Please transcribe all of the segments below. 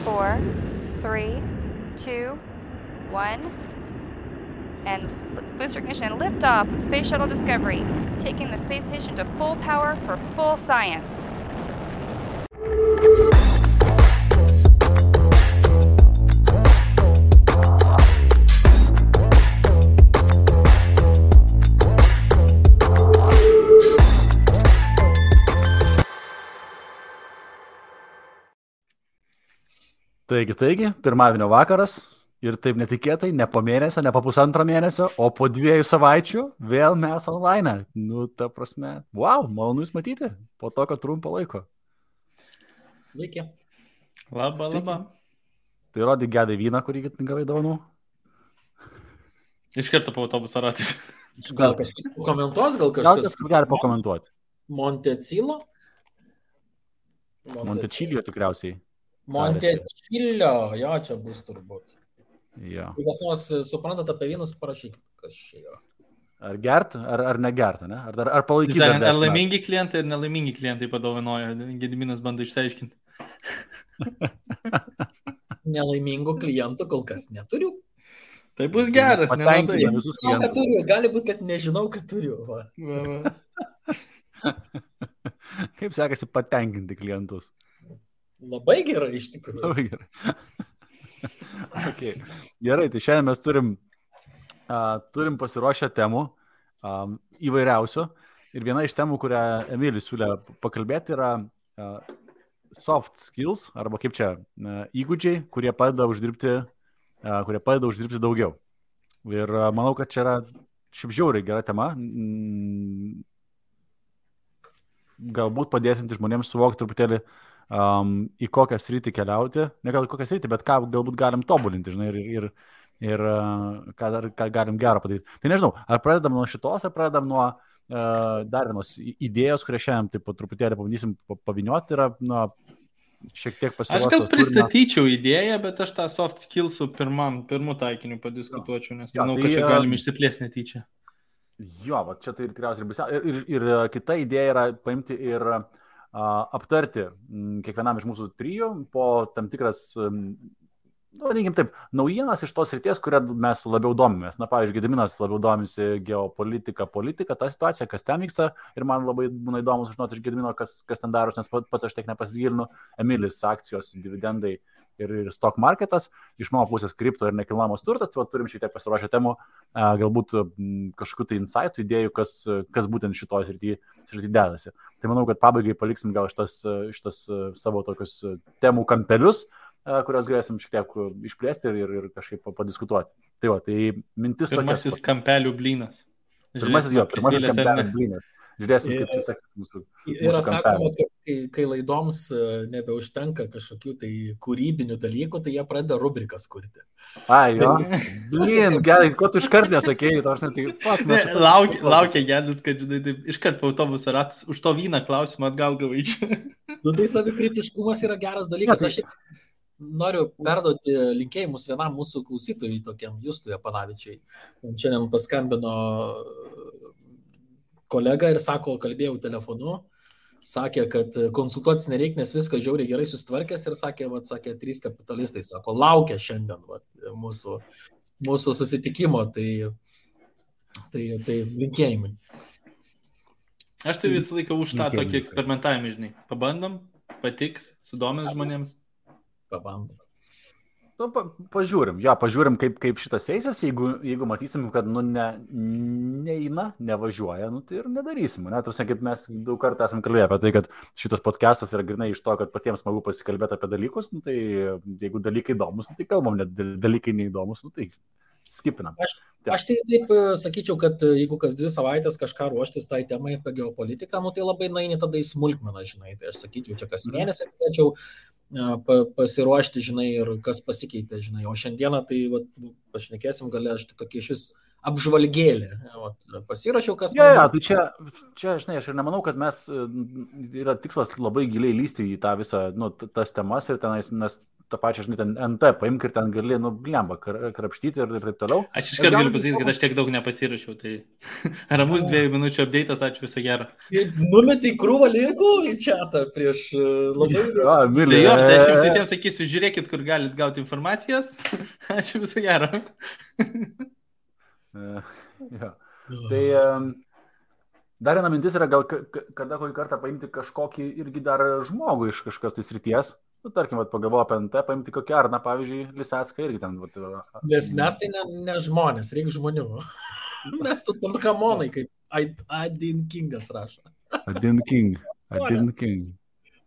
4, 3, 2, 1. And booster ignition and liftoff of Space Shuttle Discovery, taking the space station to full power for full science. Taigi, pirmadienio vakaras ir taip netikėtai, ne po mėnesio, ne po pusantro mėnesio, o po 2 savaičių vėl mes online. Nu, ta prasme, wow, malonu jūs matyti po tokio trumpo laiko. Sveiki. Labą. Tai rodyk gedai vyną, kurį gavai dovanų. Iš karto po autobusą ratys. Gal kažkas pakomentuos, gal Gal kažkas kažkas gali pakomentuoti. Montecilo? Montečilio tikriausiai. Montečilio, jo, čia bus turbūt. Jo. Jei kas nors suprantat apie vynus, parašykit, kas čia yra. Ar gert, ar negert, ne? Ar palaikyti? Ar laimingi klientai ir nelaimingi klientai padovanojo. Gediminas bando išsiaiškinti. Nelaimingų klientų kol kas neturiu. Tai bus geras, Patenkina visus Žinau, kad klientus. turiu. Gali būti, kad nežinau, kad turiu. Va. Kaip sekasi patenkinti klientus? Labai gerai iš tikrųjų. Labai gerai. Okay. Gerai, tai šiandien mes turim pasiruošę temų įvairiausių. Ir viena iš temų, kurią Emilis siūlė pakalbėti, yra soft skills, arba kaip čia, įgūdžiai, kurie padeda uždirbti daugiau. Ir manau, kad čia yra šiaip žiauriai gera tema. Galbūt padėsinti žmonėms suvokti truputėlį, į kokią sritį keliauti, ne gal į kokią sritį, bet ką galbūt galim tobulinti, žinai, ir ką galim gero padaryti. Tai nežinau, ar pradedam nuo šitos, ar pradedam nuo dar vienos idėjos, kurią šiandien taip po truputėlį pabandysim pavynioti, yra šiek tiek pasiruošęs. Aš gal pristatyčiau idėją, bet aš tą soft skillsų pirmų taikinių padiskutuočiau, nes manau, kad čia galim išsiplėsti netyčia. Jo, va čia tai tikriausiai ir kita idėja yra paimti ir aptarti kiekvienam iš mūsų trijų po tam tikras, vadinkim taip, naujienas iš tos srities, kurią mes labiau domimės. Na, pavyzdžiui, Gediminas labiau domisi geopolitika, ta situacija, kas ten vyksta, ir man labai būna įdomu sužinoti iš Gedimino, kas ten daros, nes pats aš tiek nepasigilinu. Emilis, akcijos, dividendai ir stock marketas, iš mano pusės kripto ir nekilnojamos turtas, tai turim šiek tiek pasiruošę temų, galbūt kažkokių tai insightų, idėjų, kas būtent šitoj srity dedasi. Tai manau, kad pabaigai paliksim gal šitas savo tokius temų kampelius, kurios galėsim šiek tiek išplėsti ir kažkaip padiskutuoti. Tai mintis tokia. Pirmasis kampelių blynas. Pirmasis kampelių blynas. Žiūrėsim, kaip čia seksis mūsų Yra sakoma, kampelių. kad kai laidoms nebeužtenka kažkokių tai kūrybinių dalykų, tai jie pradeda rubrikas kurti. Ai, jo. Blin, gerai, ko tu iškart nesakėjai, Laukia Gedis, kad žinai, taip, iškart po autobusą ratus, už to vyną klausimą atgal gavai čia. Nu, tai savikritiškumas yra geras dalykas. Aš noriu perduoti linkėjimus vienam mūsų klausytojui, tokiam Justui Apanavičiui. Šiandien paskambino kolega ir sako, kalbėjau telefonu, sakė, kad konsultuotis nereikia, nes viskas žiauriai gerai susitvarkęs ir sakė, 3 kapitalistai, sako, laukia šiandien mūsų susitikimo, tai linkėjimai. Aš tai visą laiką už tą tokį eksperimentavimą, žinai. Pabandom, patiks, sudomins žmonėms. Pabandom. Pažiūrim, kaip šitas eisis, jeigu matysim, kad neina, nevažiuoja, tai ir nedarysim. Kaip mes daug kartų esam kalbėję apie tai, kad šitas podcastas yra grinai iš to, kad patiems smagu pasikalbėti apie dalykus, tai jeigu dalykai įdomus, tai kalbam, net dalykai neįdomus, tai skipinam. Aš tai taip sakyčiau, kad jeigu kas 2 savaitės kažką ruoštis tai temai apie geopolitiką, tai labai naini tada į smulkmeną, žinai. Tai aš sakyčiau, čia kas mėnesį galėčiau pasiruošti, žinai, ir kas pasikeitė, žinai. O šiandieną tai pašnekėsim, gali aš tokį iš vis apžvalgėlį. Pasirašiau, kas... Tai čia, žinai, aš ir nemanau, kad mes yra tikslas labai giliai lysti į tą visą, tas temas ir tenais, nes tą pačią, žinai, ten NT paimk ir ten gali, blemba, krapštyti ir taip toliau. Aš iškart galiu pasakyti, kad aš tiek daug nepasirašiau, tai ramus 2 minučių update'as, ačiū viso gero. Numetė krūvą linkų į chatą prieš labai... Mylė. Tai aš jums visiems sakysiu, žiūrėkit, kur galit gauti informacijos. Ačiū viso gero. Tai dar viena mintis yra gal kada kokį kartą paimti kažkokį irgi dar žmogų iš kažkas tai srities. Tarkim, pagalvoju apie NT, paimti kokią Arną, pavyzdžiui, Lisecką irgi ten. Nes mes tai ne žmonės, reikia žmonių. Mes tu tam kamonai, kaip Adin Kingas rašo. Adin King.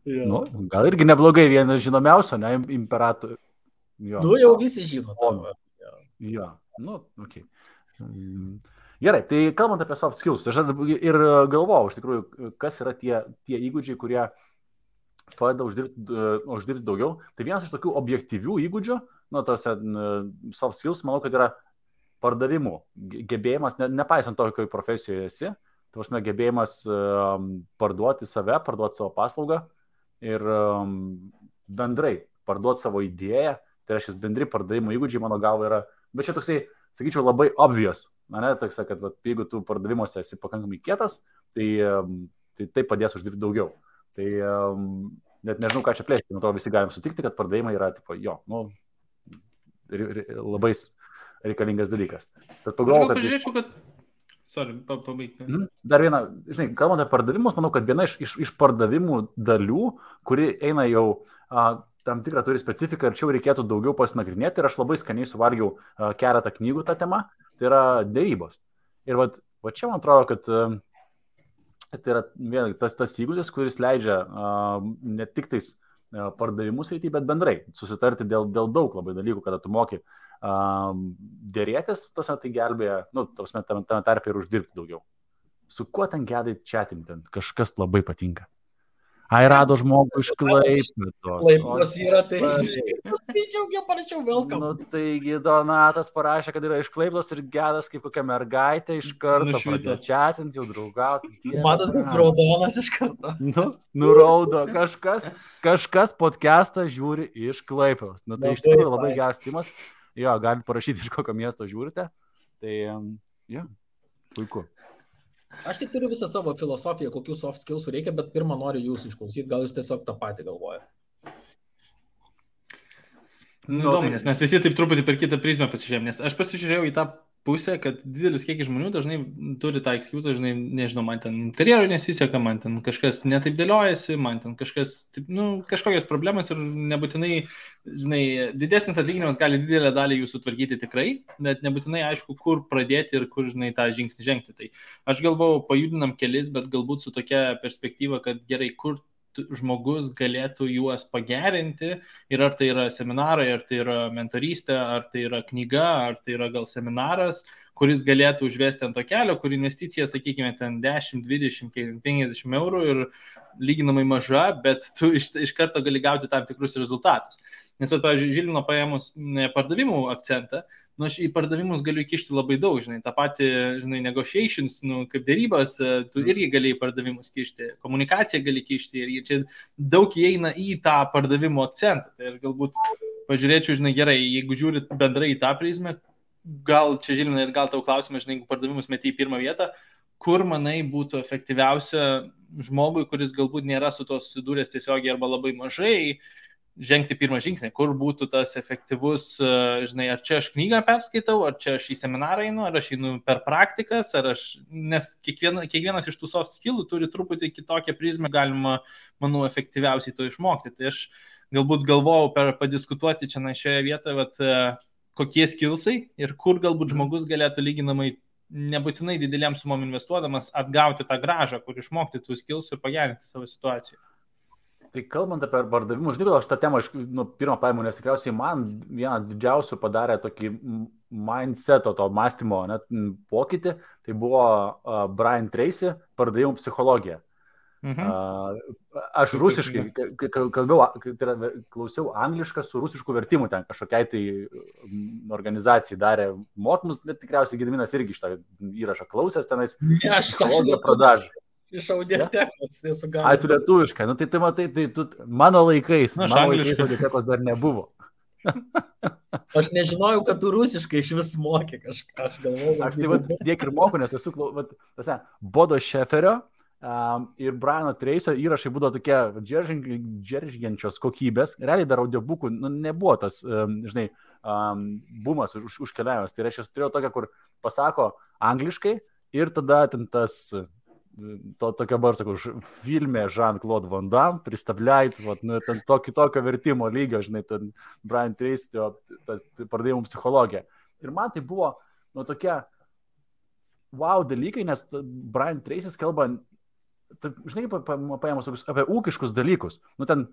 Nu, gal irgi neblogai, vienas žinomiausio, ne, imperatorių. Jau visi žino. Jo, okei. Gerai, tai kalbant apie soft skills, aš ir galvojau, iš tikrųjų, kas yra tie įgūdžiai, kurie padeda uždirbti daugiau. Tai vienas iš tokių objektyvių įgūdžių, tose soft skills, manau, kad yra pardavimų gebėjimas, nepaisant to, kokioje profesijoje esi, tai prasme, gebėjimas parduoti save, parduoti savo paslaugą ir bendrai parduoti savo idėją, tai reiškia bendri pardavimų įgūdžiai, mano galva, yra, bet čia toksai, sakyčiau, labai obvious. Toks, kad jeigu tu pardavimuose esi pakankamai kietas, tai padės uždirbti daugiau. Tai net nežinau, ką čia plėsti, nuo to visi galim sutikti, kad pardavimai yra labai reikalingas dalykas. Bet pagalvoju, kad... Pažiūrėčiau, kad... Sorry, pabaigti. Dar viena, žinai, kalbant apie pardavimus, manau, kad viena iš pardavimų dalių, kuri eina jau tam tikrą turi specifiką ir čia reikėtų daugiau pasinagrinėti ir aš labai skaniai suvalgiau keletą knygų tą temą, tai yra dėrybos. Ir va čia man atrodo, kad tai yra tas įgūdis, kuris leidžia ne tik tais pardavimus eiti, bet bendrai susitarti dėl daug labai dalykų, kada tu moki dėrėtis, tai gelbėja, tame tarpe ir uždirbti daugiau. Su kuo ten gedai chatinti, kažkas labai patinka. Ai, rado žmogų iš Klaipėdos. Klaipėdos yra, tai džiaugiau, parašiau welcome. Taigi Donatas parašė, kad yra iš Klaipėdos ir gedas kaip kokia mergaitė iš karto pradėjo chatinti, jau draugauti. Matot, koks raudonas iš karto. Nuraudo, kažkas podcastą žiūri iš Klaipėdos. Tai iš tikrųjų labai geras timas. Jo, galite parašyti, iš kokio miesto žiūrite. Tai, puiku. Aš tik turiu visą savo filosofiją, kokių soft skillsų reikia, bet pirmą noriu jūsų išklausyti, gal jūs tiesiog tą patį galvojate. Įdomu, nes mes visi taip truputį per kitą prizmę pasižiūrėjom, nes aš pasižiūrėjau į tą pusę, kad didelis kiekis žmonių dažnai turi tą excuse, žinai, nežinau, man ten karjeroj nesiseka, man ten kažkas netaip dėliojasi, man ten kažkas, kažkokios problemos ir nebūtinai, žinai, didesnis atlyginimas gali didelę dalį jūsų tvarkyti tikrai, bet nebūtinai aišku, kur pradėti ir kur, žinai, tą žingsnį žengti. Tai aš galvojau, pajudinam kelis, bet galbūt su tokia perspektyva, kad gerai, kur žmogus galėtų juos pagerinti ir ar tai yra seminarai, ar tai yra mentorystė, ar tai yra knyga, ar tai yra gal seminaras, kuris galėtų užvesti ant to kelio, kur investicija, sakykime, ten 10, 20, 50 eurų ir lyginamai maža, bet tu iš karto gali gauti tam tikrus rezultatus. Nes, pavyzdžiui, Žilvino paėmus pardavimų akcentą, aš į pardavimus galiu įkišti labai daug, žinai, tą patį, žinai, negotiations, kaip dėrybos, tu irgi gali į pardavimus kišti, komunikaciją gali kišti ir čia daug įeina į tą pardavimų akcentą. Tai ir galbūt pažiūrėčiau, žinai, gerai, jeigu žiūrit bendrai į tą prizmę, gal čia, Žilvinai, gal tau klausimas, žinai, jeigu pardavimus meti į pirmą vietą, kur, manai, būtų efektyviausia žmogui, kuris galbūt nėra su to susidūręs tiesiogiai arba labai mažai, žengti pirmą žingsnį, kur būtų tas efektyvus, žinai, ar čia aš knygą perskaitau, ar čia aš į seminarą einu, ar aš einu per praktikas, nes kiekvienas iš tų soft skillų turi truputį kitokią prizmę, galima, manau, efektyviausiai to išmokti. Tai aš galbūt galvojau padiskutuoti čia šioje vietoje, kokie skillsai ir kur galbūt žmogus galėtų lyginamai nebūtinai didelėm sumom investuodamas atgauti tą grąžą, kur išmokti tų skillsų ir pagerinti savo situaciją. Tai kalbant apie pardavimus, žinai, aš tą temą pirmą paėmų, nes tikriausiai man vieną didžiausių padarė tokį mindseto, to mąstymo pokytį, tai buvo Brian Tracy pardavimų psichologija. Aš rusiškai klausiau anglišką su rusišku vertimu, ten kažkokiai tai organizacijai darė mokymus, bet tikriausiai Gediminas irgi šitą įrašą klausęs tenais. Aš psichologija pradažą. iš audiotekos esu Ai, gavęs. tu lietuviškai, nu tai matai, tai tu mano laikais, Nu, aš mano laikais angliškai. audiotekos dar nebuvo. Aš nežinojau, kad tu rusiškai iš vis mokė kažką, aš galvoju. Aš tai tiek ir moku, nes esu, Bodo Šeferio ir Briano Trace'o įrašai būdavo tokie džeržgiančios kokybės. Realiai dar audiobukų nebuvo tas, žinai, bumas užkeliavęs. Tai reiškia, aš turėjau tokią, kur pasako angliškai ir tada ten tas... Tokia barsako, filmė Jean-Claude Van Damme, pristavliait, ten tokio vertimo lygio, žinai, ten Brian Tracy, pardavimų psichologija. Ir man tai buvo, tokie wow dalykai, nes Brian Tracy's kalba, žinai, paėmus apie ūkiškus dalykus. Ten,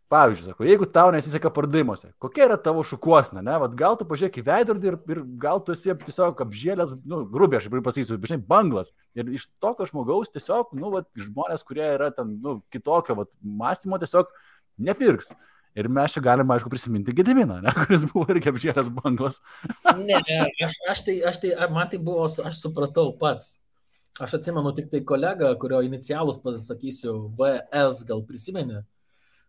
pavyzdžiui, sako, jeigu tau nesiseka pardavimuose, kokia yra tavo šukuosna, ne? Gal tu pažiūrėk į veidrodį ir gal tu esi tiesiog apžėlęs, grubiai aš pasakysiu, bet žinai, banglas. Ir iš tokio žmogaus tiesiog, žmonės, kurie yra ten, kitokio mąstymo, tiesiog nepirks. Ir mes čia galime, aišku, prisiminti Gediminą, ne? Kuris buvo irgi apžėlęs banglas. Ne, man tai buvo, aš supratau pats. Aš atsimenu tik tai kolegą, kurio inicialus pasakysiu, VS gal prisimeni.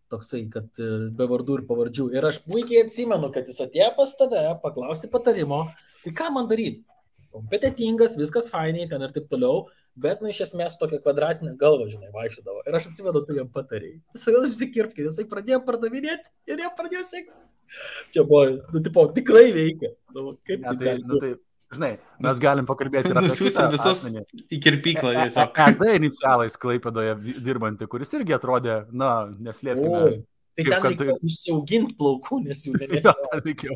Toksai, kad be vardų ir pavardžių. Ir aš puikiai atsimenu, kad jis atėjo pas tave paklausti patarimo, tai ką man daryti? Kompetitingas, viskas fainiai ten ir taip toliau, bet iš esmės tokia kvadratinė galva, žinai, vaikščiodavo. Ir aš atsimenu, tu jam patarėjai. Jis gal apsikirpti, jisai pradėjo pardavinėti ir jam pradėjo sektis. Čia buvo, tikrai veikia. Kaip tai žinai, mes galim pakalbėti ir apie nusiųsim visus į kirpyklą. ED inicialais Klaipėdoje dirbantį, kuris irgi atrodė, neslėpkime. Tai ten reikėjo užsiauginti plaukų, nes jų nereikėjo.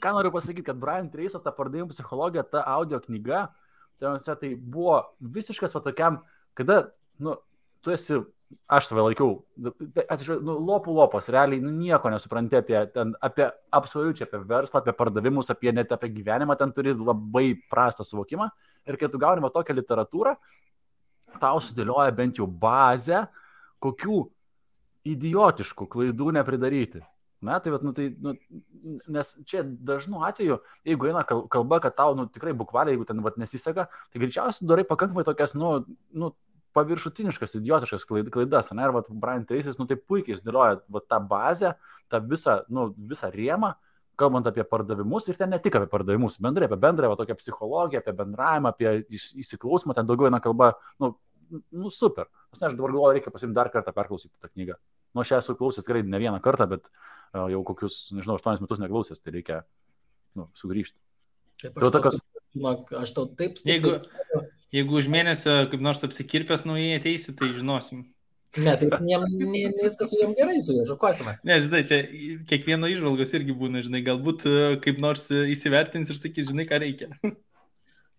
Ką noriu pasakyti, kad Brian Tracy'o ta pardavimų psichologija, ta audio knyga, tai buvo visiškas tokiam, kada, tu esi, aš save laikiau, lopų, realiai nieko nesupranti apie absoliučiai, apie verslą, apie pardavimus, net apie gyvenimą, ten turi labai prastą suvokimą. Ir kai tu gauni tokią literatūrą, tau sudėlioja bent jau bazę, kokių idiotiškų klaidų nepridaryti. Nes čia dažnu atveju, jeigu eina kalba, kad tau tikrai bukvaliai, jeigu ten nesiseka, tai greičiausiai darai pakankamai tokias, paviršutiniškas, idiotiškas klaidas. Ir Brian Tracy's, tai puikiai sudėlioja tą bazę, tą visą rėmą, kalbant apie pardavimus ir ten ne tik apie pardavimus, bendrai apie bendrąją tokią psichologiją, apie bendravimą, apie įsiklausymą, ten daugiau eina kalba, super. Aš dabar galvoju, reikia pasimti dar kartą perklausyti tą knygą. Aš esu klausęs tikrai ne vieną kartą, bet jau kokius, 8 metus neklausęs, tai reikia sugrįžti. Aš tau taip stipriai. Jeigu už mėnesio kaip nors apsikirpęs naujai ateisi, tai žinosim. Ne, tai viskas su jam gerai, su juo žukuosime. Ne, žinai, čia kiekvieno įžvalgos irgi būna, žinai, galbūt kaip nors įsivertins ir sakys, žinai, ką reikia.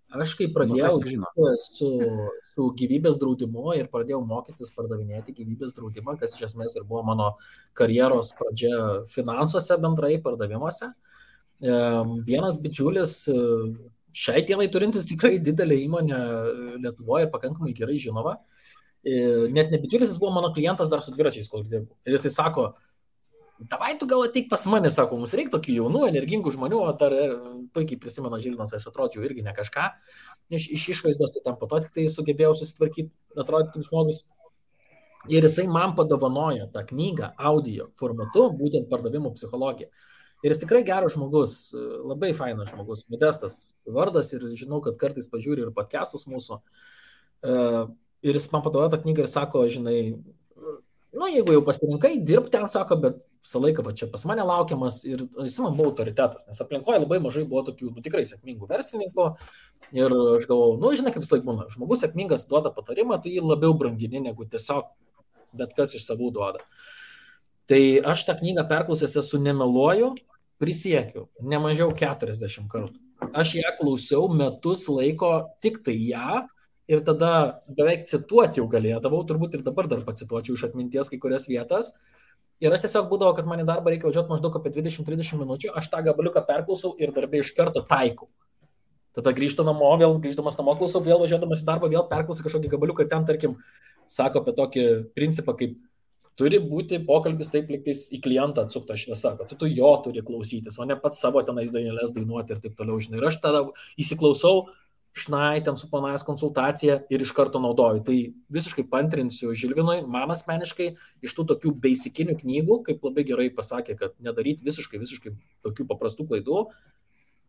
Aš kai pradėjau su gyvybės draudimu ir pradėjau mokytis pardavinėti gyvybės draudimą, kas iš esmės ir buvo mano karjeros pradžia finansuose bendrai pardavimuose. Vienas bičiulis, šiai dienai turintis tikrai didelę įmonę Lietuvoje ir pakankamai gerai žinoma, net ne bičiulis, jis buvo mano klientas dar su dviračiais, kol dirbu. Ir jisai sako, davai tu gal ateik pas mane, sako, mums reikia tokių jaunų, energingų žmonių, o dar puikiai prisimena Žilvinas, aš atrodžiau irgi ne kažką, iš išvaizdos, tai tam po to tik tai sugebėjau susitvarkyti, atrodyti kaip žmogus. Ir jisai man padovanojo tą knygą audio formatu, būtent pardavimų psichologija. Ir jis tikrai geras žmogus, labai fainas žmogus, Modestas vardas ir žinau, kad kartais pažiūri ir podcastus mūsų. Ir jis man padovanojo tą knygą ir sako, žinai, jeigu jau pasirinkai, dirbti ten, sako, bet visą laiką čia pas mane laukiamas ir jis man buvo autoritetas, nes aplinkoje labai mažai buvo tokių, tikrai sėkmingų verslininkų ir aš galvoju, žinai, kaip vis laik būna, žmogus sėkmingas duoda patarimą, tu jį labiau brangini, negu tiesiog bet kas iš savų duoda. Tai aš tą knygą perklausęs esu nemeluoju, prisiekiu, ne mažiau 40 kartų. Aš ją klausiau metus laiko tik tai ją, ir tada beveik cituoti jau galėdavau, turbūt ir dabar dar pacituočiau iš atminties kai kurias vietas. Ir aš tiesiog būdavo, kad man į darbą reikia važiuoti maždaug apie 20-30 minučių, aš tą gabaliuką perklausau ir darbė iš karto taikau. Tada grįžtu namo, vėl grįždamas namo klausau, vėl važiuodamas į darbą, vėl perklausau kažkokį gabaliuką ir ten, tarkim, sako apie tokį principą, kaip turi būti pokalbis taip liktais į klientą atsukta šviesa, kad tu jo turi klausytis, o ne pats savo tenais dainelės dainuoti ir taip toliau, žinai. Ir aš tada įsiklausau, šnaitėm suplanavęs konsultaciją ir iš karto naudoju. Tai visiškai pantrinsiu Žilvinui, man asmeniškai iš tų tokių basicinių knygų, kaip labai gerai pasakė, kad nedaryti visiškai tokių paprastų klaidų.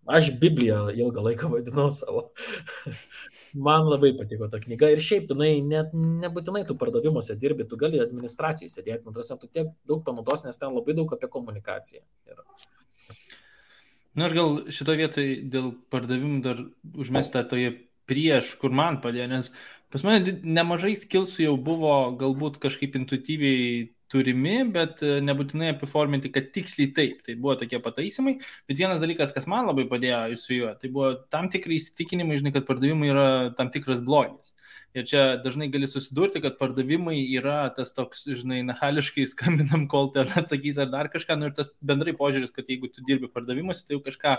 Aš Bibliją ilgą laiką vadinau savo. Man labai patiko ta knyga ir šiaip, net nebūtinai tu pardavimuose dirbi, tu gali administracijai sėdėti, tu tiek daug panaudos, nes ten labai daug apie komunikaciją yra. Na, aš gal šito vietoj dėl pardavimų dar užmestą toje prieš, kur man padėjo, nes pas mane nemažai skillsų jau buvo galbūt kažkaip intuityviai turimi, bet nebūtinai apiforminti, kad tiksliai taip. Tai buvo tokie pataisimai, bet vienas dalykas, kas man labai padėjo su juo, tai buvo tam tikrai įsitikinimai, žinai, kad pardavimai yra tam tikras blogis. Ir čia dažnai gali susidurti, kad pardavimai yra tas toks, žinai, nahališkai skambinam, kol ten atsakys ar dar kažką, ir tas bendrai požiūris, kad jeigu tu dirbi pardavimuose, tai jau kažką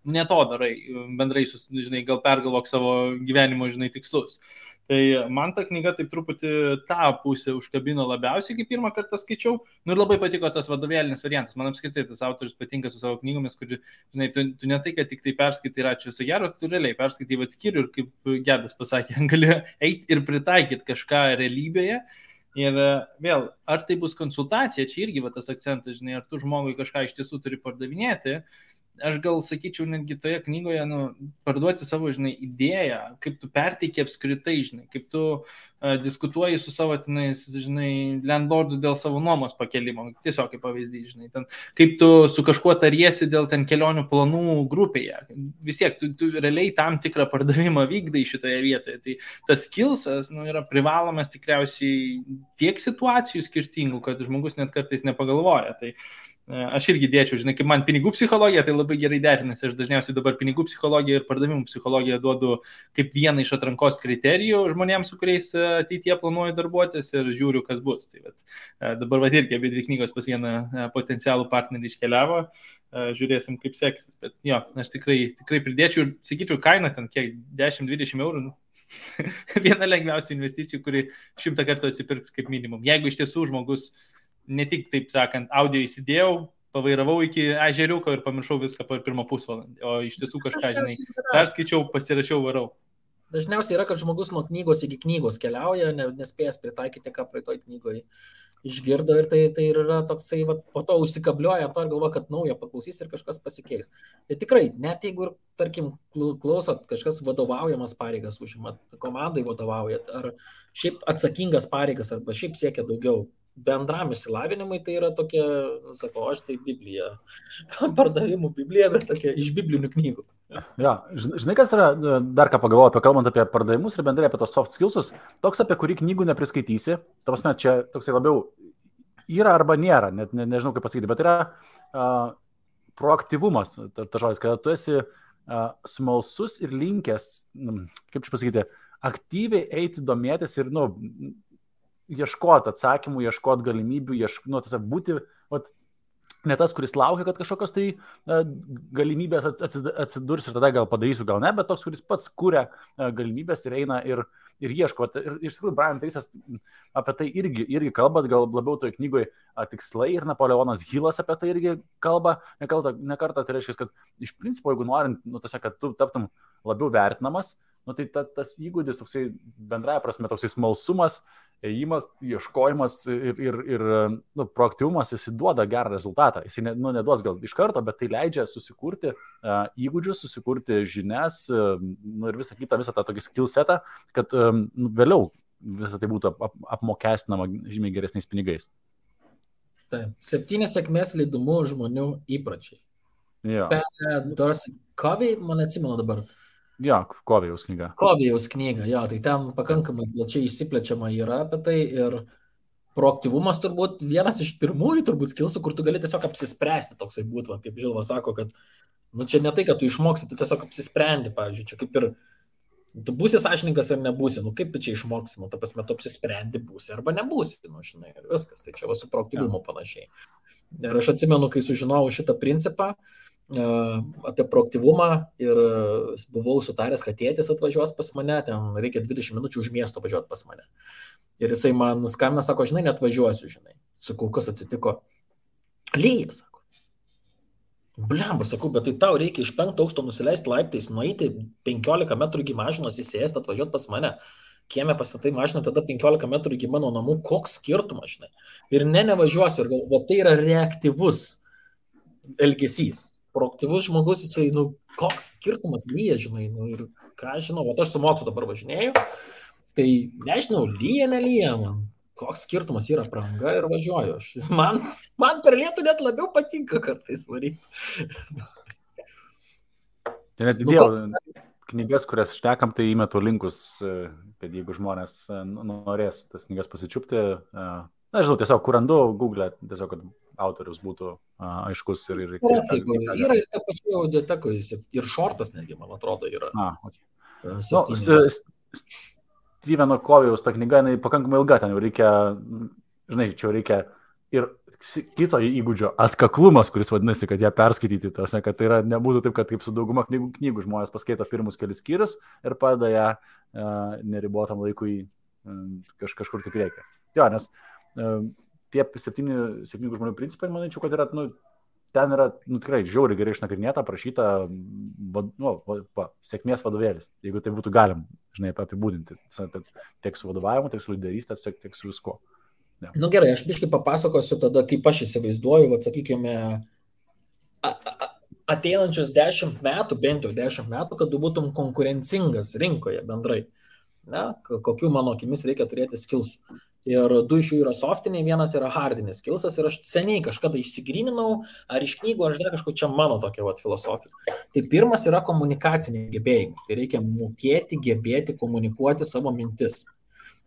ne to darai, bendrai, žinai, gal pergalvok savo gyvenimo, žinai, tikslus. Tai man ta knyga taip truputį tą pusę užkabino labiausiai, kai pirmą kartą skaičiau. Ir labai patiko tas vadovėlinis variantas. Man apskritai tas autorius patinka su savo knygomis, kur, žinai, tu ne tai, kad tik tai perskaitai ir ačiū viso gero, tu realiai perskaitai atskiriu ir kaip Gedas pasakė, gali eiti ir pritaikyti kažką realybėje. Ir vėl, ar tai bus konsultacija, čia irgi va tas akcentas, žinai, ar tu žmogui kažką iš tiesų turi pardavinėti. Aš gal sakyčiau netgi toje knygoje, parduoti savo, žinai, idėją, kaip tu perteiki apskritai, žinai, kaip tu diskutuoji su savo, žinai, landlordų dėl savo nuomos pakelimo, tiesiog kaip pavyzdys, žinai, ten, kaip tu su kažkuo tariesi dėl ten kelionių planų grupėje. Vis tiek, tu realiai tam tikrą pardavimą vykdai šitoje vietoje. Tai tas skillsas, yra privalomas tikriausiai tiek situacijų skirtingų, kad žmogus net kartais nepagalvoja. Tai aš irgi dėčiau, žinai, kaip man pinigų psichologija, tai labai gerai derinasi. Aš dažniausiai dabar pinigų psichologiją ir pardavimų psichologiją duodu kaip vieną iš atrankos kriterijų žmonėms, su kuriais ateityje planuoju darbuotis ir žiūriu, kas bus. Tai dabar irgi abi dvi knygos pas vieną potencialų partnerį iškeliavo. Žiūrėsim, kaip seksis. Bet jo, aš tikrai pridėčiau ir sakyčiau, kaina ten kiek 10-20 eurų. Viena lengviausių investicijų, kuri 100 kartų atsipirks kaip minimum. Jeigu iš tiesų žmogus ne tik, taip sakant, audio įsidėjau, pavairavau iki ežeriuko ir pamiršau viską per pirmą pusvalandį, o iš tiesų kažką, žinai, perskaičiau, pasirašiau, varau. Dažniausiai yra, kad žmogus nuo knygos iki knygos keliauja, nespėjęs pritaikyti, ką praeitoj knygoje išgirdo ir tai yra toksai, po to užsikabliuoja to ir galvoja, kad naują paklausys ir kažkas pasikeis. Tai tikrai, net jeigu, tarkim, klausot, kažkas vadovaujamas pareigas užimat, komandai vadovaujat, ar šiaip atsakingas pareigas, arba šiaip siekia daugiau, bendram išsilavinimui tai yra tokia, sakau, aš tai Biblija, pardavimų Biblija, bet tokia iš biblinių knygų. Ja, žinai, kas yra, dar ką pagalvoju apie, kalbant apie pardavimus ir bendrai apie tos soft skillsus, toks, apie kurį knygų nepriskaitysi, ta prasme, čia toksai labiau yra arba nėra, net nežinau kaip pasakyti, bet yra proaktyvumas, ta žodis, kad tu esi smalsus ir linkęs, kaip čia pasakyti, aktyviai eiti domėtis ir, ieškoti atsakymų, ieškoti galimybių, tiesiog būti, ne tas, kuris laukia, kad kažkokios tai galimybės atsidurs ir tada gal padarysiu, gal ne, bet toks, kuris pats kuria galimybės ir eina ir ieško. Ir iš tikrųjų, Brian Tracy'as apie tai irgi kalba, gal labiau toje knygoje tikslai ir Napoleonas Hillas apie tai irgi kalba, ne kartą, tai reiškia, kad iš principo, jeigu norint, tiesiog, kad tu taptum labiau vertinamas, tai tas įgūdis, toksai bendraja prasme, toksai smalsumas, ėjimas, ieškojimas ir proaktyvumas, jis duoda gerą rezultatą. Jis neduos gal iš karto, bet tai leidžia susikurti įgūdžius, susikurti žinias ir visą tą tokį skill setą, kad vėliau visą tai būtų apmokestinama žymiai geresniais pinigais. Taip, 7 sėkmės leidumų žmonių įpročiai. Ja. Dorsey Covey, man atsimenu dabar. Ja, Covey'aus knyga. Covey'aus knyga, jo, tai ten pakankamai plačiai išsiplečiama yra apie tai ir proaktyvumas turbūt vienas iš pirmųjų turbūt skillsų, kur tu gali tiesiog apsispręsti toksai būtų, kaip Žilva sako, kad čia ne tai, kad tu išmoksi, tu tiesiog apsisprendi, pavyzdžiui, čia kaip ir tu būsi sąžininkas ar nebūsi, kaip tu čia išmoksi, ta prasme, tu apsisprendi būsi arba nebūsi, žinai, ir viskas, tai čia su proaktyvumu panašiai. Ir aš atsimenu, kai sužinojau šitą principą, apie proaktyvumą ir buvau sutaręs, kad tėtis atvažiuos pas mane, ten reikia 20 minučių už miesto važiuoti pas mane. Ir jisai man skambina, sako, žinai, net važiuosiu, žinai. Sakau, kas atsitiko? Lyja, sako. Blemba, sakau, bet tai tau reikia iš 5 aukšto nusileisti laiptais, nueiti 15 metrų iki mašinos, įsėsti, atvažiuoti pas mane. Kieme pastatai mašiną, tada 15 metrų iki mano namų, koks skirtumas, žinai. Ir nevažiuosiu, ir galvoju, tai yra reaktyvus elgesys. Proaktyvus žmogus, jisai, koks skirtumas lyja, žinai, ir ką žinau, aš su mocu dabar važinėju, tai nežinau, lyja, nelyja man. Koks skirtumas yra pranga ir važiuoju. Man per lietų net labiau patinka kartais varyti. Tai net įdėjau knygas, kurias štekam, tai įmetu linkus, kad jeigu žmonės norės tas knygas pasičiupti, žinau, tiesiog kur randu Google, tiesiog, kad autorius būtų aiškus ir... Yra ir ta pačia audiotekoje, ir šortas netgi, man atrodo, yra. Steveno Kovijaus ta knyga, jinai pakankamai ilga, ten jau reikia, žinai, čia reikia ir kito įgūdžio atkaklumas, kuris vadinasi, kad ją perskaityti, tarsi, kad tai yra, nebūtų taip, kad kaip su dauguma knygų žmonės paskaito pirmus kelis skyrius ir padeda ją neribotam laikui kažkur tik reikia. Jo, nes tie 7 žmonių principai, manyčiau, kad yra, ten yra tikrai žiauriai gerai išnagrinėta, aprašyta sėkmės vadovėlis, jeigu tai būtų galim, žinai, apibūdinti. Tiek su vadovavimu, tiek su lyderystė, tiek su visko. Ja. Gerai, aš biškai papasakosiu tada, kaip aš įsivaizduoju, sakykime, ateinančius 10 metų, bent jau 10 metų, kad tu būtum konkurencingas rinkoje bendrai. Ne? Kokių mano akimis reikia turėti skilsų. Ir 2 iš jų yra softiniai, 1 yra hardinis skilsas ir aš seniai kažkada išsigryninau, ar iš knygų, ar dar kažko, čia mano tokia filosofija. Tai pirmas yra komunikaciniai gebėjimai. Tai reikia mokėti, gebėti komunikuoti savo mintis.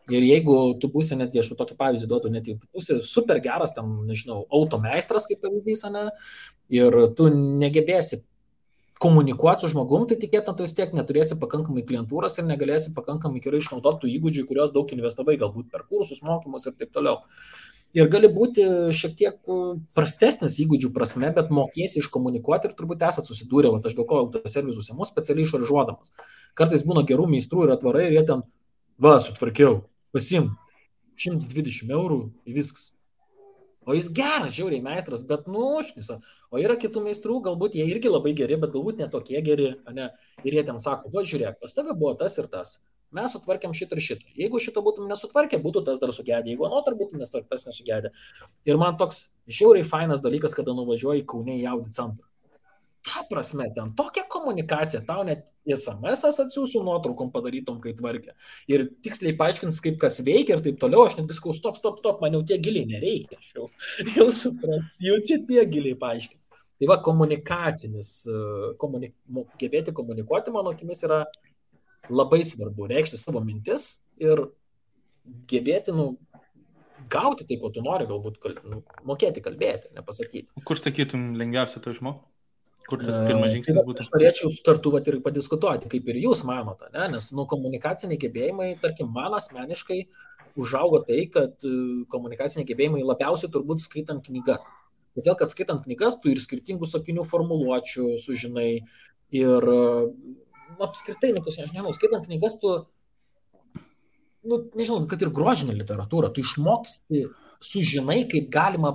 Ir jeigu tu būsi, net aš tokį pavyzdį duodu, net jeigu tu būsi super geras, ten, nežinau, automeistras kaip pavyzdys, ne, ir tu negebėsi komunikuoti su žmogum, tai tikėtina, tu vis tiek neturėsi pakankamai klientūros ir negalėsi pakankamai gerai išnaudoti tų įgūdžių, kuriuos daug investavai, galbūt per kursus, mokymus ir taip toliau. Ir gali būti šiek tiek prastesnis įgūdžių prasme, bet mokėsi iškomunikuoti ir turbūt esat susidūrę, aš dėl ko autoservisus ėmus specialiai išaržuodamas. Kartais būna gerų meistrų ir atvarai ir jie ten, sutvarkiau, pasim 120 eurų į viskas. O jis geras, žiauriai meistras, bet šnisa. O yra kitų meistrų, galbūt jie irgi labai geri, bet galbūt netokie geri, ne? Ir jie ten sako, žiūrėk, pas tave buvo tas ir tas. Mes sutvarkėm šitą ir šitą. Jeigu šito būtum nesutvarkę, būtų tas dar sugedę. Jeigu anotar būtum tas nesugedę. Ir man toks žiauriai fainas dalykas, kada nuvažiuoji Kaune į Audi centrą. Ta prasme, ten tokia komunikacija, tau net SMS-as atsiųsiu nuotraukom padarytom, kai tvarkė. Ir tiksliai paaiškins, kaip kas veikia ir taip toliau. Aš net sakau, stop, man jau tiek giliai nereikia. Jau suprantu, jau čia tiek giliai paaiškinti. Tai komunikacinis, gebėti komunikuoti, mano akimis, yra labai svarbu. Reikšti savo mintis ir gebėti, gauti tai, ko tu nori, galbūt mokėti kalbėti, nepasakyti. Kur sakytum lengviausia to išmokti? Kur tas pirmas žingsnis būtų? Aš norėčiau kartu ir padiskutuoti, kaip ir jūs manote, ne? Nes komunikaciniai gebėjimai, tarkim, man asmeniškai užaugo tai, kad komunikaciniai gebėjimai labiausiai turbūt skaitant knygas. Todėl, kad skaitant knygas, tu ir skirtingų sakinių formuluočių sužinai ir apskritai, aš nežinau, skaitant knygas, tu, nežinau, kad ir grožinė literatūra, tu išmoksti, sužinai, kaip galima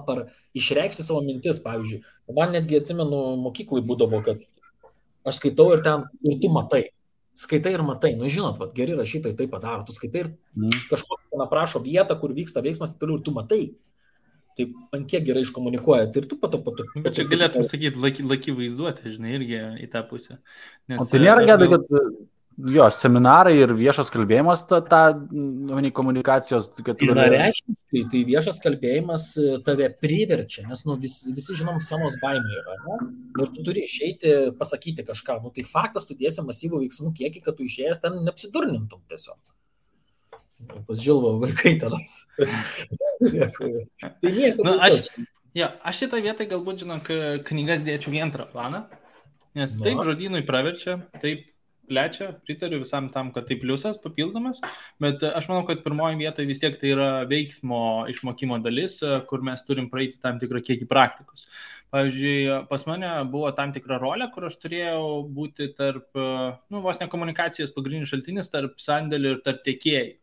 išreikšti savo mintis, pavyzdžiui. Man netgi atsimenu, mokyklai būdavo, kad aš skaitau ir tu matai. Skaitai ir matai. Žinot, geri rašytojai tai padaro. Tu skaitai ir kažkokį aprašo vietą, kur vyksta veiksmas ir tu matai. Tai ant kiek gerai iškomunikuoja. Tai ir tu pato. Bet čia galėtum sakyti, laki vaizduoti, žinai, irgi į tą pusę. O tai nėra gėda, kad jo, seminarai ir viešas kalbėjimas, komunikacijos... Yra reikšmiškai, tai viešas kalbėjimas tave priverčia, nes visi žinom, samos baimė yra, ne? Ir tu turi išeiti, pasakyti kažką. Tai faktas, tu dėsi masyvų veiksmų kiekį, kad tu išėjęs ten neapsidurnintum tiesiog. Pas Žilvo vaikai tenas. Tai nieko. Aš šitą vietą galbūt, žinok, knygas dėčiau į antrą planą, nes taip žodynui praverčia, taip plečia, pritariu visam tam, kad tai pliusas papildomas, bet aš manau, kad pirmoji vietoje vis tiek tai yra veiksmo išmokimo dalis, kur mes turim praeiti tam tikrą kiekį praktikos. Pavyzdžiui, pas mane buvo tam tikra rolė, kur aš turėjau būti tarp, vos ne komunikacijos pagrindinis šaltinis tarp sandėlių ir tarp tiekėjų.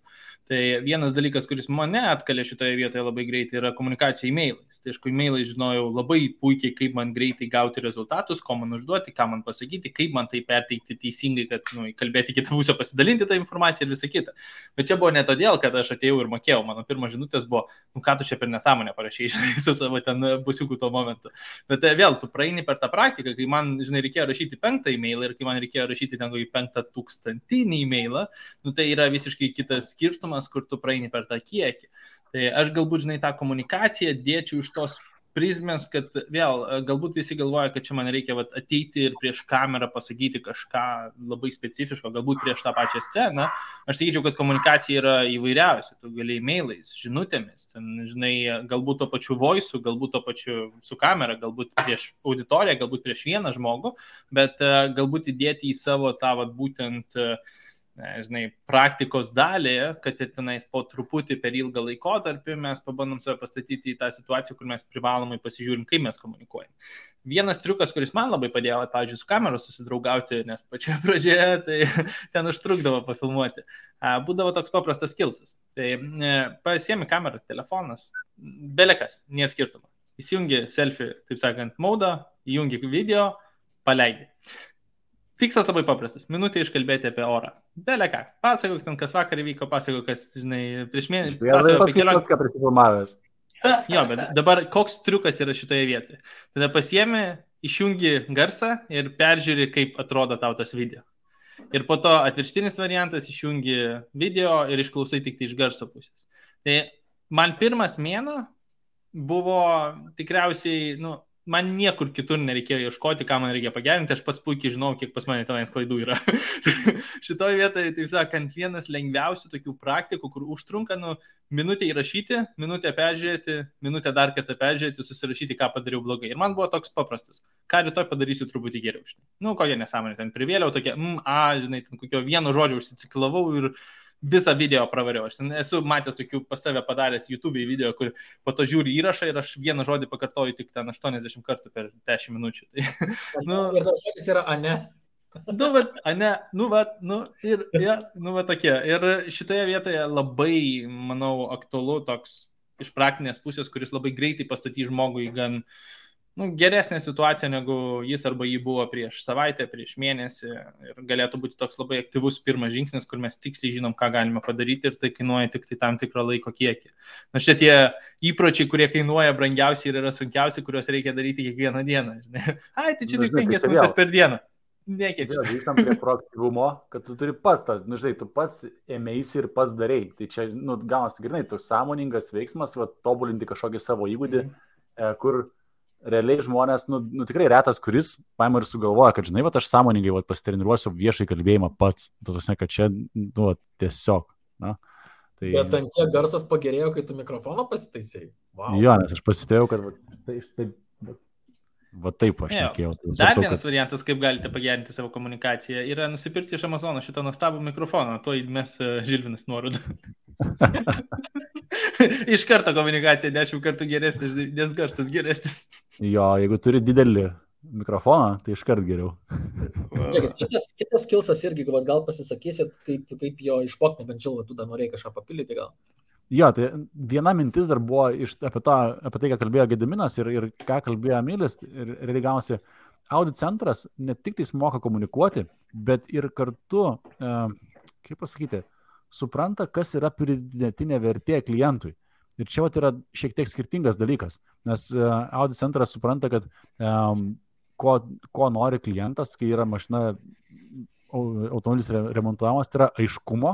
Tai vienas dalykas, kuris mane atkalė šitoje vietoje labai greitai, yra komunikacija e-mailais. Tai aišku, e-mailais žinojau labai puikiai, kaip man greitai gauti rezultatus, ko man užduoti, ką man pasakyti, kaip man tai perteikti teisingai, kad kalbėti kitą pusę, pasidalinti tą informaciją ir visą kitą. Bet čia buvo ne todėl, kad aš atėjau ir mokėjau. Mano pirmas žinutės buvo, ką tu čia per nesąmonę parašei, žinai, su savo ten busiukų tuo momentu. Bet vėl, tu praeini per tą praktiką, kai man, žinai, reikėjo rašyti 5 e-mailą ir kai man reikėjo rašyti ten 5000 e-mailą, tai yra visiškai kitas skirtumas, kur tu praeini per tą kiekį. Tai aš galbūt, žinai, tą komunikaciją dėčiau iš tos prizmės, kad vėl, galbūt visi galvoja, kad čia man reikia ateiti ir prieš kamerą pasakyti kažką labai specifiško, galbūt prieš tą pačią sceną. Aš sakyčiau, kad komunikacija yra įvairiausia. Tu gali e-mailais, žinutėmis, ten, žinai, galbūt to pačiu voice, galbūt to pačiu su kamera, galbūt prieš auditoriją, galbūt prieš vieną žmogų, bet galbūt įdėti į savo tą būtent žinai, praktikos dalį, kad ir tenais po truputį per ilgą laikotarpį mes pabandom save pastatyti į tą situaciją, kur mes privalomai pasižiūrim, kaip mes komunikuojam. Vienas triukas, kuris man labai padėjo, pavyzdžiui, su kamera susidraugauti, nes pačioje pradžioje tai ten užtrukdavo pafilmuoti. Būdavo toks paprastas skillsas. Tai pasiemi kamerą, telefonas, belekas, nėra skirtumo. Įsijungi selfie, taip sakant, modą, įjungi video, paleidi. Tikslas labai paprastas. Minutė iškalbėti apie orą. Belė ką. Pasakok ten, kas vakar įvyko, pasakok, kas, žinai, prieš mėnesį. Pasakok apie kelionę. Ką prisifilmavęs. Jo, bet dabar koks triukas yra šitoje vietoje? Tada pasiemi, išjungi garsą ir peržiūri, kaip atrodo tau tas video. Ir po to atvirkštinis variantas, išjungi video ir išklausai tik tai iš garso pusės. Tai man pirmas mėnuo buvo tikriausiai, man niekur kitur nereikėjo ieškoti, ką man reikia pagerinti, aš pats puikiai žinau, kiek pas mane tenais klaidų yra. Šitoje vietoje, taip sakant, vienas lengviausių tokių praktikų, kur užtrunka minutę įrašyti, minutę peržiūrėti, minutę dar kartą peržiūrėti, susirašyti, ką padariau blogai. Ir man buvo toks paprastas. Ką rytoj padarysiu truputį geriau. Kokia nesąmonė, ten privėliau tokia, žinai, ten kokio vieno žodžio užsiciklavau ir visą video pravariau. Aš ten esu matęs tokių pas save padaręs YouTube video, kur po to žiūri įrašą ir aš vieną žodį pakartoju tik ten 80 kartų per 10 minučių. Tai, ir tas žodis yra ane. Tokie. Ir šitoje vietoje labai, manau, aktualu toks iš praktinės pusės, kuris labai greitai pastatys žmogui gan geresnė situacija, negu jis arba jį buvo prieš savaitę, prieš mėnesį. Ir galėtų būti toks labai aktyvus pirmas žingsnis, kur mes tiksliai žinom, ką galime padaryti ir tai kainuoja tik tai tam tikrą laiko kiekį. Štai tie įpročiai, kurie kainuoja brangiausiai ir yra sunkiausiai, kuriuos reikia daryti kiekvieną dieną. Tai čia tik 5 minutės per dieną. Nekeičia. Grįžtam prie proaktyvumo, kad tu turi pats, tu pats ėmėsi ir pats darei. Tai čia, gaunasi grinai, toks sąmoningas veiksmas, tobulinti kažkokį savo įgūdį, kur realiai žmonės, tikrai retas, kuris paima ir sugalvoja, kad, žinai, aš sąmoningai pasitreniruosiu viešai kalbėjimą pats. Tuose, kad čia, tiesiog. Tai... Bet ant kiek garsas pagerėjo, kai tu mikrofoną pasitaisėjai? Wow. Jo, nes aš pasitėjau, kad taip aš nekėjau. Dar vienas variantas, kaip galite pagerinti savo komunikaciją, yra nusipirkti iš Amazono šitą nuostabų mikrofoną. Tuo mes Žilvinas nuorodą. Iš karto komunikacija 10 kartų geresnė, nes garsas geresnis. Jo, jeigu turi didelį mikrofoną, tai iš karto geriau. Kitas skillsas irgi, gal pasisakysit, kaip jo išmokti, bent jau tu dar norėjai kažką papildyti gal. Jo, tai viena mintis dar buvo apie tai, ką kalbėjo Gediminas ir ką kalbėjo Emilis. Ir realiai gavosi, Audit centras ne tik tai moka komunikuoti, bet ir kartu, kaip pasakyti, supranta, kas yra pridėtinė vertė klientui. Ir čia yra šiek tiek skirtingas dalykas, nes Audit centras supranta, kad ko nori klientas, kai yra mašina, automobilis remontuojamas, tai yra aiškumo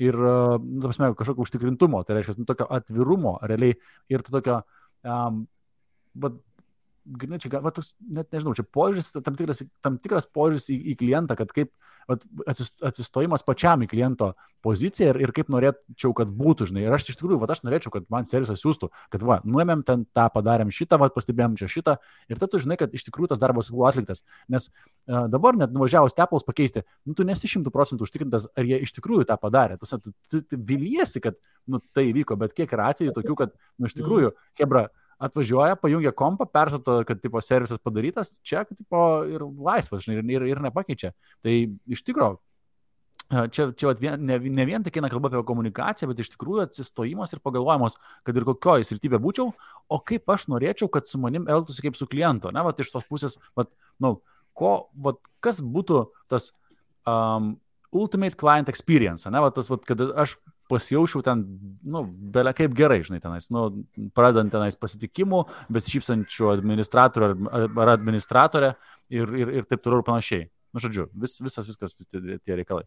ir kažkokio užtikrintumo, tai reiškia tokio atvirumo realiai ir tokio, net nežinau, čia požiūris, tam tikras požiūris į klientą, kad kaip atsistojimas pačiam į kliento poziciją ir kaip norėčiau, kad būtų, žinai. Ir aš iš tikrųjų, aš norėčiau, kad man servisas siūstų, kad nuėmėm ten tą, padarėm šitą, pastebėjom čia šitą ir tada tu žinai, kad iš tikrųjų tas darbas buvo atliktas. Nes dabar net nuvažiavus Apple'us pakeisti, tu nesi 100% užtikrintas, ar jie iš tikrųjų tą padarė. Tu viliesi, kad tai įvyko, bet kiek yra atvejų tokių, kad iš tikrųjų, hebra, atvažiuoja, pajungia kompą, persato, kad servisas padarytas, čia ir laisvas, žinai, ir nepakeičia. Tai iš tikrųjų, čia vat ne vien tik eina kalba apie komunikaciją, bet iš tikrųjų atsistojimas ir pagalvojimas, kad ir kokioje srityje būčiau, o kaip aš norėčiau, kad su manim elgtųsi kaip su kliento, ne, vat iš tos pusės, vat, kas būtų tas ultimate client experience, ne, vat tas, vat, kad aš pasijaučiau ten, belia kaip gerai, žinai, tenais, pradedant tenais pasitikimų, besišypsančių administratorių ar administratorę ir taip toliau ir panašiai. Žodžiu, viskas tie reikalai.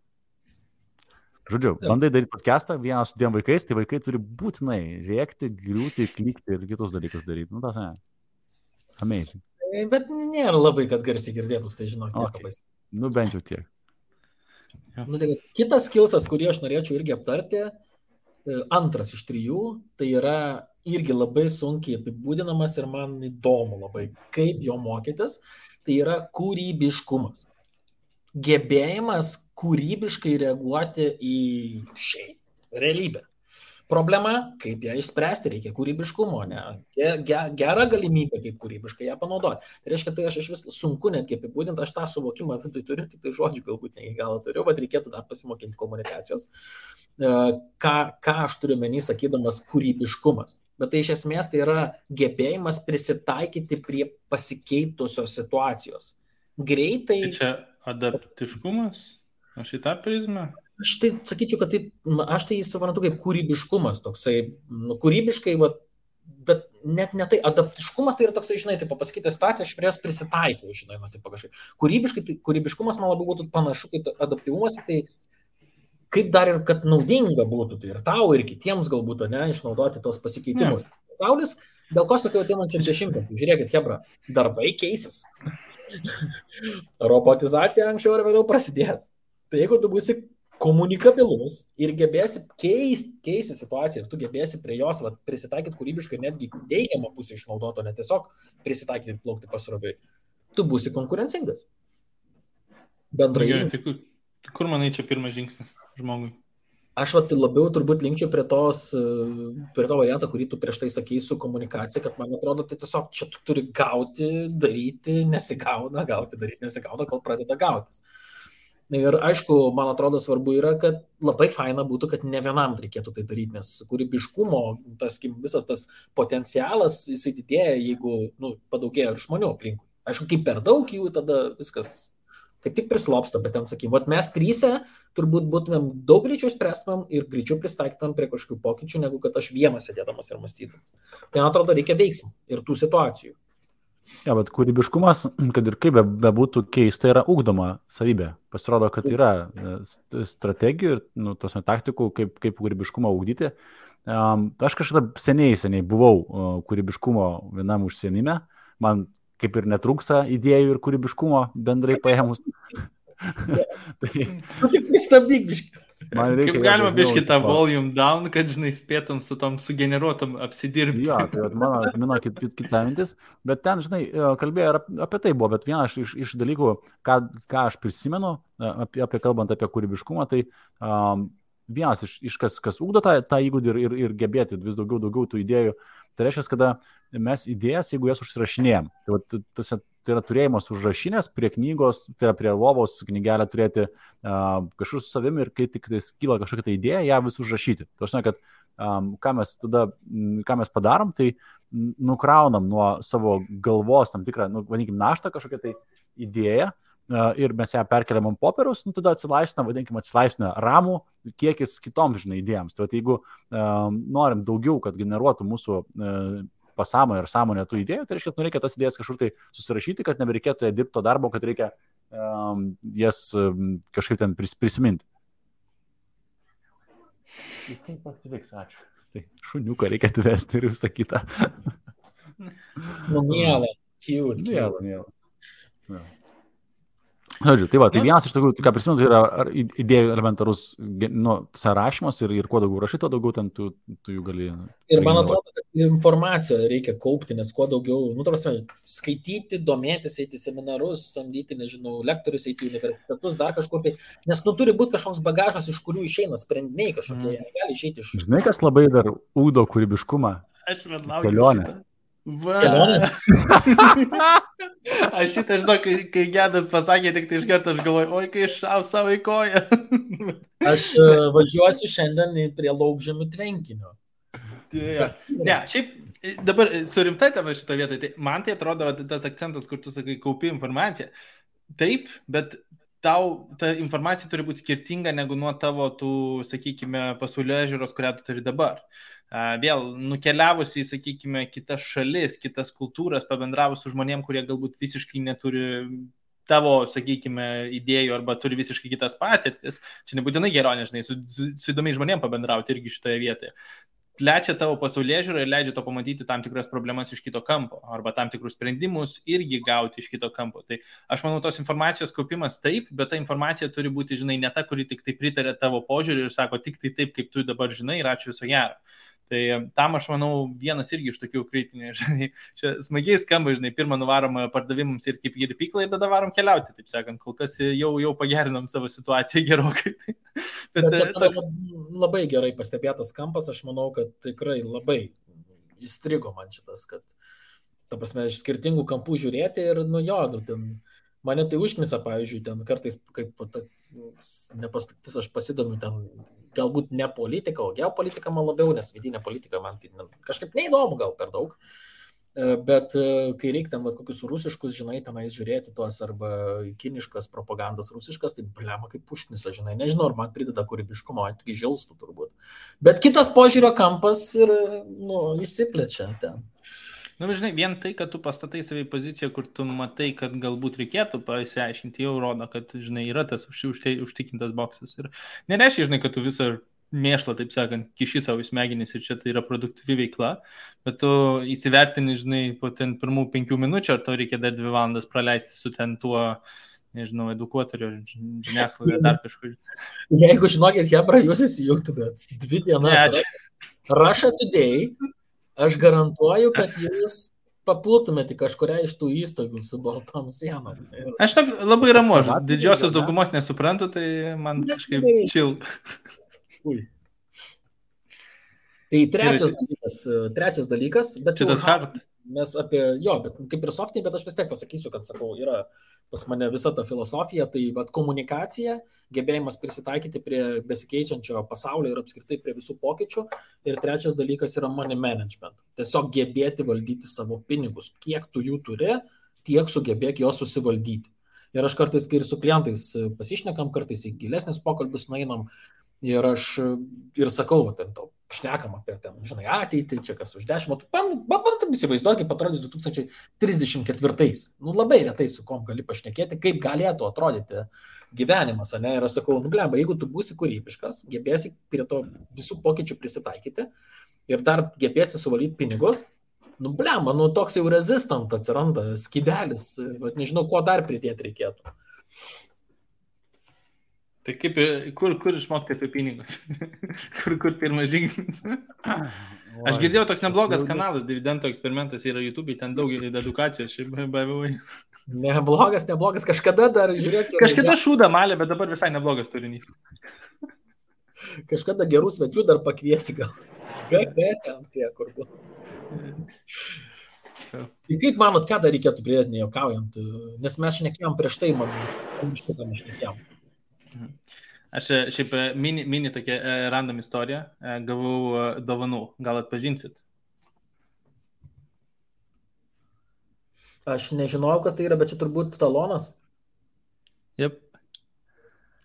Žodžiu, bandai daryti podcastą vienas su 2 vaikais, tai vaikai turi būtinai rėkti, griūti, klykti ir kitus dalykus daryti. Tas ne. Amazing. Bet nėra labai, kad garsiai girdėtus, tai žinok, okay. Bent jau tiek. Tai kitas skillsas, kurį aš norėčiau irgi aptarti, antras iš 3, tai yra irgi labai sunkiai apibūdinamas ir man įdomu labai, kaip jo mokytis, tai yra kūrybiškumas. Gebėjimas kūrybiškai reaguoti į realybę. Problema, kaip ją išspręsti, reikia kūrybiškumo, ne? Gera galimybė, kaip kūrybiškai ją panaudoti. Tai reiškia, tai aš iš vis sunku netgi apibūdinti, aš tą suvokimą vidui turiu, tik tai žodžių galbūt ne iki galo turiu, bet reikėtų dar pasimokinti komunikacijos. Ką aš turiu menį sakydamas kūrybiškumas. Bet tai iš esmės tai yra gebėjimas prisitaikyti prie pasikeitusios situacijos. Greitai. Tai čia adaptiškumas? Aš į tą prizmę? Aš tai sakyčiau, kad aš tai suprantu kaip kūrybiškumas, toksai, kūrybiškai, bet net ne tai, adaptiškumas tai yra toksai, žinai, tai pasakyti situaciją, aš prie jos prisitaikau, žinai, tai pagašai. Kūrybiškumas man labai būtų panašu, kaip adaptyvumas, tai kaip dar ir kad naudinga būtų, tai ir tau, ir kitiems galbūt, ne, išnaudoti tos pasikeitimus. Pasaulis, dėl ko sakiau, ateinančiam 10, žiūrėkit, hebra, darbai keisis. Robotizacija anksčiau ar vėliau prasidės. Tai jeigu tu būsi komunikabilus ir gebėsi keisti situaciją ir tu gebėsi prie jos prisitaikyti kūrybiškai, netgi teigiamą pusę išnaudoti, o ne tiesiog prisitaikyti ir plaukti pasroviui, tu būsi konkurencingas. Bendrai. Kur manai čia pirmas žingsnis žmogui? Aš labiau turbūt linkčiau prie to variantą, kurį tu prieš tai sakei su komunikacija, kad man atrodo, tai tiesiog čia tu turi gauti, daryti, nesigauna, gauti, daryti, nesigauna, kol pradeda gautis. Ir aišku, man atrodo svarbu yra, kad labai faina būtų, kad ne vienam reikėtų tai daryti, nes kūrybiškumo, visas tas potencialas, jisai didėja, jeigu padaugėja ir žmonių aplinkui. Aišku, kaip per daug jų, tada viskas kaip tik prislopsta, bet ten sakykim, mes 3 turbūt būtumėm daug greičiau spręstumėm ir greičiau pristaikytumėm prie kažkokių pokyčių, negu kad aš vienas sėdėdamas ir mąstydamas. Tai man atrodo, reikia veiksmų ir tų situacijų. Ja, bet kūrybiškumas, kad ir kaip bebūtų keista, yra ugdoma savybė. Pasirodo, kad yra strategijų ir taktikų, kaip kūrybiškumą ugdyti. Aš kažkada seniai buvau kūrybiškumo vienam užsienime. Man kaip ir netrūksa idėjų ir kūrybiškumo bendrai paėmus. Tik pristabdyk biškį. Kaip galima biškį tą volume down, kad, žinai, spėtum su tom sugeneruotom apsidirbti. Jo, tai mano kita mintis, bet ten, žinai, kalbėjo apie tai buvo, bet vienas iš dalykų, ką aš prisimenu, kalbant apie kūrybiškumą, tai vienas iš kas ugdo tą įgūdį ir gebėti vis daugiau tų idėjų, tai reiškia, kada mes idėjas, jeigu jas užsirašinėjom, tai yra turėjimas užrašinės prie knygos, tai yra prie lovos knygelę turėti kažkur su savimi ir kai tik kyla kažkokia tai idėja, ją vis užrašyti. Tai aš žinau, kad ką mes padarom, tai nukraunam nuo savo galvos tam tikrą, vadinkim, naštą kažkokią tai idėją ir mes ją perkeliam ant popieriaus, tada atsilaisvina ramų kiekis kitoms, žinai, idėjams. Tai jeigu norim daugiau, kad generuotų mūsų pasąmonę ir sąmonę tų idėjų, tai reikia tas idėjas kažkur tai susirašyti, kad nebereikėtų dirbti to darbo, kad reikia jas kažkaip ten prisiminti. Jis taip pasiliks, ačiū. Tai šuniuką reikia atvesti ir visą kitą. Mielą, cute. Mielą. Žodžiu, tai vienas iš tokių, ką prisimenu, tai yra idėjų elementarus sąrašymas ir kuo daugiau rašai, tuo daugiau ten tu jų gali. Ir man atrodo, kad informaciją reikia kaupti, nes kuo daugiau, skaityti, domėtis, eiti seminarus, samdyti, nežinau, lektorius, eiti į universitetus, dar kažkur tai, nes turi būti kažkoks bagažas, iš kurių išeina sprendiniai kažkokie, gali išeiti iš. Žinai, kas labai dar ugdo kūrybiškumą? Kelionės. Kelionės? Aš šitą žinau, kai Gedas pasakė, tik tai iš karto aš galvoju, oi, kai šau savo į koją. Aš važiuosiu šiandien prie Laukžemių tvenkinio. Ne, šiaip dabar surimtai tavo šitą vietą, tai man tai atrodo tas akcentas, kur tu sakai, kaupi informaciją. Taip, bet tau ta informacija turi būti skirtinga negu nuo tavo tų, sakykime, pasaulėžiūros, kurią tu turi dabar. Vėl nukeliavus į, sakykime, kitas šalis, kitas kultūras, pabendravus su žmonėm, kurie galbūt visiškai neturi tavo, sakykime, idėjų arba turi visiškai kitas patirtis. Čia nebūtinai geronė, žinai, su įdomiai žmonėm pabendrauti irgi šitoje vietoje. Plečia tavo pasaulėžiūrą ir leidžia to pamatyti tam tikras problemas iš kito kampo arba tam tikrus sprendimus irgi gauti iš kito kampo. Tai aš manau, tos informacijos kaupimas taip, bet ta informacija turi būti, žinai, ne ta, kuri tik tai pritarė tavo požiūrį ir sako tik tai taip, kaip tu dabar žinai ir ačiū viso gero. Tai tam aš manau vienas irgi iš tokių kritinių, žinai, čia smagiai skamba, žinai, pirmą nuvarom pardavimams ir kaip į pyklą ir tada varom keliauti, taip sakant, kol kas jau pagerinom savo situaciją gerokai. Bet labai gerai pastebėtas kampas, aš manau, kad tikrai labai įstrigo man šitas, kad, ta prasme, iš skirtingų kampų žiūrėti ir, ten mane tai užknisa, pavyzdžiui, ten kartais, kaip nepastaktis, aš pasidomiu ten, galbūt ne politika, o geopolitika man labiau, nes vidinė politika man tai kažkaip neįdomu gal per daug, bet kai reikia ten kokius rusiškus, žinai, tenais žiūrėti tuos arba kiniškas propagandas rusiškas, tai blema kaip užknisa, žinai, nežinau, ar man prideda kūrybiškumo, tik žilstų turbūt. Bet kitas požiūrio kampas ir, išsiplečia ten. Žinai, vien tai, kad tu pastatai save į poziciją, kur tu matai, kad galbūt reikėtų pasiaiškinti, jau rodo, kad, žinai, yra tas užtikintas boksas. Ir nereiškia, žinai, kad tu visą mėšlą, taip sakant, kiši savo smegenis ir čia tai yra produktyvi veikla, bet tu įsivertini, žinai, po ten pirmų 5 minučių, ar tau reikia dar 2 valandas praleisti su ten tuo, nežinau, edukuotoriu, žiniasklaidą, dar kažkur. Jeigu žinokit, hebra, jūs įsijungtumėt 2 dienas Russia Today, aš garantuoju, kad jūs papultumėte kažkuria iš tų įstaigų su baltom sienom. Aš labai ramu, aš didžiosios daugumos nesuprantu, tai man kažkaip chill. Tai trečias dalykas, bet šitas hard. Mes apie, bet kaip ir softinį, bet aš vis tiek pasakysiu, kad, sakau, yra pas mane visa ta filosofija, tai komunikacija, gebėjimas prisitaikyti prie besikeičiančio pasaulio ir apskritai prie visų pokyčių. Ir trečias dalykas yra money management. Tiesiog gebėti valdyti savo pinigus. Kiek tu jų turi, tiek sugebėk juos susivaldyti. Ir aš kartais, kai ir su klientais pasišnekam, kartais į gilesnis pokalbis nueinam ir aš ir sakau, ten to šnekam apie ten, žinai, ateitį, čia kas už 10 metų. Bandam įsivaizduoti, kaip atrodys 2034. Labai retai su kom gali pašnekėti, kaip galėtų atrodyti gyvenimas, ne? Ir aš sakau, blemba, jeigu tu būsi kūrybiškas, gebėsi prie to visų pokyčių prisitaikyti ir dar gebėsi suvaldyti pinigus, blemba, toks jau resistant atsiranda skydelis, nežinau, ko dar pridėti reikėtų. Tai kaip, kur išmokti apie pinigus? kur pirmas žingsnis? Aš girdėjau, toks neblogas kanalas, dividendų eksperimentas yra YouTube, ten daug edukacijos, šiaip bavimai. Neblogas, kažkada dar, žiūrėk. Kažkada šūdą malė, bet dabar visai neblogas turinys. Kažkada gerų svečių dar pakviesi gal. GG ten tie, kur buvo. Tai kaip manot, ką dar reikėtų pridėti, nejuokaujant? Nes mes šnekėjom prieš tai, šitą šnekėjom. Aš šiaip mini tokia random istorija, gavau dovanų, gal atpažinsit? Aš nežinojau, kas tai yra, bet čia turbūt talonas. Jep.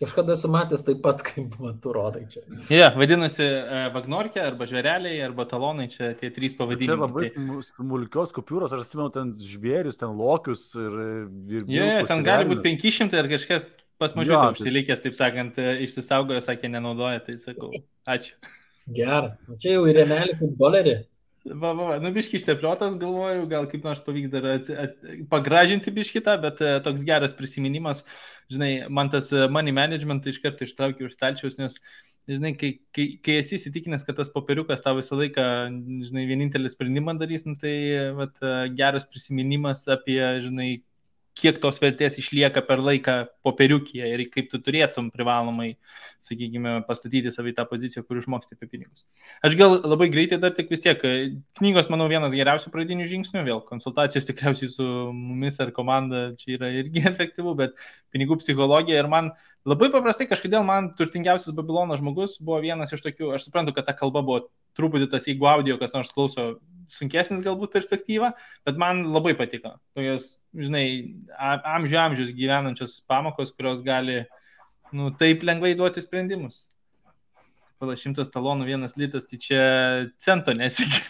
Kažkada esu matęs taip pat, kaip tu rodai čia. Vadinasi vagnorkė, arba žvėreliai, arba talonai, čia tie 3 pavadinimai. Čia labai smulkios kupiūros, aš atsimenu ten žvėrius, ten lokius ir ten gali būti 500 ar kažkas pas mažiutę užsilikęs, taip sakant, išsisaugojo, sakė, nenaudoja, tai sakau, ačiū. Geras, čia jau ir remelį kaip dolerį. Biški ištepliotas, galvoju, gal kaip nors pavyks dar pagražinti biškitą, bet toks geras prisiminimas, žinai, man tas money management iš karto ištraukiu už stalčiaus, nes, žinai, kai esi įsitikinęs, kad tas popieriukas tau visą laiką, žinai, vienintelį sprendimą darys, tai geras prisiminimas apie, žinai, kiek tos vertės išlieka per laiką popieriukyje ir kaip tu turėtum privalomai, sakykime, pastatyti save į tą poziciją, kur išmoksti apie pinigus. Aš gal labai greitai dar tik vis tiek, knygos, manau, vienas geriausių pradinių žingsnių, vėl konsultacijos tikriausiai su mumis ar komanda čia yra irgi efektyvu, bet pinigų psichologija ir man labai paprastai kažkodėl man turtingiausias Babilono žmogus buvo vienas iš tokių, aš suprantu, kad ta kalba buvo truputį tas, jeigu audio kas nors klauso, sunkesnis galbūt perspektyva, bet man labai patiko. Tokios, žinai, amžius gyvenančios pamokos, kurios gali, taip lengvai duoti sprendimus. Pala 100 talonų 1 litas, tai čia cento nesigi.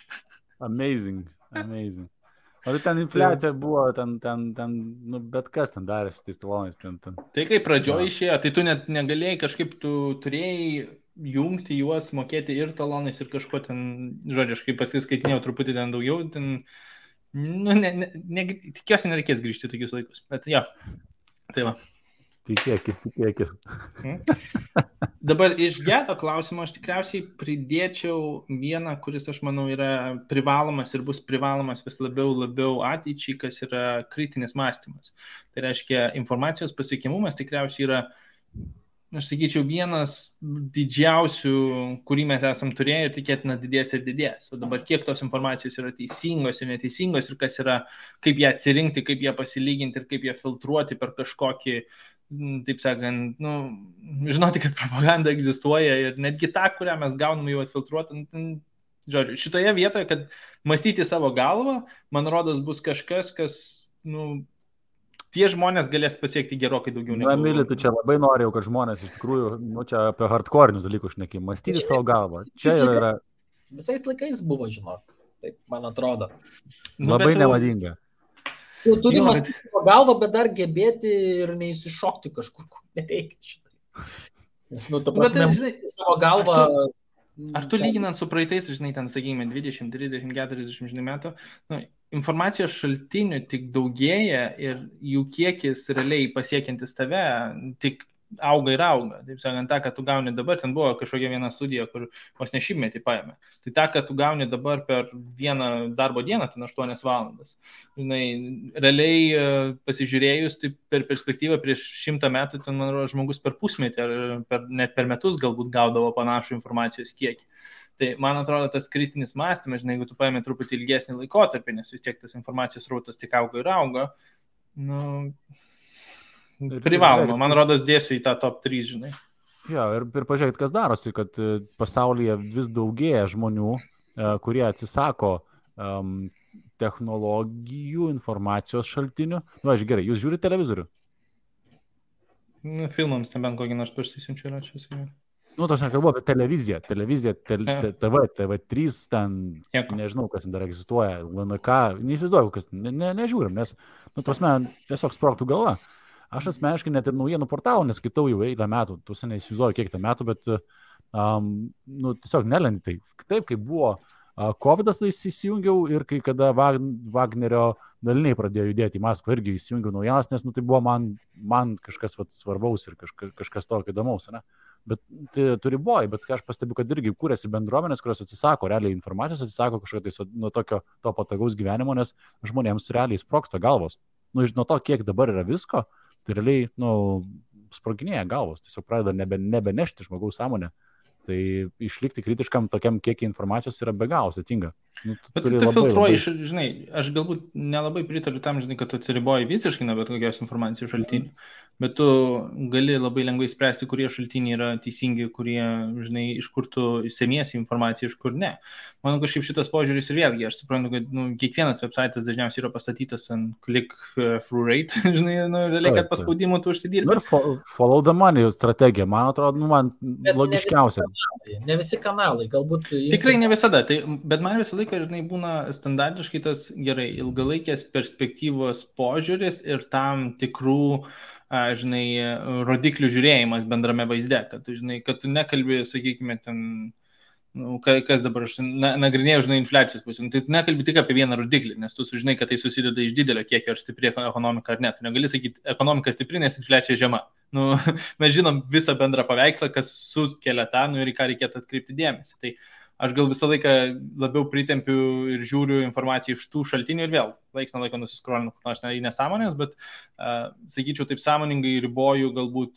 Amazing. O ten infliacija buvo, ten bet kas ten darėsi tais talonais. Ten. Tai kai pradžioje išėjo, tai tu net negalėjai kažkaip, tu turėjai jungti juos, mokėti ir talonais ir kažko ten, žodžiu, aš kaip pasiskaitinėjau truputį ten daugiau, ten, tikiuosi nereikės grįžti tokius laikus, bet jo, tai va. Tikėkis. Dabar iš Geto klausimo aš tikriausiai pridėčiau vieną, kuris, aš manau, yra privalomas ir bus privalomas vis labiau ateičiai, kas yra kritinis mąstymas. Tai reiškia, informacijos pasiekiamumas tikriausiai yra, aš sakyčiau, vienas didžiausių, kurį mes esam turėję ir tikėtina didės ir didės. O dabar kiek tos informacijos yra teisingos ir neteisingos ir kas yra, kaip ją atsirinkti, kaip ją pasilyginti ir kaip ją filtruoti per kažkokį, taip sakant, žinoti, kad propaganda egzistuoja ir netgi tą, kurią mes gauname jau atfiltruoti. Žodžiu, šitoje vietoje, kad mąstyti savo galvą, man rodos, bus kažkas, kas, tie žmonės galės pasiekti gerokai daugiau. Emili, tu čia labai norėjau, kad žmonės iš tikrųjų, čia apie hardcore'inius dalykus šnekėjai, mąstyti savo galvą. Čia yra... Visais laikais buvo, žinok, taip man atrodo. Labai nemadinga. Turi mąstyti savo galvą, bet dar gebėti ir neįsišokti kažkur, kur nereikia šitą. Nes, ta prasme, mąstyti savo galvą... Ar tu lyginant su praeitais, žinai, ten, sakykime, 20, 30, 40 metų, informacijos šaltinių tik daugėja ir jų kiekis realiai pasiekiantis tave tik auga ir auga. Taip sakant, tą, kad tu gauni dabar, ten buvo kažkokia viena studija, kur vos ne šimtmetį paėmė. Tai tą, kad tu gauni dabar per vieną darbo dieną, ten 8 valandas. Žinai, realiai pasižiūrėjus, tai per perspektyvą prieš 100 metų, ten, man rodo, žmogus per pusmetį ar net per metus galbūt gaudavo panašų informacijos kiekį. Tai, man atrodo, tas kritinis mąstymas, žinai, jeigu tu paėmė truputį ilgesnį laikotarpį, nes vis tiek tas informacijos rautas tik auga ir auga, privaloma, man rodos, dėsiu į tą top 3, žinai. Jo, ir pažiūrėkit, kas darosi, kad pasaulyje vis daugėja žmonių, kurie atsisako technologijų, informacijos šaltinių. Gerai, jūs žiūrite televizorių? Filmams nebent kokį nors parsisiunčiu yra čia. Tas nekalbu apie televiziją, TV3, ten, nežinau, kas dar egzistuoja, LNK, neįsivaizduoju, kas, nežiūrim, nes, tiesiog sprogtų galva. Aš asmeniškai net ir naujienų portalų neskaitau jau eilę metų, tu seniai įsivaizduoju kiek tą metų, bet tiesiog nelendi tai. Taip, kai buvo COVID'as, tai įsijungiau ir kai kada Wagnerio daliniai pradėjo judėti į Maskvą, irgi įsijungiau naujienas, nes tai buvo man kažkas svarbaus ir kažkas tokio įdomaus, ne? Bet tai turi boj, bet aš pastebiu, kad irgi kūrėsi bendruomenės, kurios atsisako realiai informacijos, atsisako kažkokio tai nuo tokio to patogaus gyvenimo, nes žmonėms realiai sprogsta galvos. Nuo to, kiek dabar yra visko, tai realiai, sproginėja galvos, tiesiog pradeda nebenešti žmogaus sąmonę. Tai išlikti kritiškam tokiam kiekį informacijos yra be galo sudėtinga. Bet tu filtruoji, žinai, aš galbūt nelabai pritariu tam, žinai, kad tu atsiriboji visiškai nuo bet kokios informacijos šaltinių, bet tu gali labai lengvai spręsti, kurie šaltiniai yra teisingi, kurie, žinai, iš kur tu semiesi informaciją, iš kur ne. Manau, kažkaip šitas požiūris ir vėlgi, aš suprantu, kad kiekvienas websaitas dažniausiai yra pastatytas ant click-through rate, žinai, realiai, kad paspaudimų tu užsidirbi. Ir follow the money strategija, man atrodo, man logiškiausia. Ne visi kanalai, galbūt... Tikrai ne visada, bet man visą laiką, žinai, būna standartiškai tas gerai ilgalaikės perspektyvos požiūris ir tam tikrų, žinai, rodiklių žiūrėjimas bendrame vaizde, kad tu nekalbi, sakykime, ten, kas dabar aš nagrinėjau, žinai, infliacijos pusė, tai tu nekalbi tik apie vieną rodiklį, nes tu sužinai, kad tai susideda iš didelio kiekio ar stipri ekonomika ar ne. Tu negali sakyti, ekonomika stipri, nes infliacija žema. Mes žinom visą bendrą paveikslą, kas sukelia tą, ir į ką reikėtų atkreipti dėmesį. Tai aš gal visą laiką labiau pritempiu ir žiūriu informaciją iš tų šaltinių ir vėl, laiks nuo laiko nusiskrolinu, nors į nesąmonės, bet sakyčiau, taip sąmoningai riboju galbūt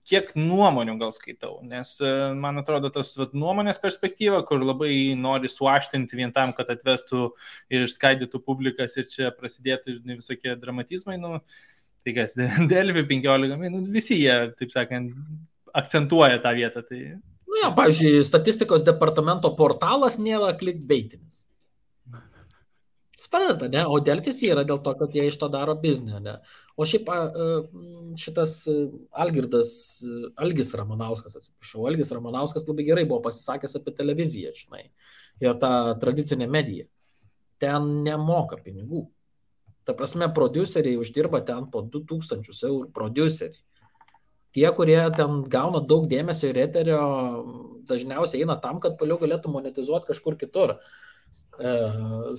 kiek nuomonių gal skaitau, nes man atrodo tas nuomonės perspektyva, kur labai nori suaštinti vien tam, kad atvestų ir išskaidytų publikas ir čia prasidėtų visokie dramatizmai, tai kas, Delfi 15 min, visi jie, taip sakant, akcentuoja tą vietą. Tai... Pavyzdžiui, statistikos departamento portalas nėra clickbaitinis. Suprantate, ne? O Delfis yra dėl to, kad jie iš to daro biznį, ne? O šiaip šitas Algis Ramanauskas labai gerai buvo pasisakęs apie televiziją, žinai, ir tą tradicinę mediją. Ten nemoka pinigų. Ta prasme, prodiuseriai uždirba ten po 2000 eurų prodiuseriai. Tie, kurie ten gauna daug dėmesio ir eterio, dažniausiai eina tam, kad vėliau galėtų monetizuoti kažkur kitur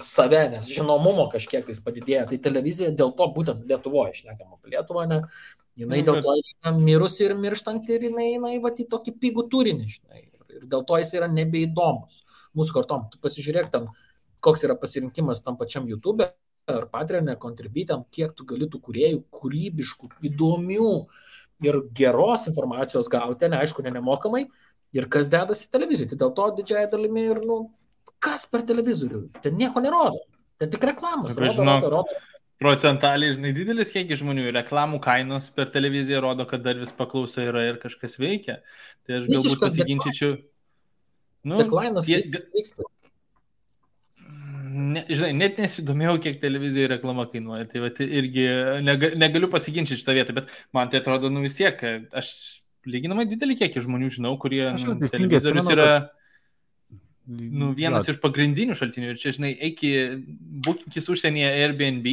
save, nes žinomumo kažkiek tais padidėja. Tai televizija dėl to būtent Lietuvoje, šnekam apie Lietuvą, ne, jinai dėl to yra mirusi ir mirštanti ir jinai eina į tokį pigų turinį, žinai, ir dėl to jis yra nebeįdomus mūsų kartom. Tu pasižiūrėk ten, koks yra pasirinkimas tam pačiam YouTube ar Patreon'e, Contribui, kiek tu gali tų kūrėjų kūrybiškų, įdomių ir geros informacijos gauti, neaišku, nemokamai, ir kas dedasi televizijoje. Tai dėl to didžiąją dalimi ir, kas per televizorių? Ten nieko nerodo. Ten tik reklamos. Rodo. Procentaliai, žinai, didelis kiekis žmonių. Reklamų kainos per televiziją rodo, kad dar vis paklausa yra ir kažkas veikia. Tai aš galbūt pasiginčyčiau. Deklainas vyksta. Žinai, net nesidomėjau, kiek televizijoje reklama kainuoja. Tai irgi negaliu pasiginčyti šitą vietą, bet man tai atrodo, vis tiek, aš lyginamai didelį kiekį žmonių žinau, kurie televizorius yra... vienas iš pagrindinių šaltinių. Ir čia, žinai, būkinkis užsienyje Airbnb,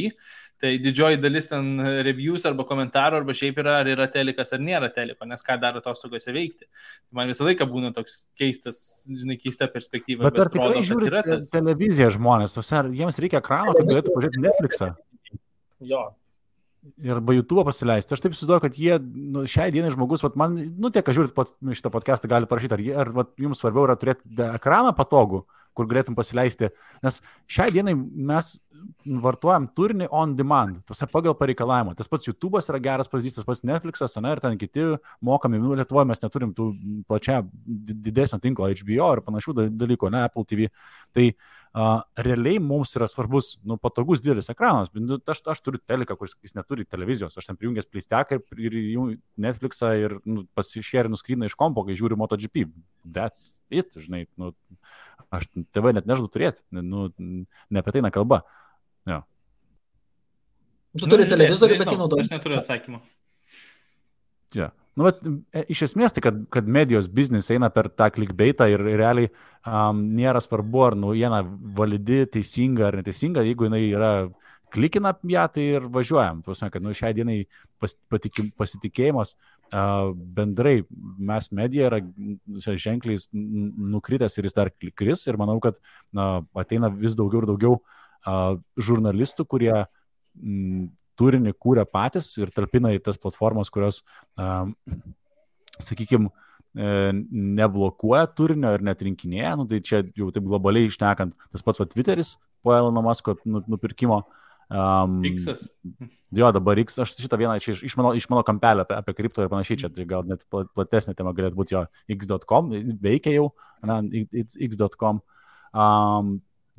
tai didžioji dalis ten reviews arba komentarų, arba šiaip yra, ar yra telikas, ar nėra teliko, nes ką daro atostogose veikti. Man visą laiką būna toks keistas, žinai, keista perspektyva. Bet ar tikrai žiūri televiziją žmonės? Jiems reikia ekrano, kad galėtų pažiūrėti Netflixą? Jo. Ir arba YouTube pasileisti. Aš taip susiduoju, kad jie, šiai dienai žmogus, man, tiek, kad žiūrit šitą podcastą, gali parašyti, ar jums svarbiau yra turėti ekraną patogų, kur galėtum pasileisti, nes šiai dienai mes vartojam turinį on demand, pagal pareikalavimą. Tas pats YouTube'as yra geras pavyzdys, tas pats Netflix'as, ir ten kiti mokami. Lietuvoje mes neturim tų plačia didesnio tinklo HBO ir panašių dalykų, Apple TV. Tai realiai mums yra svarbus, patogus didelis ekranas. Aš turiu teliką, kuris neturi televizijos. Aš ten prijungęs pleisteką ir Netflixą ir pasišėrinu skryną iš kompo, kai žiūriu MotoGP. That's it, žinai. Aš TV net nežadu turėti. Ne apie tai nekalba. Jo. Tu turi televizorių, bet jį naudoji. Aš neturiu atsakymą. Ja. Iš esmės, tai kad medijos biznis eina per tą clickbaitą ir realiai nėra svarbu, ar naujiena validi, teisinga ar neteisinga, jeigu jinai yra klikina ją, tai ir važiuojam. Tuosme, kad šiai dienai pasitikėjimas bendrai mes medija yra ženkliai nukritęs ir jis dar kris ir manau, kad ateina vis daugiau ir daugiau žurnalistų, kurie turinį kūrė patys ir talpina į tas platformas, kurios, sakykime, neblokuoja turinio ir netrinkinėja. Tai čia jau taip globaliai išnekant, tas pats Twitteris po Elono Musko nupirkimo. X-as. Jo, dabar X, aš šitą vieną čia iš mano kampelio apie kripto ir panašiai, čia tai gal net platesnė tema galėtų būti jo x.com, veikia jau, x.com.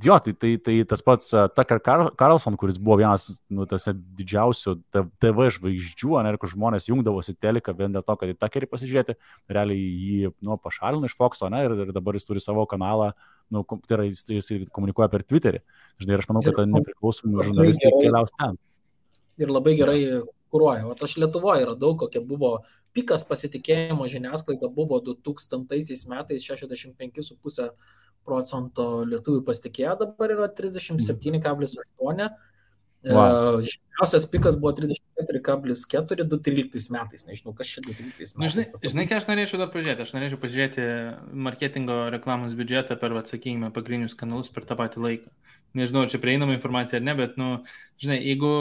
Jo, tai tas pats Tucker Carlson, kuris buvo vienas didžiausių TV žvaigždžių, kur žmonės jungdavosi teliką vien dėl to, kad į Tuckerį pasižiūrėti, realiai jį pašalino iš Fox'o, ir dabar jis turi savo kanalą, tai yra jis komunikuoja per Twitterį. Žinai, ir aš manau, kad nepriklausomai žurnalistai keliaus ten. Ir labai gerai kuruoja. O aš Lietuvoje radau, kokia buvo pikas pasitikėjimo žiniasklaida buvo 2000 metais 65,5% lietuvių pasitikėjo, dabar yra 37,8%. Žemiausias pikas buvo 34,4% 2013 metais. Nežinau, kas čia 2013 metais. Žinai, ką aš norėčiau dar pažiūrėti? Aš norėčiau pažiūrėti marketingo reklamos biudžetą per, sakykime, pagrindinius kanalus per tą patį laiką. Nežinau, čia prieinama informacija ar ne, bet, žinai, jeigu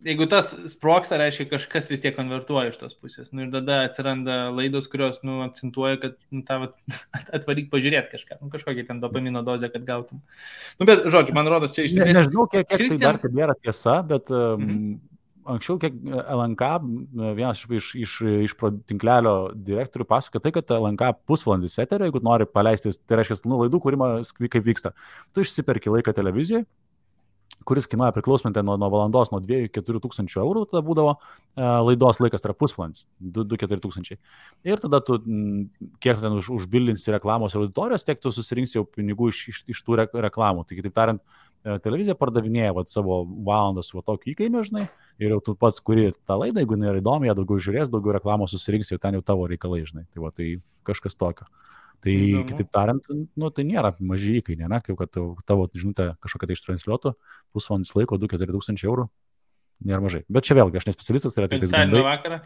jeigu tas sproksta, reiškia, kažkas vis tiek konvertuoja iš tos pusės. Ir tada atsiranda laidos, kurios, akcentuoja, kad atvaryk pažiūrėti kažką. Kažkokią ten dopamino dozę, kad gautum. Bet, žodžiu, man rodos, čia iš tikrųjų... Nežinau, kiek tai dar tebėra tiesa, bet anksčiau, kiek LNK, vienas iš tinklelio direktorių pasakoja tai, kad LNK pusvalandis eterio, jeigu nori paleisti, tai reiškia, laidų kūrimą, kaip vyksta. Tu išsiperki laiką televizijoje, kuris kainuoja priklausomai nuo valandos, nuo 2-4 tūkstančių eurų, tada būdavo laidos laikas, tai yra pusvalandis, 2-4 tūkstančiai. Ir tada tu, kiek ten užbildinsi reklamos auditorijos, tiek tu susirinksi jau pinigų iš tų reklamų. Tai kitaip tariant, televizija pardavinėja savo valandą su tokiu įkainiu, žinai, ir jau tu pats kuri tą laidą, jeigu nėra įdomi, ją daugiau žiūrės, daugiau reklamos susirinksi, jau ten jau tavo reikalai, žinai. Tai kažkas tokio. Tai, kitaip tariant, tai nėra maži įkainiai, ne? Kaip kad tavo žinutė kažkokia tai ištransliuotų, pusvalandis laiko 2-4 tūkstančiai eurų, nėra mažai. Bet čia vėlgi, aš nespecialistas, tai yra tik gandai. Vakarą?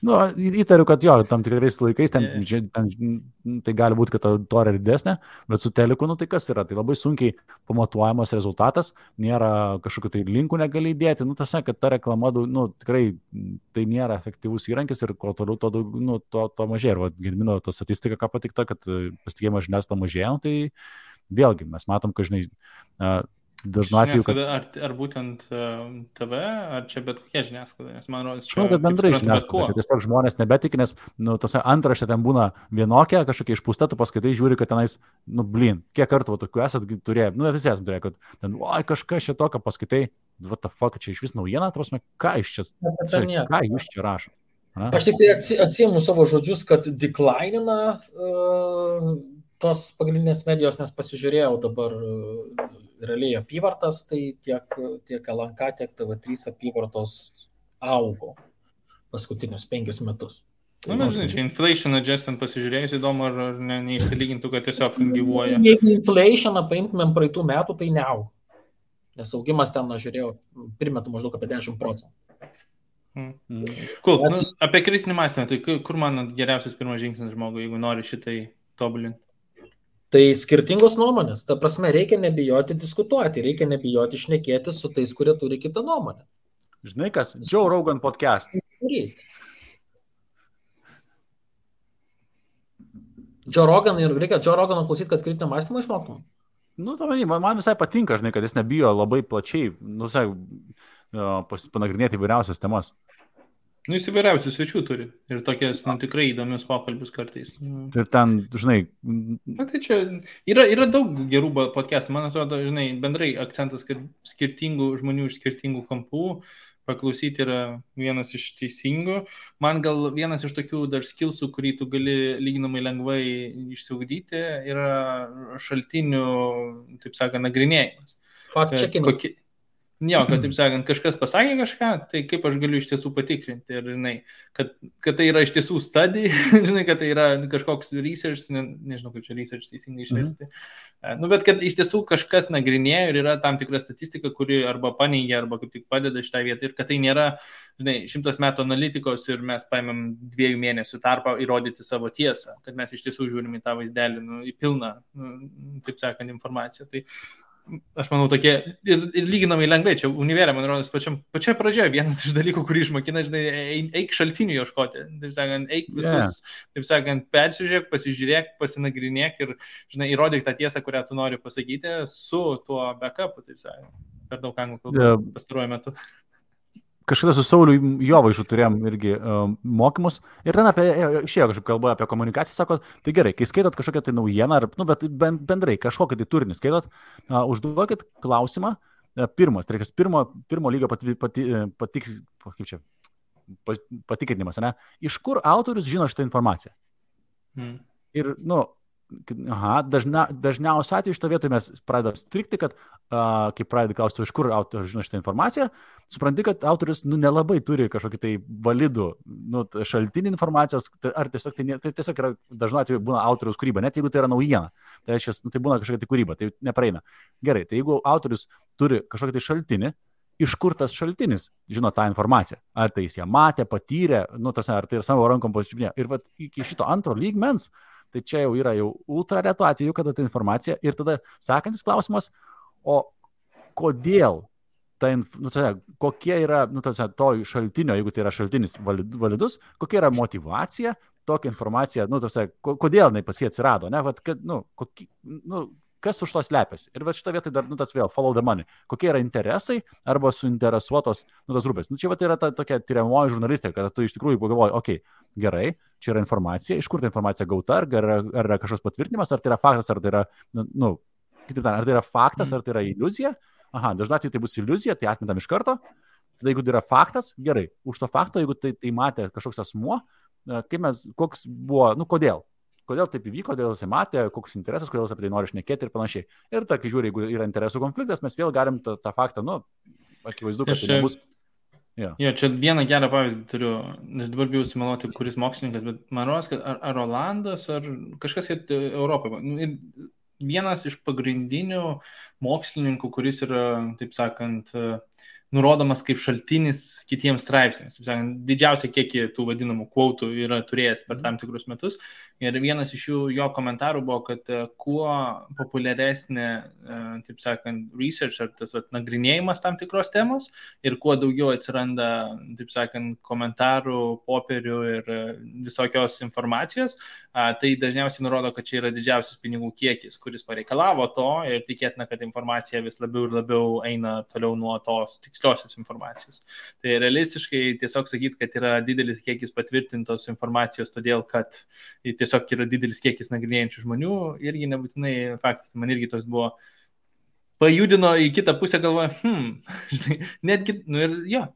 Įtariu, kad jo, tam tikrais laikais ten tai gali būti, kad ta auditorija yra didesnė, bet su teliku, tai kas yra? Tai labai sunkiai pamatuojamas rezultatas, nėra kažkokių tai linkų negali įdėti, tas, kad ta reklama, tikrai tai nėra efektyvus įrankis ir kuo toliau to mažėja. Ir Gedimino ta statistika, ką patikta, kad pasitikėjimas žiniasklaida mažėja, tai vėlgi mes matom, kad, žinai, dažnu atveju, kad... Ar būtent TV, ar čia bet kokia žiniasklaida, nes man rodos, čia... kad bendrai žiniasklaida, kad tiesiog žmonės nebetik, nes tas antraštė ten būna vienokia, kažkokia išpūsta, tu paskaitai žiūri, kad tenais, kiek kartų tokių esat turėję, visi esam turėję, kad ten, kažkas čia tokio paskaitai, what the fuck, čia iš vis naujiena, prasme, ką jūs čia rašot? Aš tik tai atsiimu savo žodžius, kad declineina tos pagrindinės medijos, nes pasižiūrėjau dabar realiai apyvartas, tai tiek LNK, tiek TV3 apyvartos augo paskutinius 5 metus. Žinai, čia inflation adjustant pasižiūrėjus įdomu, ar neišsilygintų, kad tiesiog gyvuoja. Jeigu inflationą paimtumėm praeitų metų, tai neaugo. Nes augimas ten, žiūrėjau, primetu maždaug apie 10%. Cool. Apie kritinį mąstymą, tai kur man geriausias pirmas žingsnis žmogui, jeigu nori šitai tobulinti? Tai skirtingos nuomonės. Ta prasme, reikia nebijoti diskutuoti, reikia nebijoti šnekėti su tais, kurie turi kitą nuomonę. Žinai kas? Joe Rogan podcast. Joe Rogan ir reikia Joe Roganą klausyti, kad kritinio mąstymo išmoktum. Man visai patinka, žinai, kad jis nebijo labai plačiai, panagrinėti įvairiausias temas. Jis įvairiausių svečių turi ir tokias tikrai įdomius pokalbius kartais. Ir ten, žinai... Tai čia yra daug gerų podcastų. Man atrodo, žinai, bendrai akcentas, kad skirtingų žmonių iš skirtingų kampų paklausyti yra vienas iš teisingų. Man gal vienas iš tokių dar skillsų, kurį tu gali lyginamai lengvai išsiugdyti, yra šaltinių, taip sakant, nagrinėjimas. Fact-checking. Jo, kad, taip sakant, kažkas pasakė kažką, tai kaip aš galiu iš tiesų patikrinti. Ir, žinai, kad tai yra iš tiesų study, žinai, kad tai yra kažkoks research, nežinau, kaip čia research teisingai išversti. Bet kad iš tiesų kažkas nagrinėja ir yra tam tikra statistika, kuri arba paneigia, arba kaip tik padeda šitą vietą. Ir kad tai nėra, žinai, 100 metų analitikos ir mes paimėm 2 mėnesių tarpą įrodyti savo tiesą, kad mes iš tiesų žiūrim į tą vaizdelį, į pilną, taip sakant, informaciją. Tai aš manau, tokie ir lyginamai lengvai, čia univerė, man rodos, pačioje pradžioje vienas iš dalykų, kurį išmokina, žinai, eik šaltinių ieškoti, taip sakant, eik visus, taip sakant, persižiūrėk, pasižiūrėk, pasinagrinėk ir, žinai, įrodyk tą tiesą, kurią tu nori pasakyti su tuo backupu, taip sakant, per daug anglų kalbos pastaruoju metu. Kažkada su Sauliu Jovaišu turėjom irgi mokymus ir ten išėjo kažkaip kalba apie komunikaciją, sako, tai gerai, kai skaitot kažkokią tai naujieną, bet bendrai kažkokią tai turinį skaitot, užduokit klausimą, tai pirmo lygio patikrinimas, ne? Iš kur autorius žino šitą informaciją? Ir, dažniausiai atveju šito vietoje mes pradedam strikti, kad kai pradedi klausti, iš kur autorius žino šitą informaciją, supranti, kad autorius nelabai turi kažkokį tai validų šaltinį informacijos, ar tiesiog tai tiesiog yra dažnu atveju būna autoriaus kūryba, net jeigu tai yra naujiena, tai reiškia, tai būna kažkokia tai kūryba, tai nepraeina. Gerai, tai jeigu autorius turi kažkokį tai šaltinį, iš kur tas šaltinis žino tą informaciją? Ar tai jis ją matė, patyrė, ar tai yra savo rankom pasičiupinėjo. Ir vat, iki šito antro lygmens, tai čia jau yra ultra retų atveju, kada ta informacija. Ir tada sekantis klausimas, o kodėl kokie yra, to šaltinio, jeigu tai yra šaltinis validus, kokia yra motyvacija, tokia informacija, kodėl jinai pas jį atsirado, ne, kas už to slepiasi. Ir šitą vietą dar, tas vėl, follow the money. Kokie yra interesai arba suinteresuotos, tos grupės. Čia yra ta tokia tyriamoji žurnalistika, kad tu iš tikrųjų pagalvoji, gerai, čia yra informacija, iš kur ta informacija gauta, ar yra kažkoks patvirtinimas, ar tai yra faktas, ar tai yra, ar tai yra faktas, ar tai yra iliuzija. Dažnai atveju tai bus iliuzija, tai atmetam iš karto. Tada jeigu tai yra faktas, gerai. Už to fakto, jeigu tai matė kažkoks asmuo, koks buvo, kodėl? Kodėl taip įvyko, kodėl jisai matė, koks interesas, kodėl jis apie tai nori šnekėti ir panašiai. Ir kai žiūri, jeigu yra interesų konfliktas, mes vėl galim tą faktą, akivaizdu, kad tai nebus. Čia vieną gerą pavyzdį turiu, nes dabar bijau sumeluoti, kuris mokslininkas, bet man rodos, kad ar Olandas, ar kažkas Europoje. Vienas iš pagrindinių mokslininkų, kuris yra, taip sakant, nurodomas kaip šaltinis kitiems straipsniams. Didžiausia kiekį tų vadinamų quotų yra turėjęs per tam tikrus metus. Ir vienas iš jų, jo komentarų buvo, kad kuo populiaresnė, taip sakant, research ar tas nagrinėjimas tam tikros temos ir kuo daugiau atsiranda, taip sakant, komentarų, popierių ir visokios informacijos, tai dažniausiai nurodo, kad čia yra didžiausias pinigų kiekis, kuris pareikalavo to ir tikėtina, kad informacija vis labiau ir labiau eina toliau nuo tos tiksliosios informacijos. Tai realistiškai tiesiog sakyti, kad yra didelis kiekis patvirtintos informacijos, todėl kad tiesiog yra didelis kiekis nagrinėjančių žmonių, irgi nebūtinai faktas. Man irgi toks buvo, pajudino į kitą pusę, galvoja, netgi, ir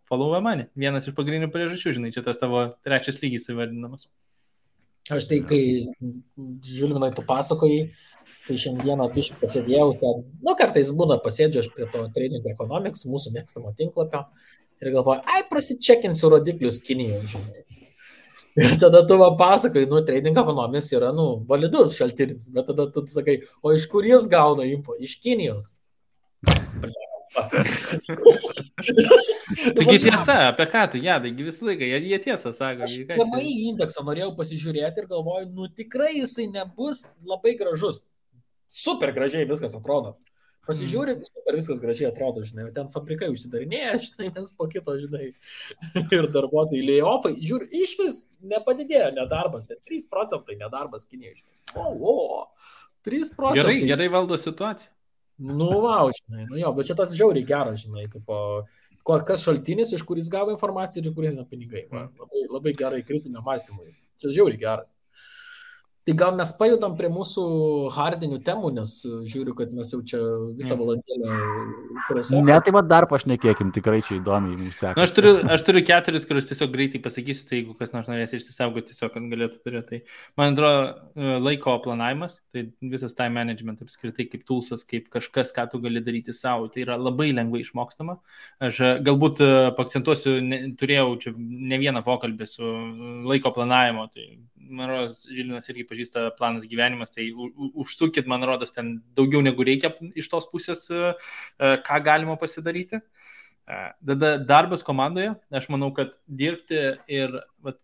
follow money. Vienas iš pagrindinių priežasčių, čia tas tavo trečias lygis įvardinamas. Aš tai, kai Žilvinai tu pasakojai, tai šiandieną biškai pasėdėjau ten, kartais būna pasėdžiu aš prie to Trading Economics, mūsų mėgstamo tinklapio, ir galvoju, prasičekinsiu rodiklius Kinijoje, žinai. Ir tada tu pasakai, Trading Economics yra, validus šaltinis, bet tada tu sakai, o iš kur jis gauna info? Iš Kinijos. Taigi tiesa, apie ką tu, taigi visą laiką, jie tiesą sako. Aš PMI indeksą norėjau pasižiūrėti ir galvoju, tikrai jisai nebus labai gražus. Super gražiai viskas atrodo. Pasižiūrė, super viskas gražiai atrodo, žinai, ten fabrikai užsidarinėja, žinai, nes po kito, žinai, ir darbuotojai layoffai, žiūri, iš vis nepadidėjo nedarbas, 3% nedarbas Kinijoje, žinai. 3%. Gerai valdo situaciją. Žinai, bet čia tas žiauriai geras, žinai, kas šaltinis, iš kuris gavo informaciją ir kur eina pinigai. Labai gerai kritinio mąstymui. Čia žiauriai geras. Tai gal mes pajudam prie mūsų hardinių temų, nes žiūriu, kad mes jau čia visą valandėlę prasidėjome. Ne, tai dar pašnekėkim, tikrai čia įdomiai mums sekasi. Aš turiu 4, kuriuos tiesiog greitai pasakysiu, tai jeigu kas nors norės išsisaugoti, tiesiog galėtų turėti. Tai man atrodo laiko planavimas, tai visas time management apskritai kaip toolsas, kaip kažkas, ką tu gali daryti savo, tai yra labai lengvai išmokstama. Aš galbūt pakcentuosiu, turėjau čia ne vieną pokalbį su laiko planavimo, tai man rodos, Žilvinas irgi pažįsta planas gyvenimas, tai užsukit, man rodos, ten daugiau negu reikia iš tos pusės, ką galima pasidaryti. Tada darbas komandoje, aš manau, kad dirbti ir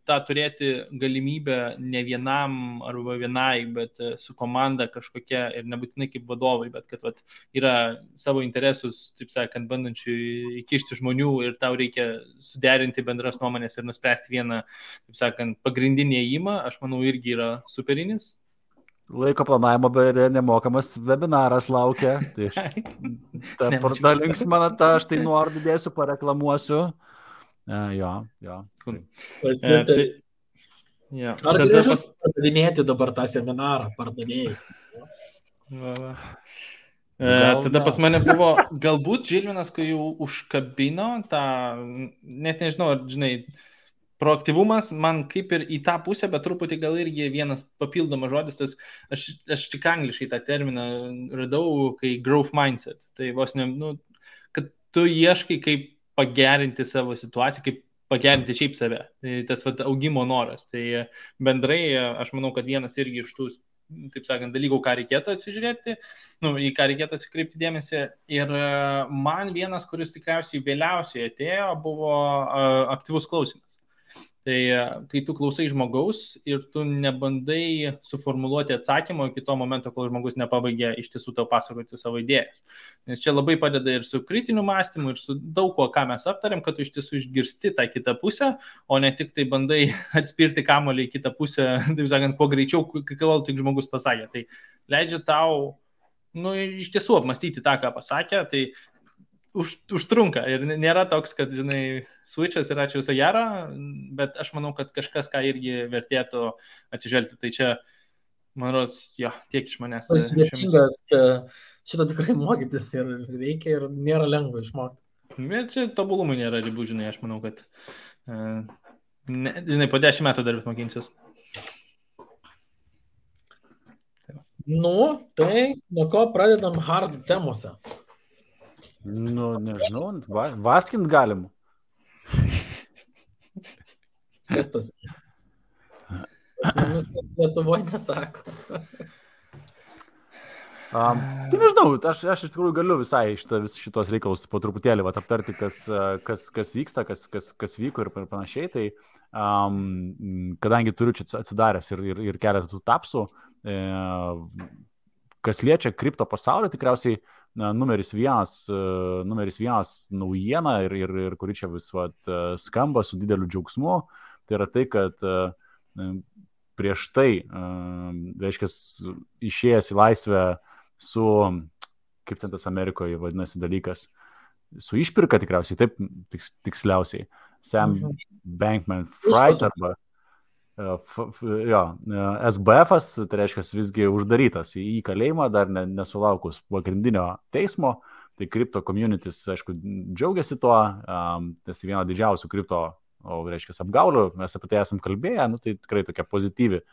tą turėti galimybę ne vienam arba vienai, bet su komanda kažkokia ir nebūtinai kaip vadovai, bet kad yra savo interesus, taip sakant, bandančių įkišti žmonių ir tau reikia suderinti bendras nuomonės ir nuspręsti vieną, taip sakant, pagrindinį ėjimą, aš manau, irgi yra superinis. Laiko planavimo beje nemokamas webinaras laukia. Tai pardalings man aš tai nuorodų dėsiu, pareklamuosiu. Jo. Ar gražus pardavinėti dabar tą seminarą pardavėjus? Tada pas mane buvo, galbūt Žilvinas, kai jau užkabino tą, net nežinau, žinai, proaktyvumas man kaip ir į tą pusę, bet truputį gal irgi vienas papildomas žodis, tas, aš tik angliškai tą terminą radau, kai growth mindset, tai vos ne, kad tu ieškai kaip pagerinti savo situaciją, kaip pagerinti šiaip save, tai tas augimo noras, tai bendrai aš manau, kad vienas irgi iš tų, taip sakant, dalykų, ką reikėtų atsižiūrėti, į ką reikėtų atsikreipti dėmesį. Ir man vienas, kuris tikriausiai vėliausiai atėjo, buvo aktyvus klausimas. Tai kai tu klausai žmogaus ir tu nebandai suformuluoti atsakymą iki to momento, kol žmogus nepabaigė iš tiesų tau pasakoti savo idėjas. Nes čia labai padeda ir su kritiniu mąstymu, ir su daug ko, ką mes aptarėm, kad tu iš tiesų išgirsti tą kitą pusę, o ne tik tai bandai atspirti kamuolį į kitą pusę, taip sakant, kuo greičiau, kol tik žmogus pasakė. Tai leidžia tau, iš tiesų apmastyti tą, ką pasakė, tai užtrunka ir nėra toks, kad, žinai, switchas yra čia viso gero, bet aš manau, kad kažkas, ką irgi vertėtų atsižvelgti. Tai čia, man rodos, jo, tiek iš manęs. Sudėtingas, šito tikrai mokytis ir reikia ir nėra lengva išmokti. Bet čia tobulumui nėra ribų, žinai, aš manau, kad, žinai, po 10 metų dar vis mokinsiuos. Tai nuo ko pradedam hard temose? Nežinau, vaskint galim. Kas tas? Pas mumis Lietuvoje nesako. Tai nežinau, aš iš tikrųjų galiu visai šitos reikalus po truputėlį aptarti, kas vyksta, kas vyko ir panašiai. Tai kadangi turiu čia atsidaręs ir keletą tų tapsų, kas liečia kripto pasaulį, tikriausiai numeris vienas naujiena ir kuri čia vis skamba su dideliu džiaugsmu, tai yra tai, kad prieš tai, reiškia, išėjęs į laisvę su, kaip ten tas Amerikoje vadinasi dalykas, su išpirka tikriausiai, taip tiksliausiai, Sam Bankman-Fried arba SBF-as, tai reiškia visgi uždarytas į kalėjimą, dar nesulaukus pagrindinio teismo, tai kripto communities, aišku, džiaugiasi tuo, tas viena didžiausių kripto, reiškia, apgaulių, mes apie tai esam kalbėję, tai tikrai tokia pozityvi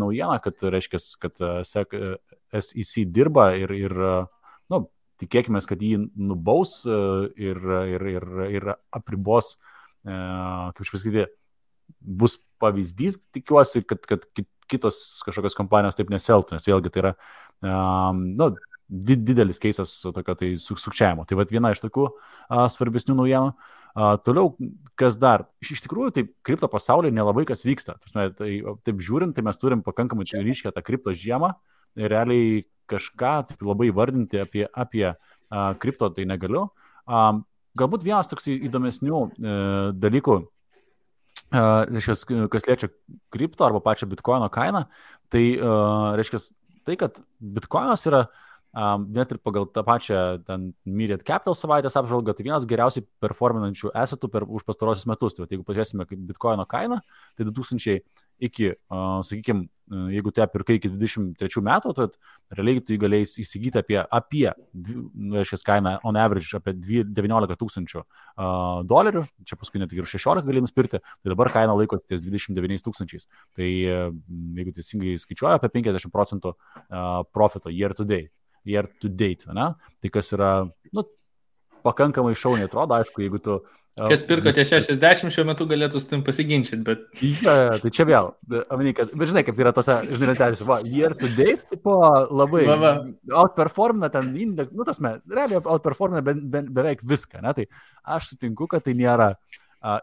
naujiena, kad, reiškia, kad SEC dirba ir tikėkime, kad jį nubaus ir apribos, kaip aš pasakyti, bus pavyzdys, tikiuosi, kad kitos kažkokios kompanijos taip nesielgtų, nes vėlgi tai yra didelis keisas tokio tai sukčiavimo. Tai viena iš tokių svarbesnių naujienų. Toliau, kas dar? Iš tikrųjų, tai kripto pasaulyje nelabai kas vyksta. Taip žiūrint, tai mes turim pakankamai ryškę tą kripto žiemą ir realiai kažką taip labai vardinti apie kripto tai negaliu. Galbūt vienas toks įdomesnių dalykų, reiškia, kas liečia kripto arba pačią bitkoino kainą, tai reiškia tai, kad bitkoinas yra net ir pagal tą pačią Myriad Capital savaitės apžvalgą, tai vienas geriausiai performinančių assetų už pastarosius metus. Tai jeigu pažiūrėsime kaip bitkoino kainą, tai 2000 iki, sakykime, jeigu tu ją pirkai iki 23 metų, tai realiai tu galėjai įsigyti apie reiškia, kainą on average apie 19 000 dolerių, čia paskui net ir 16 gali nuspirti, tai dabar kaina laiko ties 29 000. Tai jeigu teisingai skaičiuoja, apie 50% profito year to date, ne? Tai kas yra, pakankamai šauniai atrodo, aišku, jeigu tu... Kas pirko tie 60 šiuo metu galėtų su tim pasiginčyti, bet... Ja, tai čia vėl, bet žinai, kaip yra tose, žinai, lentelėse, year to date, tipo labai outperformina ten indeks, realiai outperformina beveik viską, ne? Tai aš sutinku, kad tai nėra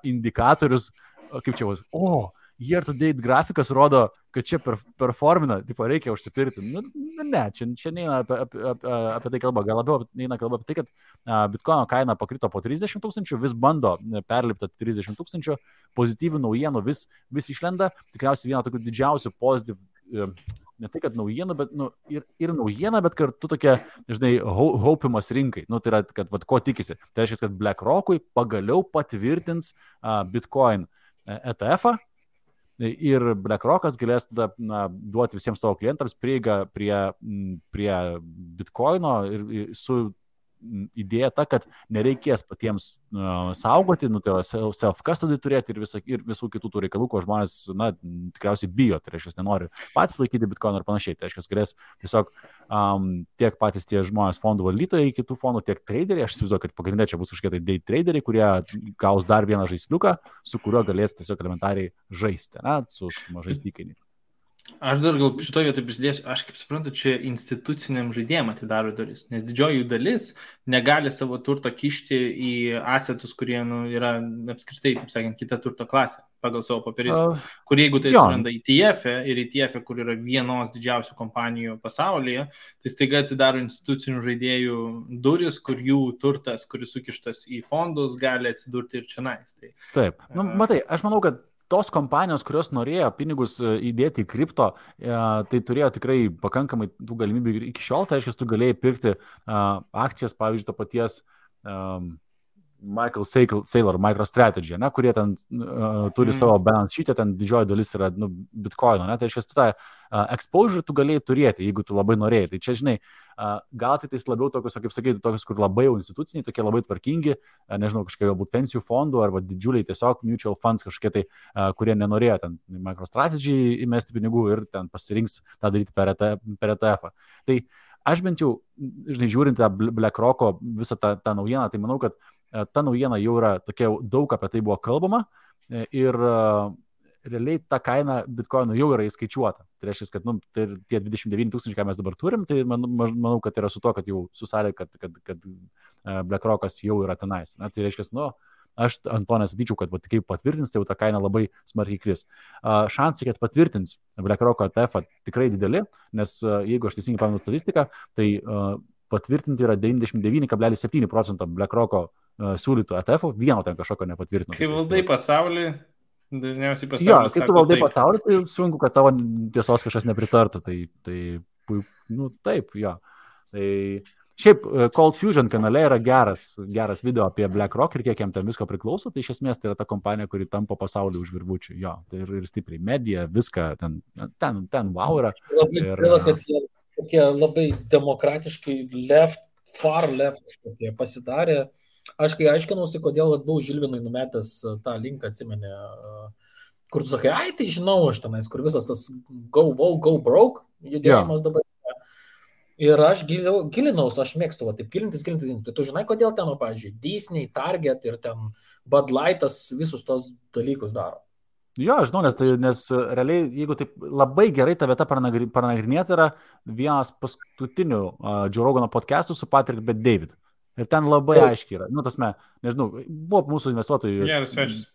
indikatorius, kaip čia bus, year to date grafikas rodo, kad čia performina, tipo reikia užsipirkti. Ne, čia neina apie tai kalba, gal labiau neina kalba apie tai, kad bitkoino kaina pakrito po 30 000, vis bando perlipti 30 000, pozityvių naujienų vis išlenda, tikriausiai viena tokių didžiausių pozityvų, ne tai, kad naujienų, bet ir naujiena, bet kartu tokia, žinai, haupimas rinkai. Tai yra, kad ko tikisi. Tai reiškia, kad BlackRock'ui pagaliau patvirtins Bitcoin ETF-ą, ir BlackRock'as galės duoti visiems savo klientams prieigą prie Bitcoino ir su idėja ta, kad nereikės patiems saugoti, tai self-custody turėti ir visų kitų tų reikalų, ko žmonės, tikriausiai bijo, tai reiškia, nenori patys laikyti Bitcoin ir panašiai. Tai reiškia, galės tiesiog tiek patys tie žmonės fondų valdytojai, kitų fondų, tiek traderiai, aš įsivaizduoju, kad pagrindė čia bus kažkokie tai day traderiai, kurie gaus dar vieną žaisliuką, su kuriuo galės tiesiog elementariai žaisti, su mažais įkainiais. Aš dar gal šitoje vietoje prisidėsiu, aš kaip suprantu, čia instituciniam žaidėjim atidaro duris, nes didžioji jų dalis negali savo turto kišti į asetus, kurie yra apskritai, taip sakant, kita turto klasė pagal savo papiristą. Kur jeigu tai atsiranda ETF ir ETF, kur yra vienos didžiausių kompanijų pasaulyje, tai staiga atsidaro institucinių žaidėjų duris, kur jų turtas, kuris sukištas į fondus, gali atsidurti ir čionais. Tai, taip, matai, aš manau, kad tos kompanijos, kurios norėjo pinigus įdėti į kripto, tai turėjo tikrai pakankamai tų galimybių iki šiol, tai reiškia, tu galėjai pirkti akcijas, pavyzdžiui, to paties Michael Saylor, MicroStrategy, ne, kurie ten turi savo balance sheet'e, ten didžioji dalis yra bitcoino, ne, tai reiškia, tu tą exposure tu galėjai turėti, jeigu tu labai norėjai. Tai čia, žinai, gal tai labiau tokius, kaip sakyti, tokius, kur labai jau instituciniai, tokie labai tvarkingi, nežinau, kažkokie galbūt pensijų fondų arba didžiuliai tiesiog mutual funds kažkokie tai, kurie nenorėjo ten MicroStrategy įmesti pinigų ir ten pasirinks tą daryti per ETF-ą. Tai aš bent jau, žinai, žiūrint tą BlackRock'o visą tą naujieną, tai manau, kad ta naujiena jau yra tokia, daug apie tai buvo kalbama ir realiai ta kaina bitcoinų jau yra įskaičiuota. Tai reiškia, kad tai tie 29 000, ką mes dabar turim, tai manau, kad yra su to, kad jau susarė, kad BlackRock'as jau yra tenais. Na, tai reiškia, aš ant to nesatyčiau, kad kaip patvirtins, tai jau ta kaina labai smarkiai kris. Šansai, kad patvirtins BlackRock'o ETF tikrai dideli, nes jeigu aš teisingai pamenu statistiką, tai patvirtinti yra 99,7% BlackRock'o siūlytų ETF-ų, vieno ten kažkokio nepatvirtino. Kai valdai pasaulį, dažniausiai pasaulis. Jo, kai tu valdai pasaulį, tai sunku, kad tavo tiesos kažkas nepritartų. Tai taip, jo. Tai šiaip Cold Fusion kanale yra geras video apie BlackRock ir kiek jam ten visko priklauso, tai iš esmės tai yra ta kompanija, kuri tampo pasaulį už virvučių. Jo, tai ir stipriai medija, viską ten wow yra. Labai gaila, kad jie labai demokratiškai far left pasidarė. Aš kai aiškinausi, kodėl buvau Žilvinui numetęs tą linką, atsimeni, kur tu sakai, tai žinau aš tenais, kur visas tas go broke judėjimas dabar. Ir aš gilinaus, aš mėgstu, taip gilintis. Tai tu žinai, kodėl ten, pavyzdžiui, Disney, Target ir ten Bud Lightas visus tos dalykus daro. Jo, žinau, nes realiai, jeigu taip labai gerai ta vieta panagrinėti, yra vienas paskutinių Joe Rogano podcastų su Patrick Bet-David. Ir ten labai aiškiai yra. Nežinau, buvo mūsų investuotojų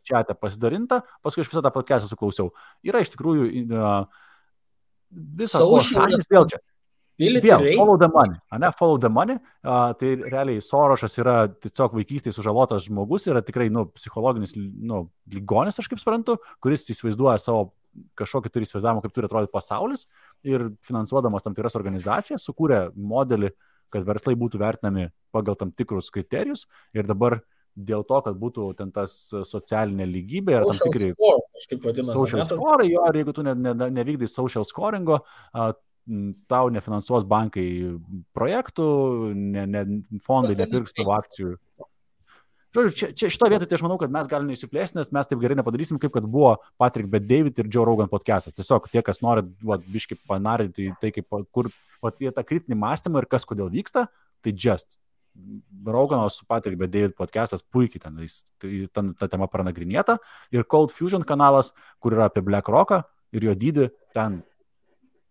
čiate pasidarinta, paskui aš visą tą podcastą suklausiau. Yra iš tikrųjų visą šalis vėl čia. Follow the money. Follow the money. Tai realiai Sorošas yra tiesiog vaikystėje sužalotas žmogus, yra tikrai psichologinis ligonis, aš kaip suprantu, kuris įsivaizduoja savo kažkokį turi įsivaizdavimą, kaip turi atrodyti pasaulis ir finansuodamas tam tikras organizacijas sukūrė modelį, kad verslai būtų vertinami pagal tam tikrus kriterijus ir dabar dėl to, kad būtų ten tas socialinė lygybė ir tam tikri social score, jo, ir jeigu tu nevykdai social scoringo, tau nefinansuos bankai projektų, fondai nepirks tavo akcijų. Žodžiu, šito vietoje tai aš manau, kad mes galime įsiplėsti, nes mes taip gerai nepadarysim, kaip kad buvo Patrick Bet-David ir Joe Rogan podcastas. Tiesiog tie, kas nori biškai panarinti tai, kur tą kritinį mąstymą ir kas kodėl vyksta, tai just. Rogano su Patrick Bet-David podcastas puikiai ten ta tema pranagrinėta ir Cold Fusion kanalas, kur yra apie BlackRock'ą ir jo dydį, ten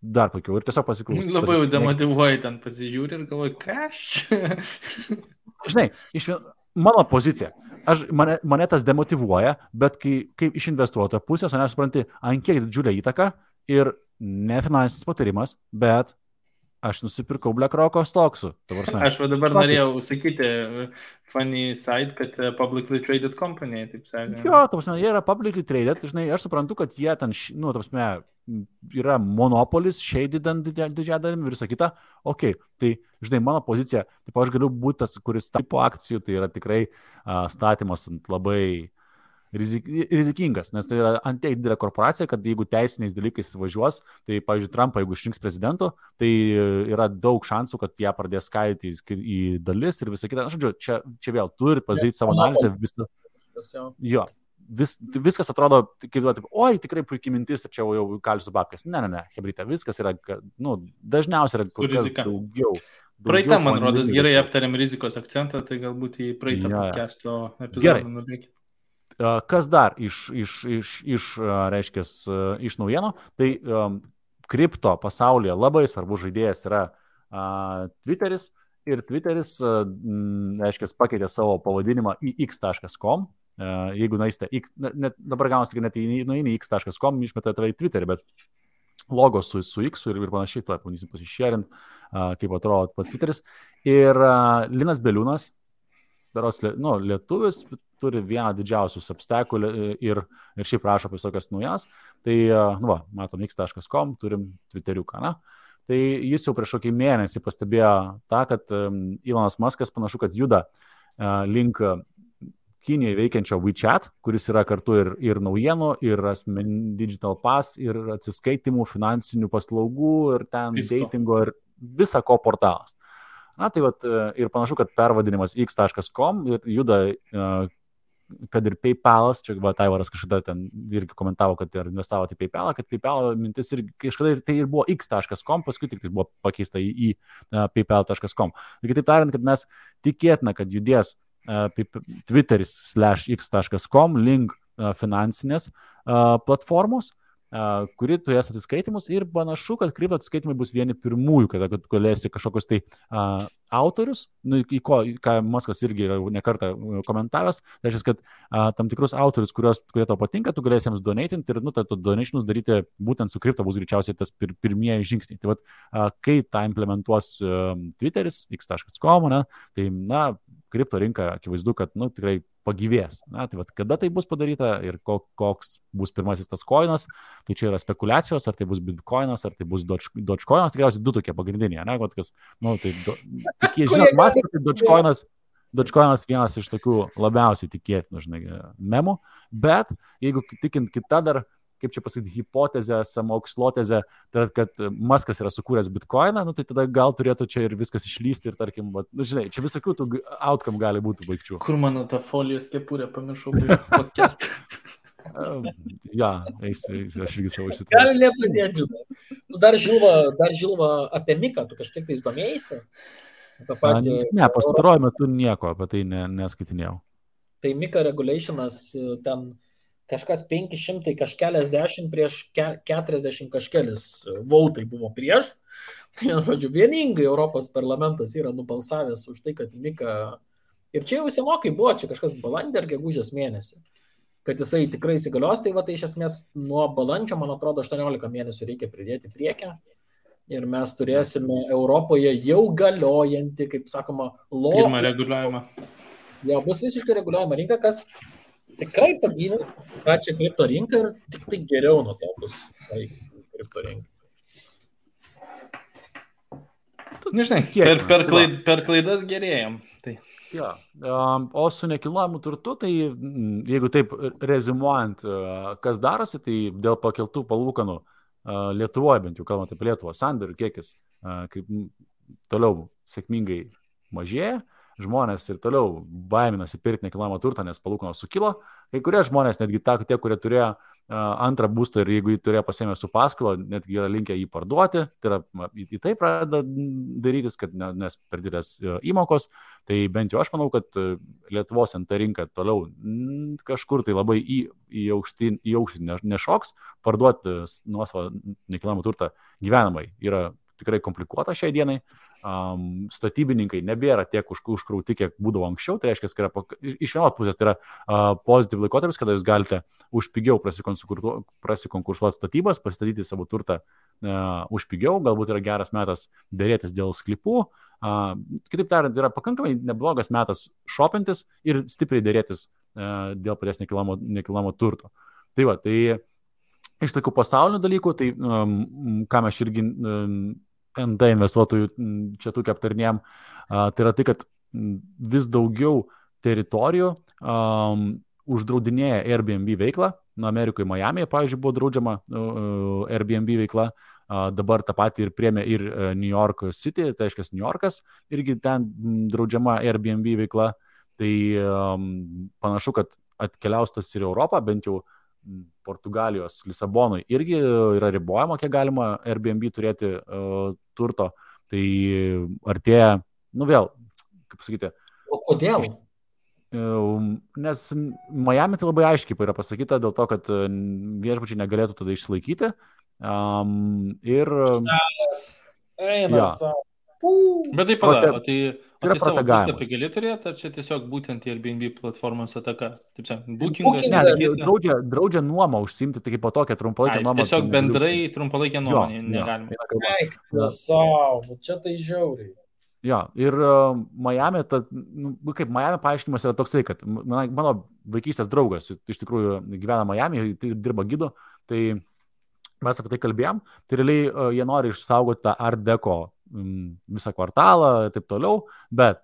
dar puikiau ir tiesiog pasiklausyti. Labai jau demotivuoji ten pasižiūri ir galvoji, ką Žinai, mano pozicija. Mane tas demotivuoja, bet kai iš investuotojo pusės, aš suprantu, ant kiek didžiulę įtaką ir ne finansinis patarimas, bet aš nusipirkau BlackRock'o stoksų. Aš dabar norėjau sakyti funny side, kad publicly traded company, taip sakant. Jo, jie yra publicly traded, žinai, aš suprantu, kad jie ten, yra monopolis, shady didžiąją dalimi ir visa kita. Ok, tai, žinai, mano pozicija, taip aš galiu būti tas, kuris tipo akcijų, tai yra tikrai statymas labai rizikingas, nes tai yra antiek didelė korporacija, kad jeigu teisiniais dalykais važiuos, tai, pavyzdžiui, Trumpą, jeigu išrinks prezidentu, tai yra daug šansų, kad ją pradės skaidyti į dalis ir visą kitą. Žodžiu, čia vėl turi pasidaryti savo analizę. Jo, viskas atrodo, kaip oi, tikrai puikiai mintis, ir čia jau kalsiu babkės. Ne, hebrytė, viskas yra, dažniausiai yra kur kas daugiau. Praeitą, man rodos, gerai aptarėm rizikos akcentą, tai galbūt į praeitą podcast'o epizodą nubėgti. Kas dar iš naujienų, tai kripto pasaulyje labai svarbus žaidėjas yra Twitteris ir Twitteris, aiškiai, pakeitė savo pavadinimą į x.com. Jeigu naiste, dabar gaunasi, kad net nueini x.com, išmeta tave į Twitterį, bet logo su X ir panašiai, to pabandysim pasišėrint, kaip atrodo pats Twitteris. Ir Linas Beliūnas, lietuvis, turi vieną didžiausių substackų ir šiaip rašo apie visokias naujas. Tai, matom, x.com, turim Twitteriuką, na. Tai jis jau prieš kokį mėnesį pastebėjo tą, kad Elonas Muskas panašu, kad juda link Kinijoje veikiančio WeChat, kuris yra kartu ir naujienų, ir digital pass, ir atsiskaitimų, finansinių paslaugų, ir ten datingo, ir visa ko portalas. Na, tai ir panašu, kad pervadinimas x.com ir juda, kad ir PayPalas, čia Taivaras kažkada ten irgi komentavo, kad ir investavo į PayPalą, kad PayPal mintis ir kažkada tai ir buvo x.com, paskui tik tai buvo pakeista į paypal.com. Ir kitaip tariant, kad mes tikėtina, kad judės Twitteris/x.com link finansinės platformos, kuri turės atsiskaitimus ir panašu, kad kripto atsiskaitimai bus vieni pirmųjų, kad galėsi kažkokius tai autorius, ką Muskas irgi yra nekartą komentavęs, tai reiškia, kad tam tikrus autorius, kurie tau patinka, tu galėsi jiems donatinti ir tu donationus daryti būtent su kripto bus greičiausiai tas pirmieji žingsniai. Tai kai tą implementuos Twitteris, x.com, tai kripto rinka akivaizdu, kad tikrai pagyvės. Na, tai kada tai bus padaryta ir koks bus pirmasis tas koinas, tai čia yra spekulacijos, ar tai bus bitcoinas, ar tai bus dogecoinas, tikriausiai du tokie pagrindiniai, ne, kas, tai žinot, Muskas, tai dogecoinas vienas iš tokių labiausiai tikėtinų, memų, bet jeigu tikint kitą dar, kaip čia pasakyti, hipotezę, samokslotezę, tai kad Muskas yra sukūręs bitcoiną, tai tada gal turėtų čia ir viskas išlysti ir tarkim, žinai, čia visokių tų outcome gali būti baigčių. Kur mano ta folijos kepurė, pamiršau podcast. Eisiu, aš irgi savo išsitrauksiu. Gali nepadėti, žinai. Dar žilva apie Miką, tu kažkiek tai domėjaisi? Ne, pastaruoju metu nieko apie tai neskaitinėjau. Tai Mika regulationas ten kažkas 500 kažkeliasdešimt prieš 40 kažkelis vautai buvo prieš. Tai, žodžiu, vieningai Europos parlamentas yra nubalsavęs už tai, kad Mika, ir čia jau senokai buvo, čia kažkas balandį ar gegužės mėnesį, kad jisai tikrai įsigalios, tai tai iš esmės nuo balandžio, man atrodo, 18 mėnesių reikia pridėti priekę. Ir mes turėsime Europoje jau galiojantį, kaip sakoma, pirmą reguliavimą. Jo, bus visiškai reguliuojama rinka, kas tikrai pagynės pačią kripto rinką ir tik tai geriau nuo to bus kripto rinka. Nežinai, per klaidas gerėjom. Tai. Ja. O su nekilnojamu turtu, tai jeigu taip rezimuojant, kas darosi, tai dėl pakeltų palūkanų Lietuvoje, bent jau kalbant apie Lietuvą, sandorių kiekis kaip toliau sėkmingai mažėja. Žmonės ir toliau baiminasi pirkti nekilnojamą turtą, nes palūkanos sukilo. Kai kurie žmonės, netgi tie, kurie turėjo antrą būstą ir jeigu jį turėjo pasiėmę su paskola, netgi yra linkę jį parduoti, tai yra į tai pradeda darytis, kad nes per didelės įmokos. Tai bent jau aš manau, kad Lietuvos NT rinka toliau kažkur tai labai į aukštį nešoks, parduoti nuosavą nekilnojamą turtą gyvenamai yra tikrai komplikuota šiai dienai. Statybininkai nebėra tiek užkrauti, kiek būdavo anksčiau. Tai reiškia, kad iš vienos pusės tai yra pozityv laikotarpis, kada jūs galite už pigiau prasikonkursuoti statybas, pasistatyti savo turtą už pigiau, galbūt yra geras metas dėrėtis dėl sklypų. Kitaip tariant, yra pakankamai neblogas metas šopintis ir stipriai dėrėtis dėl paties nekilnojamo turto. Tai iš tokių pasaulinių dalykų, tai ką mes irgi NT investuotojų čia tokia aptarnėjom, tai yra tai, kad vis daugiau teritorijų uždraudinėja Airbnb veiklą. Amerikoje, Miami'e, pavyzdžiui, buvo draudžiama Airbnb veikla, dabar tą patį ir priėmė ir New York City, tai reiškia New Yorkas, irgi ten draudžiama Airbnb veikla. Tai panašu, kad atkeliaus tas ir Europą, bent jau Portugalijos, Lisabonui irgi yra ribojama, kiek galima Airbnb turėti turto. Tai artėja, vėl, kaip sakyti. O kodėl? Nes Miami tai labai aiškiai yra pasakyta dėl to, kad viešbučiai negalėtų tada išsilaikyti Ir Eina jo. savo. Bet tai Prote- pala, o tai yra savo protegavimas. puslapį gali turėti, ar čia tiesiog būtent Airbnb platformos ataka? Taip sakant, Bookingas. Ne, bookingas. draudžia nuomą užsimti, tai kaip po tokią trumpalaikę nuomą. Tiesiog tu negali bendrai užsiimti. trumpalaikė Jo, nuomonė jo, negalima. eina kalba. Eik, savo, čia tai žiauriai. Jo, ir Miami, kaip Miami paaiškinimas yra toksai, kad mano vaikystės draugas iš tikrųjų gyvena Miami, tai dirba gidu, tai mes apie tai kalbėjom, tai realiai jie nori išsaugoti tą Art Deco visą kvartalą ir taip toliau, bet,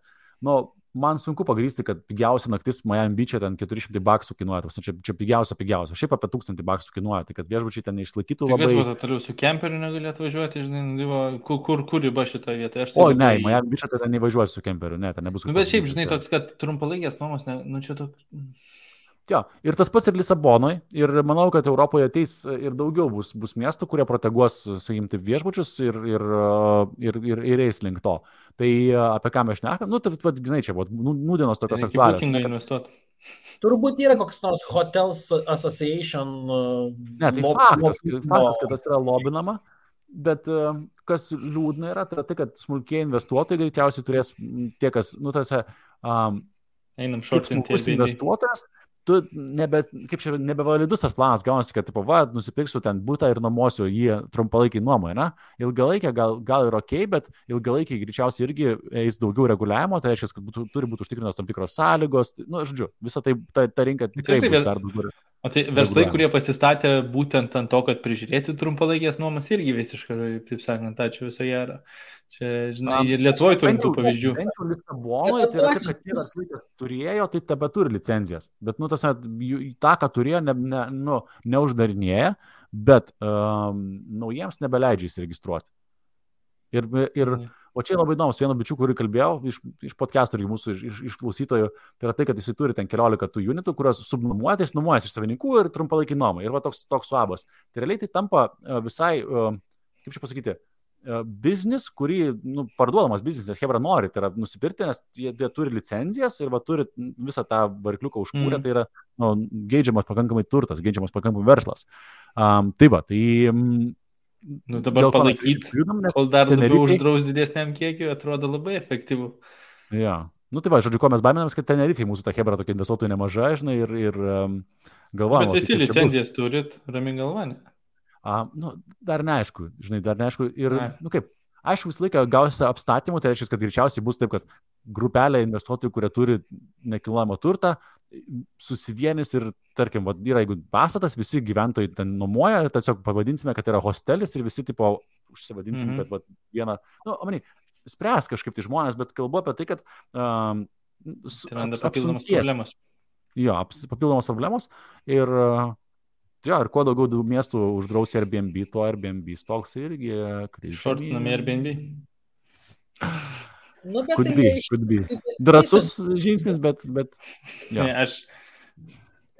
man sunku pagrįsti, kad pigiausia naktis Miami Beach'e ten $400 kainuoja, čia pigiausia. Šiaip apie $1000 kainuoja, tai kad viešbučiai ten neišlaikytų Tai labai. kas buvo toliau su kemperiu negalėtų važiuoti, žinai, kur riba šitoje vietoje? O, ne, Miami Beach'e ten nevažiuosi su kemperiu, ne, ten nebus. Bet šiaip, žinai, toks, kad trumpalaikės nuomos, čia toks. Jo, ir tas pats ir Lisabonoje, ir manau, kad Europoje ateis ir daugiau bus miestų, kurie proteguos, sakykim, taip viešbučius ir eis link to. Tai apie ką mes šnekam, tai žinai, čia buvo nūdienos tokios aktualios. Turbūt yra koks nors Hotels Association. Ne, tai faktas, kad tas yra lobinama, bet kas liūdna yra, tai kad smulkiai investuotojai greičiausiai turės tie, kas, einam šortinti investuotojas. Tu nebevalidus tas planas gaunasi, kad nusipirksiu ten butą ir nuomosiu jį trumpalaikiai nuomoje, ne? Ilgalaikiai gal ir ok, bet ilgalaikiai greičiausiai irgi eis daugiau reguliavimo, tai reiškia, kad turi būti užtikrinos tam tikros sąlygos, žodžiu, visą tai ta rinka tikrai bus dar daugiau. O tai verslai, kurie pasistatė būtent ant to, kad prižiūrėti trumpalaikės nuomas, irgi visiškai, taip sakant, ačiū viso gero. Čia, žinai, ir Lietuvoje turim tų pavyzdžių. Bent jau Lisabonoje, tai yra, kad tie verslai, kas turėjo, tai tebe turi licenzijas. Bet, tą, ką turėjo, neuždarinėja, bet naujiems nebeleidžia įsiregistruoti. O čia labai įdomus, vieno bičių, kurį kalbėjau, iš podcastų ir mūsų iš klausytojų, tai yra tai, kad jisai turi ten 14 tų unitų, kurios subnuomuotis iš savininkų ir trumpalaikį nuomą. Ir toks suabas. Tai realiai tai tampa visai, kaip čia pasakyti, biznis, kurį parduodamas biznis, nes Hebra nori, tai yra nusipirkti, nes jie turi licenzijas ir turi visą tą varikliuką užkūrę, tai yra geidžiamas pakankamai turtas, geidžiamas pakankamai verslas. Dabar palaikyti, kol dar labiau uždraus didesniam kiekiu, atrodo labai efektyvu. Ja. Tai žodžiu, ko mes baiminamės, kad Tenerifei mūsų ta Hebra tokia investuotojų nemaža, žinai, ir galvojame. Bet visi licenzijas turit, rami galva, ne? Dar neaišku, žinai, ir, aišku, visą laiką gausi apstatymų, tai reiškia, kad greičiausiai bus taip, kad grupelė investuotojų, kurie turi nekilnojamą turtą, susivienys ir, tarkim, yra, jeigu pastatas, visi gyventojai ten nuomoja, tiesiog pavadinsime, kad yra hostelis ir visi, tipo, užsivadinsime, kad vieną, spręs kažkaip tai žmonės, bet kalbu apie tai, kad papildomos problemos. Jo, papildomos problemos ir kuo daugiau miestų uždraus Airbnb, to Airbnb stoks irgi križinami. Šortinami Airbnb. Could be. Drąsus žingsnis, bet ja.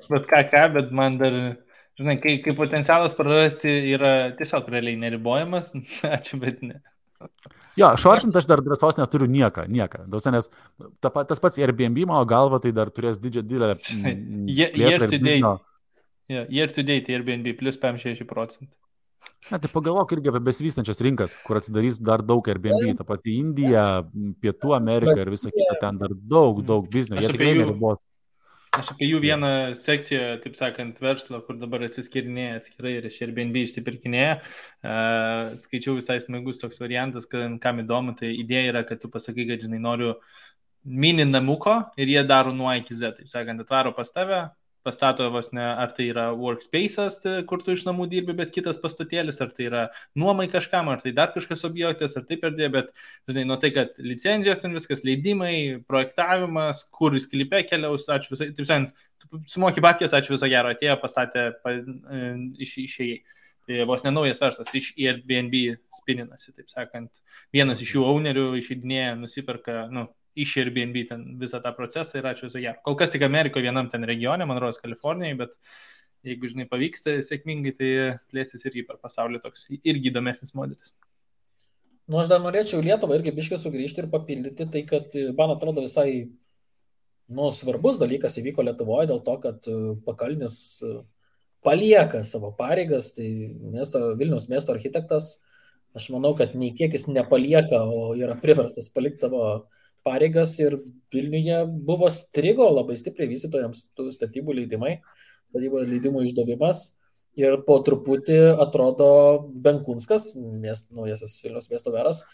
Bet man dar, žinai, kai potencialas prarasti yra tiesiog realiai neribojamas, ačiū, bet ne. Jo, šortint aš dar drąsos neturiu nieką. Nes tas pats Airbnb, mano galva, tai dar turės didelę year to date Airbnb plus 56%. Ne, tai pagalvok irgi apie besivystančias rinkas, kur atsidarys dar daug Airbnb, ta pati Indija, Pietų Amerika ir visa kita, ten dar daug biznio. Jie tikrai neribos. Aš apie jų vieną sekciją, taip sakant, verslo, kur dabar atsiskirinėja atskirai ir iš Airbnb išsipirkinėja. Skaičiau visai smagus toks variantas, kam įdomu, tai idėja yra, kad tu pasakai, kad, žinai, noriu mini namuko ir jie daro nuo A iki Z, taip sakant, atvaro pas tave, pastato vos ne, ar tai yra workspace'as, kur tu iš namų dirbi, bet kitas pastatėlis, ar tai yra nuomai kažkam, ar tai dar kažkas objektas, ar taip erdvė, bet, žinai, nuo tai, kad licenzijos ten viskas, leidimai, projektavimas, kur sklype keliaus, ačiū visai, taip sakant, sumoki babkės, ačiū viso gero, atėjo, pastatė, išėjai. Tai vos nenaujas verslas, iš Airbnb spininasi, taip sakant, vienas iš jų ownerių išeidinėja, nusiperka, iš Airbnb ten visą tą procesą ir ačiū viso gero. Kol kas tik Amerikoje vienam ten regione, man rodos Kalifornijai, bet jeigu, žinai, pavyksta sėkmingai, tai plėsis irgi per pasaulį toks irgi įdomesnis modelis. Aš dar norėčiau Lietuvą irgi biškai sugrįžti ir papildyti tai, kad, man atrodo, visai svarbus dalykas įvyko Lietuvoje dėl to, kad Pakalnis palieka savo pareigas, tai Vilniaus miesto architektas, aš manau, kad nei kiek jis nepalieka, o yra priverstas palikti savo pareigas ir Vilniuje buvo strigo labai stipriai vystytojams tų statybų leidimų išdavimas ir po truputį atrodo Benkunskas, naujasis Vilniaus miesto meras,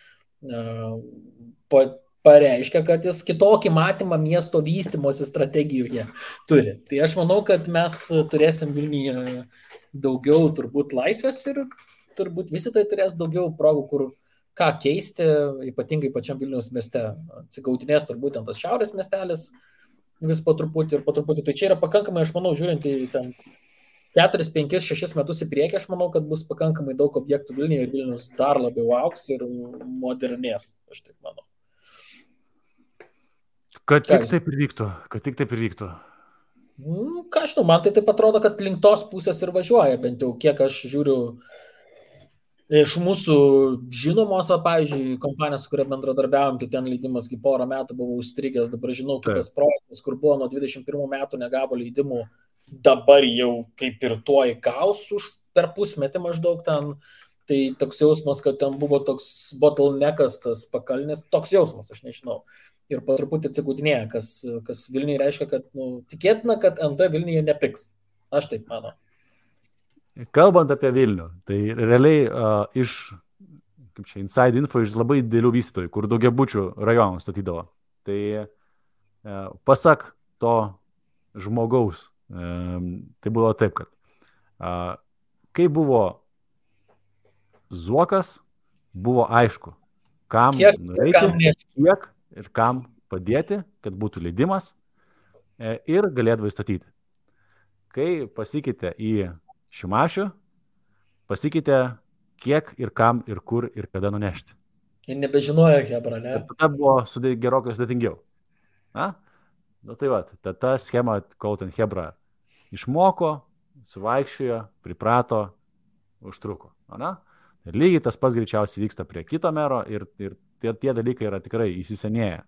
pareiškia, kad jis kitokį matymą miesto vystymosi strategijoje turi. Tai aš manau, kad mes turėsim Vilniuje daugiau turbūt laisvės ir turbūt vystytojai turės daugiau progų, kur ką keisti, ypatingai pačiam Vilniaus mieste. Atsigautinės turbūt tas šiaurės miestelis vis po truputį. Tai čia yra pakankamai, aš manau, žiūrint į ten 4, 5, 6 metus į priekį, aš manau, kad bus pakankamai daug objektų Vilniuje ir Vilnius dar labiau augs ir modernės, aš taip manau. Kad tik taip ir vyktų. Ką aš žinau, man tai taip atrodo, kad link tos pusės ir važiuoja, bent jau kiek aš žiūriu iš mūsų žinomos, pavyzdžiui, kompanijos, su kuria bendradarbiavom, tai ten leidimas kai porą metų buvo užstrigęs, dabar žinau kitas projektas, kur buvo nuo 21 metų negavo leidimų, dabar jau kaip ir tuoj gaus per pusmetį maždaug ten, tai toks jausmas, kad ten buvo toks bottleneckas, tas pakalnis, toks jausmas, aš nežinau. Ir po truputį atsigautinėja, kas Vilniuje reiškia, kad tikėtina, kad NT Vilniuje nepiks. Aš taip manau. Kalbant apie Vilnių, tai realiai iš inside info iš labai didelių vystytojų, kur daugiabučių rajonų statydavo. Tai pasak to žmogaus, tai buvo taip, kad kai buvo Zuokas, buvo aišku, kam nueiti, kiek ir kam padėti, kad būtų leidimas ir galėdavai statyti. Kai pasikeitė į Šimašių, pasikeitė kiek ir kam ir kur ir kada nunešti. Ir nebežinojo Hebra, ne? Ir tada buvo gerokai sudėtingiau. Tai va, ta schema, kol ten Hebra išmoko, suvaikščiojo, priprato, užtruko. Ir lygiai tas pats greičiausiai vyksta prie kito mero ir tie dalykai yra tikrai įsisenėję.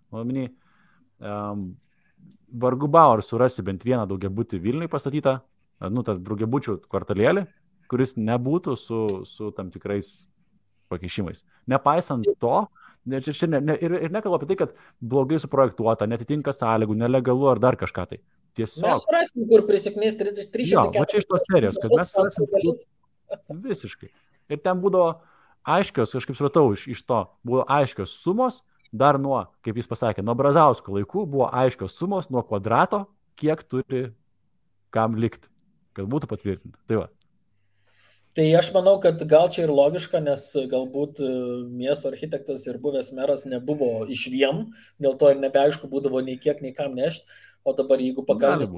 Vargu bau ar surasi bent vieną daugiabutį Vilniui pastatytą, tas daugiabučių kvartalėlį, kuris nebūtų su tam tikrais pakeišimais. Nepaisant to, ir nekalbu apie tai, kad blogai suprojektuota, netitinka sąlygų, nelegalu ar dar kažką tai. Tiesiog. Mes surasim, kur prisiknės 300. Jo, va čia iš tos serijos, kad mes surasim visiškai. Ir ten būdavo aiškios, aš kaip supratau, iš to buvo aiškios sumos, dar nuo, kaip jis pasakė, nuo Brazausko laikų buvo aiškios sumos nuo kvadrato, kiek turi kam likti, kad būtų patvirtinta. Tai va. Tai aš manau, kad gal čia ir logiška, nes galbūt miesto architektas ir buvęs meras nebuvo iš vien, dėl to ir nebeaišku būdavo nei kiek, nei kam nešti. O dabar, jeigu pakalbės,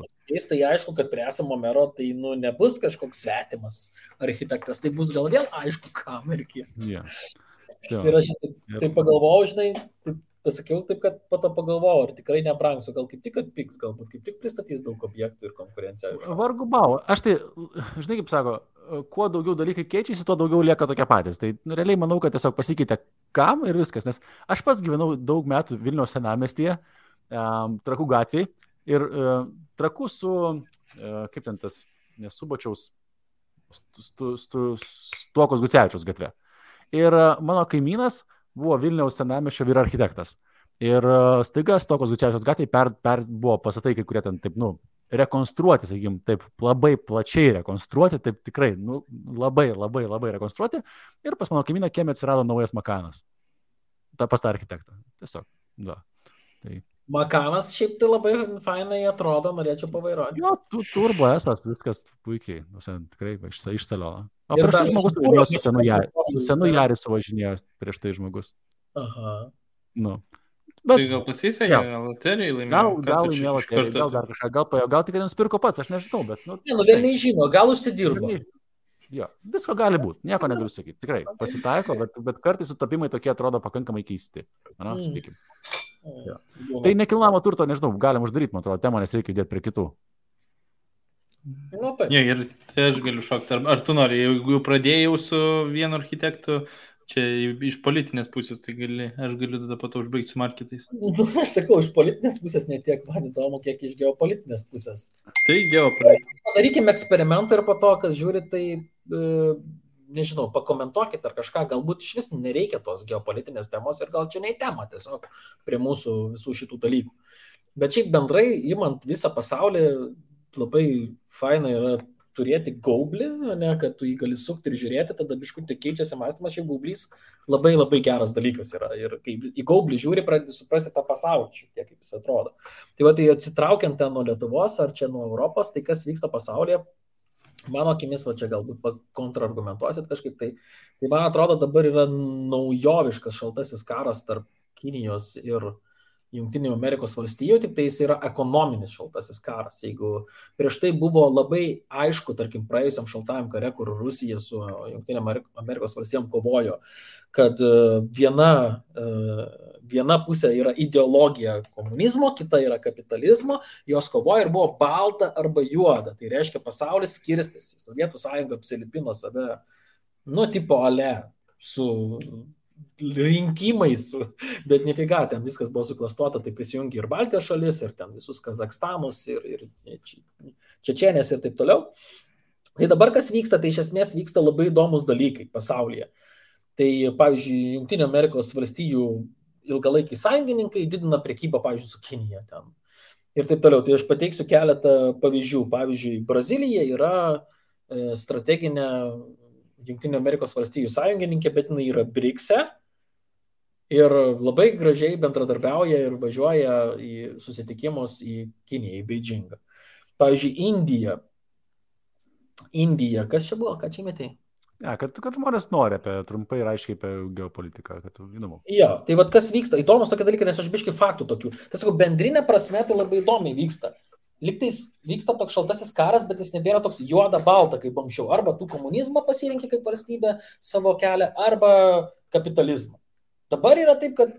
tai aišku, kad prie esamo mero tai nebus kažkoks svetimas architektas, tai bus gal vėl aišku, kam ir kiek. Ir aš taip pagalvojau, žinai, pasakiau taip, kad po to pagalvojau, ar tikrai nebrangsiu, gal kaip tik atpiks, galbūt kaip tik pristatys daug objektų ir konkurenciją. Vargu bau, aš tai, žinai, kaip sako, kuo daugiau dalykai keičiasi, tuo daugiau lieka tokie patys. Tai realiai manau, kad tiesiog pasikeitė kam ir viskas, nes aš pats gyvenau daug metų Vilniaus senamiestyje, Trakų gatvėje. Ir Trakų su, kaip ten tas, nesubačiaus, Stuokos Gucevičiaus gatve. Ir mano kaimynas buvo Vilniaus senamiesčio vyr architektas. Ir staiga Stuokos Gucevičiaus gatvėje buvo pastatai, kai kurie ten taip, rekonstruoti, sakykim, taip labai plačiai rekonstruoti, taip tikrai, labai rekonstruoti. Ir pas mano kaimyną kieme atsirado naujas Makanas. Pas tą architektą. Tiesiog, da. Tai... Makanas šiaip tai labai fainai atrodo, norėčiau pavairuoti. Jo, turbo esas, viskas puikiai, tikrai išsalio. O prieš tai žmogus važinėjo su senu Jaris suvažinėjo prieš tai žmogus. Aha. Bet, tai gal pasisekė, gal loterijai laimėjo? Gal laimėjo loterijai, gal dar kažką, gal tik nusipirko pats, aš nežinau, bet... Vėl nežino, gal užsidirbo. Jo, visko gali būti, nieko negaliu sakyti, tikrai pasitaiko, bet kartais sutapimai tokie atrodo pakankamai keisti. Sutikim. Ja. Tai nekilnojamo turto, nežinau, galim uždaryti, man atrodo, temą, nes reikia judėti prie kitų. Ir tai aš galiu šokti. Ar tu nori, jeigu pradėjau su vienu architektu Čia iš politinės pusės, tai aš galiu tada po to užbaigti su marketais. Aš sakau, iš politinės pusės netiek man įdomu, kiek iš geopolitinės pusės. Tai geopolitinė. Padarykime eksperimentą ir po to, kas žiūri, tai, nežinau, pakomentuokit ar kažką, galbūt iš vis nereikia tos geopolitinės temos ir gal čia ne į temą tiesiog prie mūsų visų šitų dalykų. Bet šiaip bendrai, imant visą pasaulį, labai faina yra turėti gaublį, ne, kad tu jį gali sukti ir žiūrėti, tada biškutį keičiasi mąstymas, šiaip gaublys labai labai geras dalykas yra. Ir kai į gaublį žiūri, pradedi suprasti tą pasaulį šiek tiek, kaip jis atrodo. Tai va, tai atsitraukiant ten nuo Lietuvos ar čia nuo Europos, tai kas vyksta pasaulyje, mano akimis, va čia galbūt kontrargumentuosit kažkaip, tai man atrodo dabar yra naujoviškas šaltasis karas tarp Kinijos ir Jungtinių Amerikos valstijų, tik tai jis yra ekonominis šaltasis karas. Jeigu prieš tai buvo labai aišku, tarkim, praėjusiam šaltajam kare, kur Rusija su Jungtinėm Amerikos valstijom kovojo, kad viena pusė yra ideologija komunizmo, kita yra kapitalizmo, jos kovoja ir buvo balta arba juoda. Tai reiškia, pasaulis skirstėsi. Sovietų sąjunga apsilipino save, tipo ale, su rinkimais, bet nefiga, ten viskas buvo suklastuota, tai prisijungi ir Baltijos šalis, ir ten visus Kazakstanus, ir Čečenės ir taip toliau. Tai dabar kas vyksta, tai iš esmės vyksta labai įdomus dalykai pasaulyje. Tai, pavyzdžiui, Jungtinių Amerikos valstijų ilgalaikiai sąjungininkai didina prekybą, pavyzdžiui, su Kinija ten. Ir taip toliau. Tai aš pateiksiu keletą pavyzdžių. Pavyzdžiui, Brazilija yra strateginė Jungtinių Amerikos valstijų sąjungininkė, bet jinai yra BRICS-e ir labai gražiai bendradarbiauja ir važiuoja į susitikimus į Kiniją, į Beidžingą. Pavyzdžiui, Indija, kas čia buvo, ką čia metei? Ja, kad žmonės nori trumpai ir aiškiai apie geopolitiką, kad įdomu. Jo, tai vad kas vyksta, įdomus tokie dalykai, nes aš biškai faktų tokių. Tai sakau, bendrinė prasme tai labai įdomiai vyksta. Liktais vyksta toks šaltasis karas, bet jis nebėra toks juoda-balta kaip anksčiau. Arba tu komunizmą pasirinkė kaip valstybė savo kelią, arba kapitalizmą. Dabar yra taip, kad,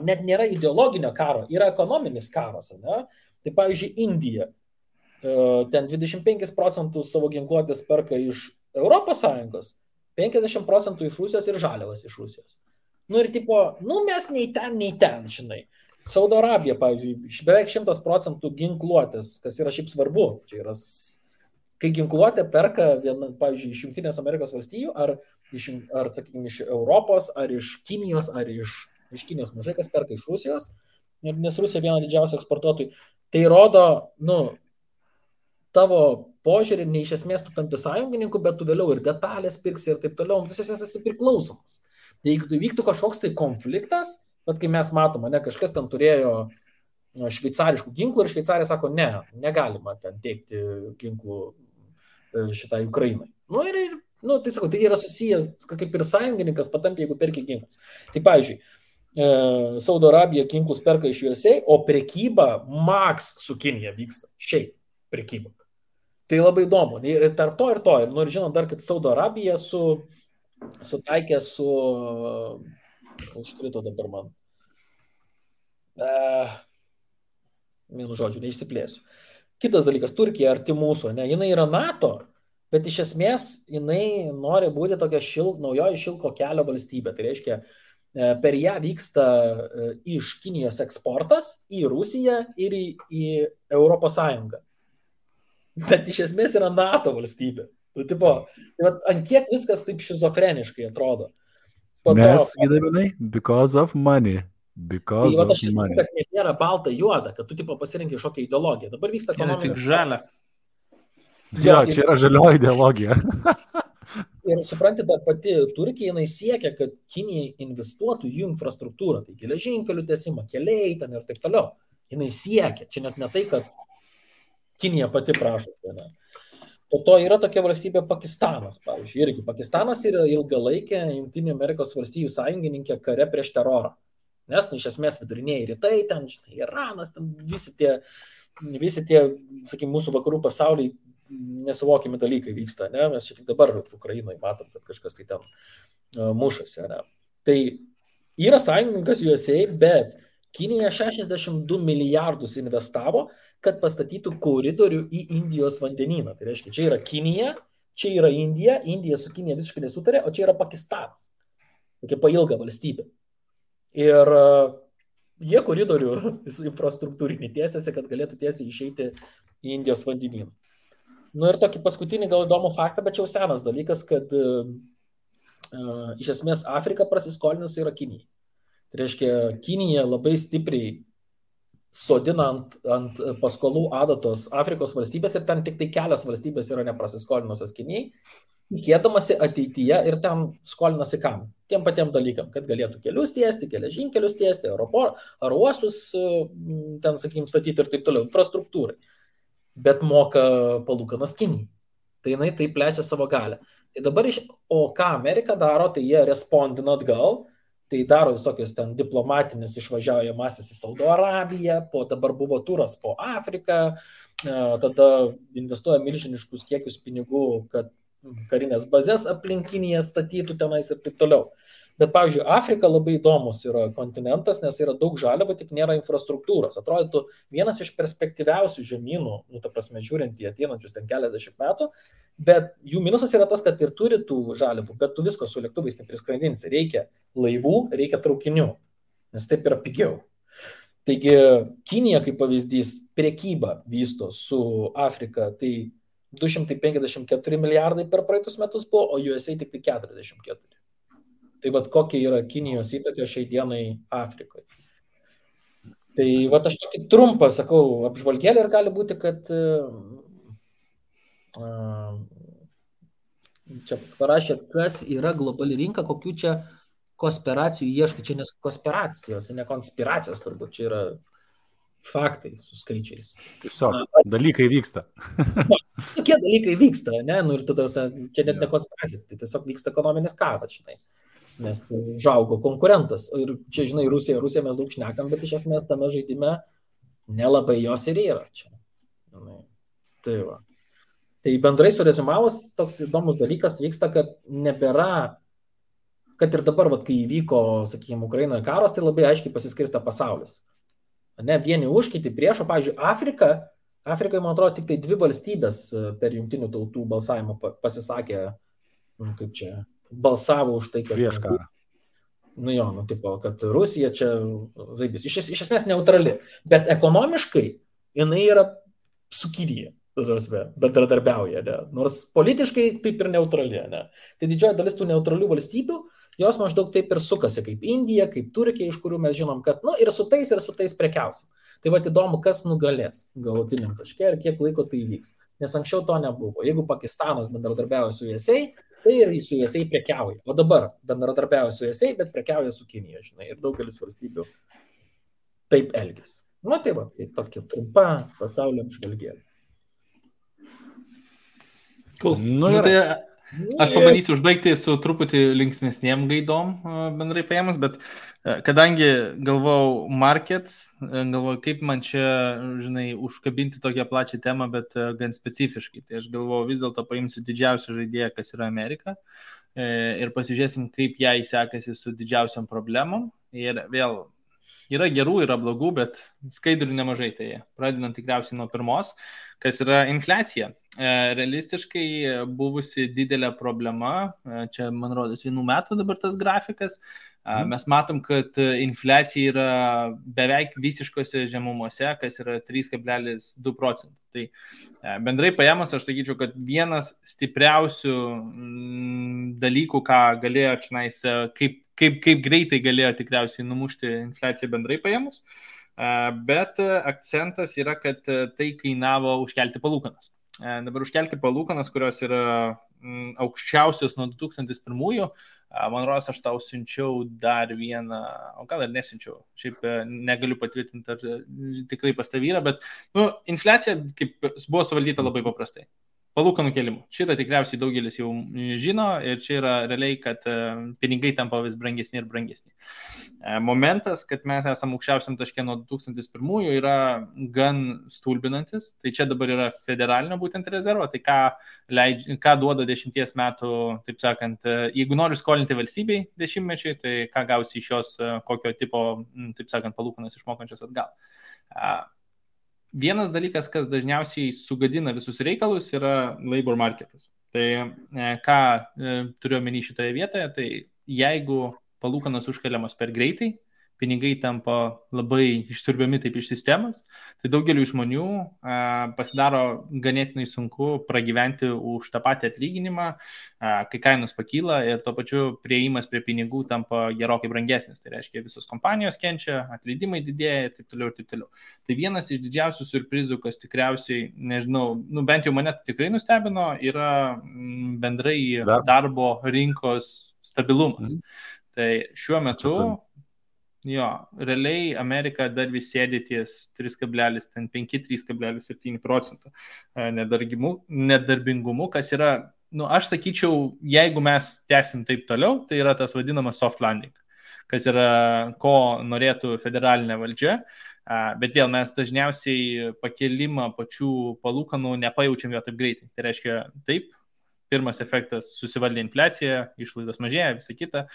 net nėra ideologinio karo, yra ekonominis karas. Ne? Tai pavyzdžiui, Indija, ten 25% savo ginkluotės perka iš Europos Sąjungos, 50% iš Rusijos ir žaliavas iš Rusijos. Ir mes nei ten, žinai. Saudo Arabija, pavyzdžiui, beveik 100% ginkluotės, kas yra šiaip svarbu. Čia yra, kai ginkluotė perka, pavyzdžiui, iš Jungtinės Amerikos valstijų, sakykime, iš Europos, ar iš Kinijos, ar iš Kinijos mažai kas perka iš Rusijos, nes Rusija viena didžiausių eksportuotojų. Tai rodo, tavo požiūrį, ne iš esmės tu tampi sąjungininku, bet tu vėliau ir detalės pirksi ir taip toliau, tu esi priklausomas. Tai jeigu tu vyktų kažkoks tai konfliktas, bet kai mes matome, kažkas ten turėjo šveicariškų ginklų ir Šveicarija sako, negalima ten teikti ginklų šitai Ukrainai. Tai sakau, tai yra susijęs, kaip ir sąjungininkas patampė, jeigu perki ginklus. Tai pavyzdžiui, Saudo Arabija ginklus perka iš USA, o prekyba Max su Kinija vyksta. Šiaip prekyba. Tai labai įdomu. Ir tarp to. Ir žinot dar, kad Saudo Arabija sutaikė su... Užkrito dabar man. Vienu žodžiu, neišsiplėsiu. Kitas dalykas, Turkija arti mūsų, jinai yra NATO, bet iš esmės jinai nori būti tokia naujoji šilko kelio valstybė. Tai reiškia, per ją vyksta iš Kinijos eksportas į Rusiją ir į Europos Sąjungą. Bet iš esmės yra NATO valstybė. Ant kiek viskas taip šizofreniškai atrodo. Nes, gydaminai, because of money. Because of money. Kad nėra balta juoda, kad tu pasirinkai šokią ideologiją. Dabar vyksta ekonominis. Tik žalia. Jo, čia yra žalioji ideologija. Ir supranti, ta pati Turkija, jinai siekia, kad Kinija investuotų į jų infrastruktūrą. Tai geležinkelių tiesimą, keliai ten ir taip toliau. Jinai siekia. Čia net ne tai, kad Kinija pati prašosi. Po to yra tokia valstybė Pakistanas, pavyzdžiui. Irgi Pakistanas yra ilgalaikė Jungtinių Amerikos valstijų sąjungininkė kare prieš terorą. Nes, iš esmės, viduriniai rytai, ten, Iranas, ten visi tie, sakykime, mūsų vakarų pasauliai nesuvokimi dalykai vyksta, ne? Mes čia tik dabar Ukrainoje matom, kad kažkas tai ten mušasi, ne? Tai yra sąjungininkas USA, bet Kinija 62 milijardus investavo, kad pastatytų koridorių į Indijos vandenyną. Tai reiškia, čia yra Kinija, čia yra Indija, Indija su Kinija visiškai nesutarė, o čia yra Pakistanas. tokia pailga valstybė. Ir jie koridorių infrastruktūrinį tiesiasi, kad galėtų tiesiai išeiti į Indijos vandenyną. Ir tokį paskutinį gal įdomų faktą, bet čia jau senas dalykas, kad iš esmės Afrika prasiskolinusi yra Kinija. Tai reiškia, Kinija labai stipriai sodina ant paskolų adatos Afrikos valstybės ir ten tik tai kelios valstybės yra neprasiskolinusios Kinijai, tikėdamasi ateityje ir ten skolinasi kam? Tiem patiem dalykam, kad galėtų kelius tiesti, geležinkelius tiesti, aerouostus ten, sakykim, statyti ir taip toliau, infrastruktūrai. Bet moka palūkanas Kinijai. Tai jinai taip plečia savo galę. Tai dabar o ką Amerika daro, tai jie respondina atgal, tai daro visokios ten diplomatinės išvažiaujamasis į Saudo Arabiją, dabar buvo turas po Afriką, tada investuoja milžiniškus kiekius pinigų, kad karinės bazės aplinkinėje statytų tenais ir taip toliau. Bet, pavyzdžiui, Afrika labai įdomus yra kontinentas, nes yra daug žaliavų, tik nėra infrastruktūros. Atrodytų vienas iš perspektyviausių žemynų, ta prasme, žiūrint į ateinančius ten keliasdešimt metų, bet jų minusas yra tas, kad ir turi tų žaliavų, bet tu visko su lėktuvais nepriskraidinsi. Reikia laivų, reikia traukinių, nes taip yra pigiau. Taigi, Kinija, kaip pavyzdys, prekybą vysto su Afrika, tai 254 milijardai per praeitus metus buvo, o USA tik tai 44. Tai vat kokia yra Kinijos įtaka šiai dienai Afrikoje. Tai vat aš tokį trumpą, sakau, apžvalgėlį ir gali būti, kad čia parašėt, kas yra globali rinka, kokių čia konspiracijų ieškai. Čia nes konspiracijos, ne konspiracijos turbūt, čia yra faktai su skaičiais. Tiesiog, dalykai vyksta. Tokie dalykai vyksta, ne? Ir tada čia net ne konspiracija, tai tiesiog vyksta ekonominis karas, žinai. Nes žaugo konkurentas. Ir čia, žinai, Rusija mes daug šnekam, bet iš esmės tame žaidime nelabai jos ir yra čia. Tai va. Tai bendrai surezumavus, toks įdomus dalykas vyksta, kad nebėra, kad ir dabar, vat, kai įvyko, sakykime, Ukrainoje karas, tai labai aiškiai pasiskirsta pasaulis. Ne, vieni už, kiti prieš, o, pavyzdžiui, Afrikai, man atrodo, tik tai 2 valstybės per jungtinių tautų balsavimą pasisakė, kaip čia, balsavo už tai, kad prieš karą. Tipo, kad Rusija čia zaibis. Iš esmės neutrali, bet ekonomiškai jinai yra su Kinija, bendradarbiauja, ne? Nors politiškai taip ir neutrali, ne? Tai didžioji dalis tų neutralių valstybių, jos maždaug taip ir sukasi, kaip Indija, kaip Turkija, iš kurių mes žinom, kad ir su tais prekiausim. Tai va įdomu, kas nugalės galutiniam taške ir kiek laiko tai vyks. Nes anksčiau to nebuvo. Jeigu Pakistanas bendradarbiauja su USA, tai ir su USA prekiauja. O dabar bendradarbiauja su USA, bet prekiauja su Kinija, žinai, ir daugelis valstybių taip elgesi. Tai va, tai tokia trumpa pasaulio apžvalgėlė. Cool. Tai aš pabandysiu užbaigti su truputį linksmesniem gaidom bendrai paėmus, bet kadangi galvojau markets, galvojau, kaip man čia, žinai, užkabinti tokią plačią temą, bet gan specifiškai. Tai aš galvojau, vis dėlto paimsiu didžiausią žaidėją, kas yra Amerika, ir pasižiūrėsim, kaip jai sekasi su didžiausiam problemom. Ir vėl yra gerų, yra blogų, bet skaidrių nemažai. Tai pradedant tikriausiai nuo pirmos, kas yra infliacija. Realistiškai buvusi didelė problema, čia man rodos 1 metų dabar tas grafikas, mes matom, kad infliacija yra beveik visiškose žemumose, kas yra 3,2 procentų. Tai bendrai paėmus, aš sakyčiau, kad vienas stipriausių dalykų, ką galėjo čionais, kaip greitai galėjo tikriausiai numušti infliaciją bendrai paėmus, bet akcentas yra, kad tai kainavo užkelti palūkanas. Dabar užkelti palūkanas, kurios yra aukščiausios nuo 2001, man rodos, aš tau siunčiau dar vieną, o gal ir nesiunčiau, šiaip negaliu patvirtinti, ar tikrai pas tavį yra, bet infliacija kaip buvo suvaldyta labai paprastai. Palūkanų kėlimų. Šitą tikriausiai daugelis jau žino ir čia yra realiai, kad pinigai tampa vis brangesni ir brangesni. Momentas, kad mes esame aukščiausiam taške nuo 2001 yra gan stulbinantis. Tai čia dabar yra federalinio būtent rezervo. Tai ką duoda 10 metų, taip sakant, jeigu nori skolinti valstybei 10-mečiai, tai ką gausi iš jos, kokio tipo, taip sakant, palūkanas išmokančias atgal. Vienas dalykas, kas dažniausiai sugadina visus reikalus, yra labor marketas. Tai ką turiu omeny šitoje vietoje, tai jeigu palūkanos užkeliamos per greitai, pinigai tampa labai išsiurbiami taip iš sistemos, tai daugeliu žmonių pasidaro ganėtinai sunku pragyventi už tą patį atlyginimą, kai kainos pakyla ir tuo pačiu prieimas prie pinigų tampa gerokai brangesnis. Tai reiškia, visos kompanijos kenčia, atleidimai didėja ir taip toliau ir taip toliau. Tai vienas iš didžiausių siurprizų, kas tikriausiai, nežinau, bent jau mane tikrai nustebino, yra bendrai darbo rinkos stabilumas. Tai šiuo metu realiai Amerika dar vis sėdi ties 3,5-3,7% nedarbingumu, kas yra, aš sakyčiau, jeigu mes tęsim taip toliau, tai yra tas vadinamas soft landing, kas yra, ko norėtų federalinė valdžia, bet vėl mes dažniausiai pakelimą pačių palūkanų nepajaučiam jo taip greitai. Tai reiškia, taip, pirmas efektas susivaldė infliacija, išlaidos mažėja, visa kita,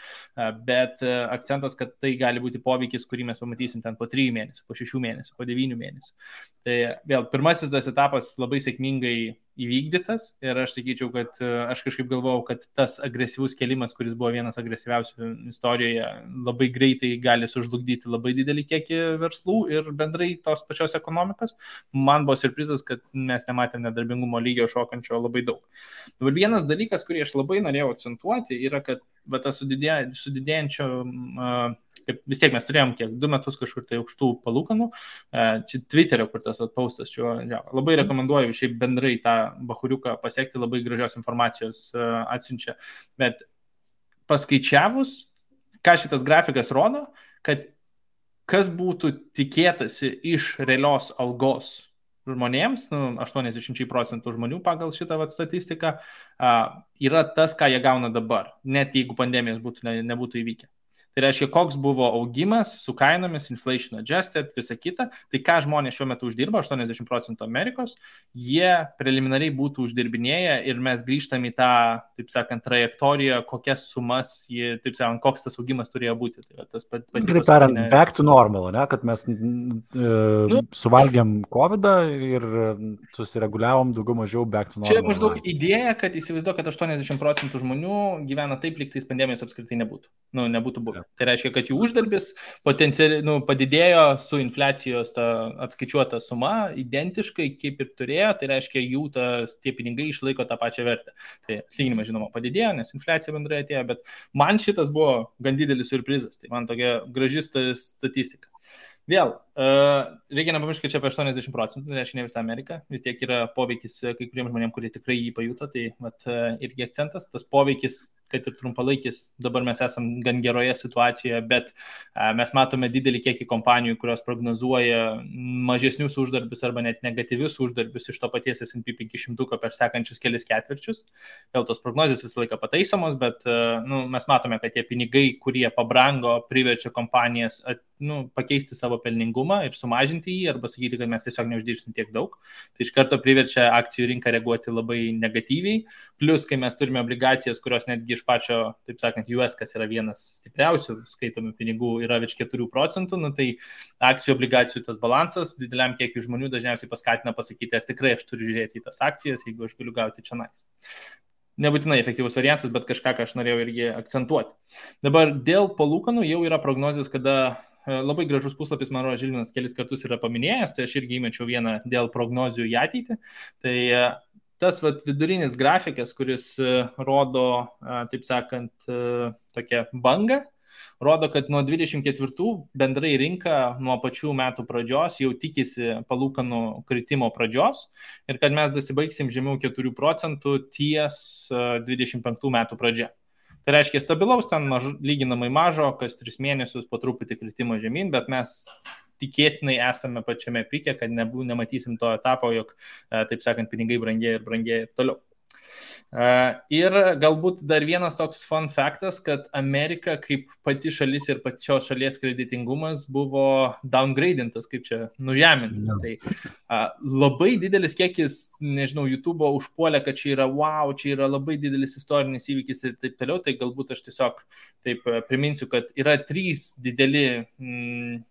bet akcentas, kad tai gali būti poveikis, kurį mes pamatysim ten po 3 mėnesių, po 6 mėnesių, po 9 mėnesių. Tai vėl, pirmasis tas etapas labai sėkmingai įvykdytas ir aš sakyčiau, kad aš kažkaip galvojau, kad tas agresyvus kėlimas, kuris buvo vienas agresyviausių istorijoje, labai greitai gali sužlugdyti labai didelį kiekį verslų ir bendrai tos pačios ekonomikos. Man buvo siurprizas, kad mes nematėm nedarbingumo lygio šokančio labai daug. Dabar vienas dalykas, kurį aš labai norėjau akcentuoti, yra, kad tas sudidėjančio, kaip vis tiek mes turėjom 2 metus kažkur tai aukštų palūkanų, čia Twitterio, kur tas postas, labai rekomenduoju šiaip bendrai tą bahuriuką pasiekti, labai gražios informacijos atsiunčia, bet paskaičiavus, ką šitas grafikas rodo, kad kas būtų tikėtasi iš realios algos žmonėms, 80% žmonių pagal šitą statistiką, yra tas, ką jie gauna dabar, net jeigu pandemijos nebūtų įvykę. Tai reiškia, koks buvo augimas su kainomis, inflation adjusted, visa kita, tai ką žmonės šiuo metu uždirba, 80% Amerikos, jie preliminariai būtų uždirbinėję ir mes grįžtam į tą, taip sakant, trajektoriją, kokias sumas, taip sakant, koks tas augimas turėjo būti. Tai tas Taip tariant, back to normal, ne? Kad mes suvalgėm COVID ir susireguliavom daugiau mažiau back to normal. Čia maždaug idėja, kad įsivaizduoju, kad 80% žmonių gyvena taip, lyg tais pandemijos apskritai nebūtų. Nebūtų buvę. Tai reiškia, kad jų uždarbis potencialiai padidėjo su infliacijos atskaičiuota suma identiškai kaip ir turėjo, tai reiškia, jų tie pinigai išlaiko tą pačią vertę. Tai atlyginimas, žinoma, padidėjo, nes infliacija bendrai atėjo, bet man šitas buvo gan didelis siurprizas, tai man tokia graži statistika. Vėl, reikia nepamiršti, kad čia apie 80%, tai reiškia ne visą Ameriką, vis tiek yra poveikis kai kuriems žmonėms, kurie tikrai jį pajuto, tai irgi akcentas, tas poveikis, kad ir trumpalaikis, dabar mes esam gan geroje situacijoje, bet mes matome didelį kiekį kompanijų, kurios prognozuoja mažesnius uždarbius arba net negatyvius uždarbius iš to paties S&P 500 per sekančius kelis ketvirčius. Vėl tos prognozės visą laiką pataisomos, bet mes matome, kad tie pinigai, kurie pabrango, priverčia kompanijas pakeisti savo pelningumą ir sumažinti jį, arba sakyti, kad mes tiesiog neuždirbsim tiek daug. Tai iš karto priverčia akcijų rinką reaguoti labai negatyviai. Plus, kai mes turime obligacijas, kurios netgi iš pačio, taip sakant, US, kas yra vienas stipriausių skaitomų pinigų, yra virš 4%, tai akcijų obligacijų tas balansas dideliam kiekiu žmonių dažniausiai paskatina pasakyti, ar tikrai aš turiu žiūrėti į tas akcijas, jeigu aš galiu gauti čia nais. Nebūtinai efektyvus variantas, bet kažką, ką aš norėjau irgi akcentuoti. Dabar dėl palūkanų jau yra prognozijos, kada labai gražus puslapis, man rodo, Žilvinas kelis kartus yra paminėjęs, tai aš irgi įmečiau vieną dėl prognozijų į ateitį. Tai tas vidurinis grafikas, kuris rodo, taip sakant, tokią bangą, rodo, kad nuo 24 bendrai rinka nuo pačių metų pradžios jau tikisi palūkanų kritimo pradžios ir kad mes dasibaigsim žemiau 4% ties 25 metų pradžia. Tai reiškia stabilaus, ten lyginamai mažo, kas 3 mėnesius po truputį kritimo žemyn, bet mes tikėtinai esame pačiame pike, kad nematysim to etapo, jog, taip sakant, pinigai brangėja ir toliau. Ir galbūt dar vienas toks fun faktas, kad Amerika kaip pati šalis ir pačios šalies kreditingumas buvo downgradintas, kaip čia nužemintas. Tai labai didelis kiekis, nežinau, YouTube'o užpuolė, kad čia yra wow, čia yra labai didelis istorinis įvykis ir taip toliau. Tai galbūt aš tiesiog taip priminsiu, kad yra 3 dideli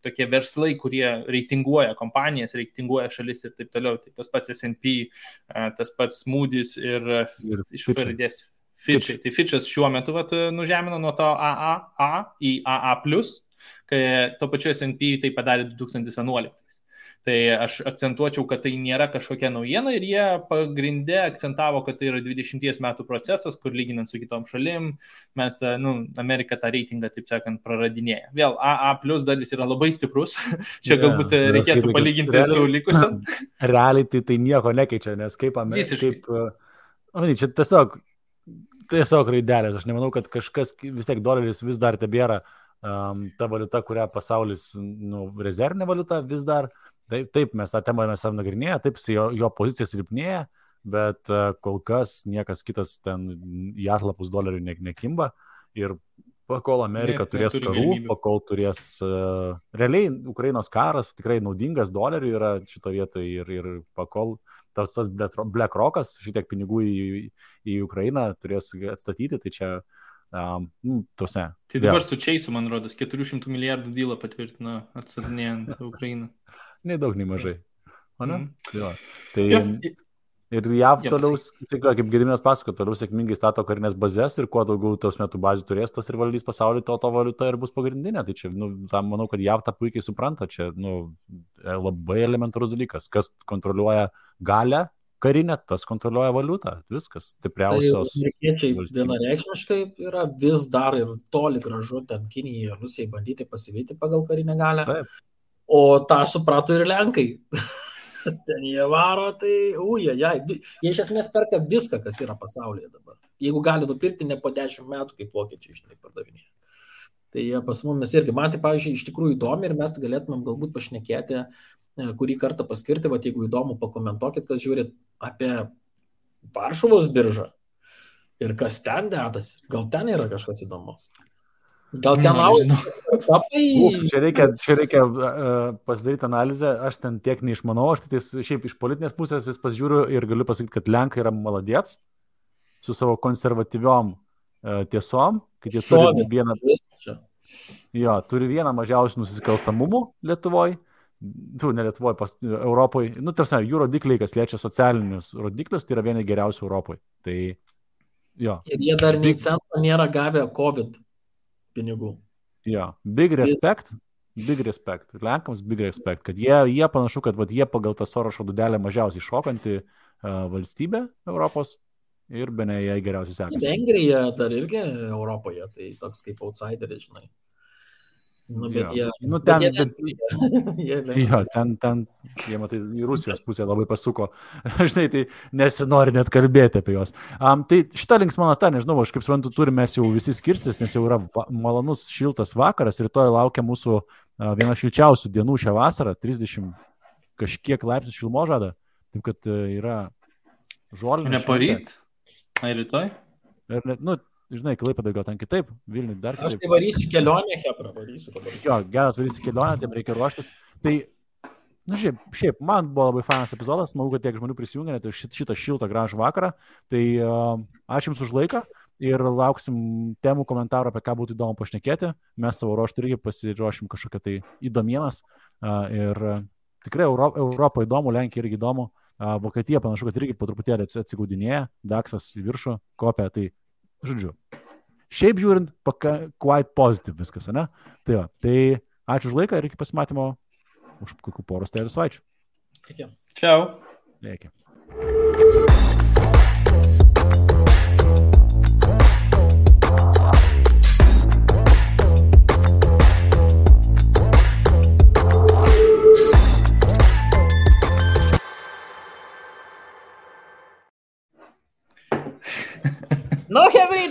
tokie verslai, kurie reitinguoja kompanijas, reitinguoja šalis ir taip toliau. Tai tas pats S&P, tas pats Moody's ir iš pavardės Fitch'ai. Tai Fitch'as šiuo metu nužemino nuo to AAA į AA+, kai to pačiu S&P tai padarė 2011. Tai aš akcentuočiau, kad tai nėra kažkokia naujiena ir jie pagrinde akcentavo, kad tai yra 20 metų procesas, kur lyginant su kitom šalim, mes Amerika tą reitingą, taip sakant, praradinėja. Vėl AA+ dar vis yra labai stiprus, čia galbūt reikėtų palyginti su likusiam. Realiai tai nieko nekeičia, nes kaip čia tiesiog raidelės, aš nemanau, kad kažkas, vis tiek doleris vis dar tebėra ta valiuta, kurią pasaulis, rezervinė valiuta vis dar. Taip, mes tą temą mes nagrinėję, taip, jo pozicija silpnėja, bet kol kas niekas kitas ten į atlapus dolerių nekimba ir pakol Amerika turės karų, pakol turės realiai Ukrainos karas tikrai naudingas doleriui yra šito vietoje ir pakol tas BlackRockas šitiek pinigų į Ukrainą turės atstatyti, tai čia tos ne. Tai dabar su Chase'u, man rodos, 400 milijardų dylą patvirtino atstatinėjant Ukrainą. Nei daug, nei mažai. O ne? Tai ir JAV toliau, kaip Gediminas pasako, toliau sėkmingai stato karinės bazės ir kuo daugiau tos metų bazių turės, tas ir valdys pasaulį, to valiuta ir bus pagrindinė. Tai čia, manau, kad JAV tą puikiai supranta. Čia, labai elementarus dalykas. Kas kontroliuoja galę karinę, tas kontroliuoja valiutą. Viskas. Stipriausios. Tai amerikiečiai vienareikšmiškai yra vis dar ir toli gražu ten Kinijai ir Rusijai bandyti pasivyti pagal karinę galę. Taip. O tą suprato ir Lenkai. Ten jie varo, tai jie iš esmės perka viską, kas yra pasaulyje dabar. Jeigu gali nupirkti ne po 10 metų, kaip vokiečiai žinai pardavinėja. Tai jie pas mumis irgi, man tai, pavyzdžiui, iš tikrųjų įdomi ir mes galėtumėm galbūt pašnekėti, kurį kartą paskirti, jeigu įdomu, pakomentuokit, kas žiūrit apie Varšuvos biržą ir kas ten dedasi. Gal ten yra kažkas įdomus? Gal ten Čia reikia pasidaryti analizę, aš ten tiek neišmanau, aš tai šiaip iš politinės pusės vis pasižiūriu ir galiu pasakyti, kad Lenkai yra maladėts su savo konservatyviom tiesom, kad jie turi vieną mažiausių nusikalstamumų Lietuvoje, ne Lietuvoje, Europoje, tarsi jų rodikliai, kas liečia socialinius rodiklius, tai yra vieni geriausių Europoje. Tai, ir jie dar nei cento nėra gavę COVID pinigų. Big respect, Lenkams big respect, kad jie panašu, kad jie pagal tą Sorošo dūdelę mažiausiai šokanti valstybė Europos ir bene jai geriausiai sekasi. Vengrija dar irgi Europoje, tai toks kaip outsideris, žinai. Ten jie, matai, į Rusijos pusę labai pasuko. Žinai, tai nesinori net kalbėti apie juos. Tai šitą linksmą natą, nežinau, aš kaip suprantu, turime jau visi skirstis, nes jau yra malonus šiltas vakaras, rytoj laukia mūsų viena šilčiausių dienų šią vasarą, 30 kažkiek laipsnių šilumos žada, taip kad yra žolinė. Ne poryt? Ar rytoj? Žinai, Klaipėdoj gal ten kitaip, Vilniui dar kitaip. Aš tai varysiu kelionę, Hebra, varysiu. Geras varysi kelionę, tiem reikia ruoštis. Tai, šiaip, man buvo labai fainas epizodas, manau, kad tiek žmonių prisijungė, tai šitą šiltą gražų vakarą. Tai ačiū Jums už laiką ir lauksim temų komentarų, apie ką būtų įdomu pašnekėti. Mes savo ruoštų irgi pasiruošim kažkokią tai įdomienas. Ir tikrai Europą įdomu, Lenkija irgi įdomu. Vokietija panašu, kad irgi po truputėlį atsigaudinėja, Daksas į viršų kopia, tai žodžiu, šiaip žiūrint, quite positive viskas, ne? Tai ačiū už laiką ir iki pasimatymo už kokių poros savaičių. Iki. Ciao. Iki. No, Hebrita!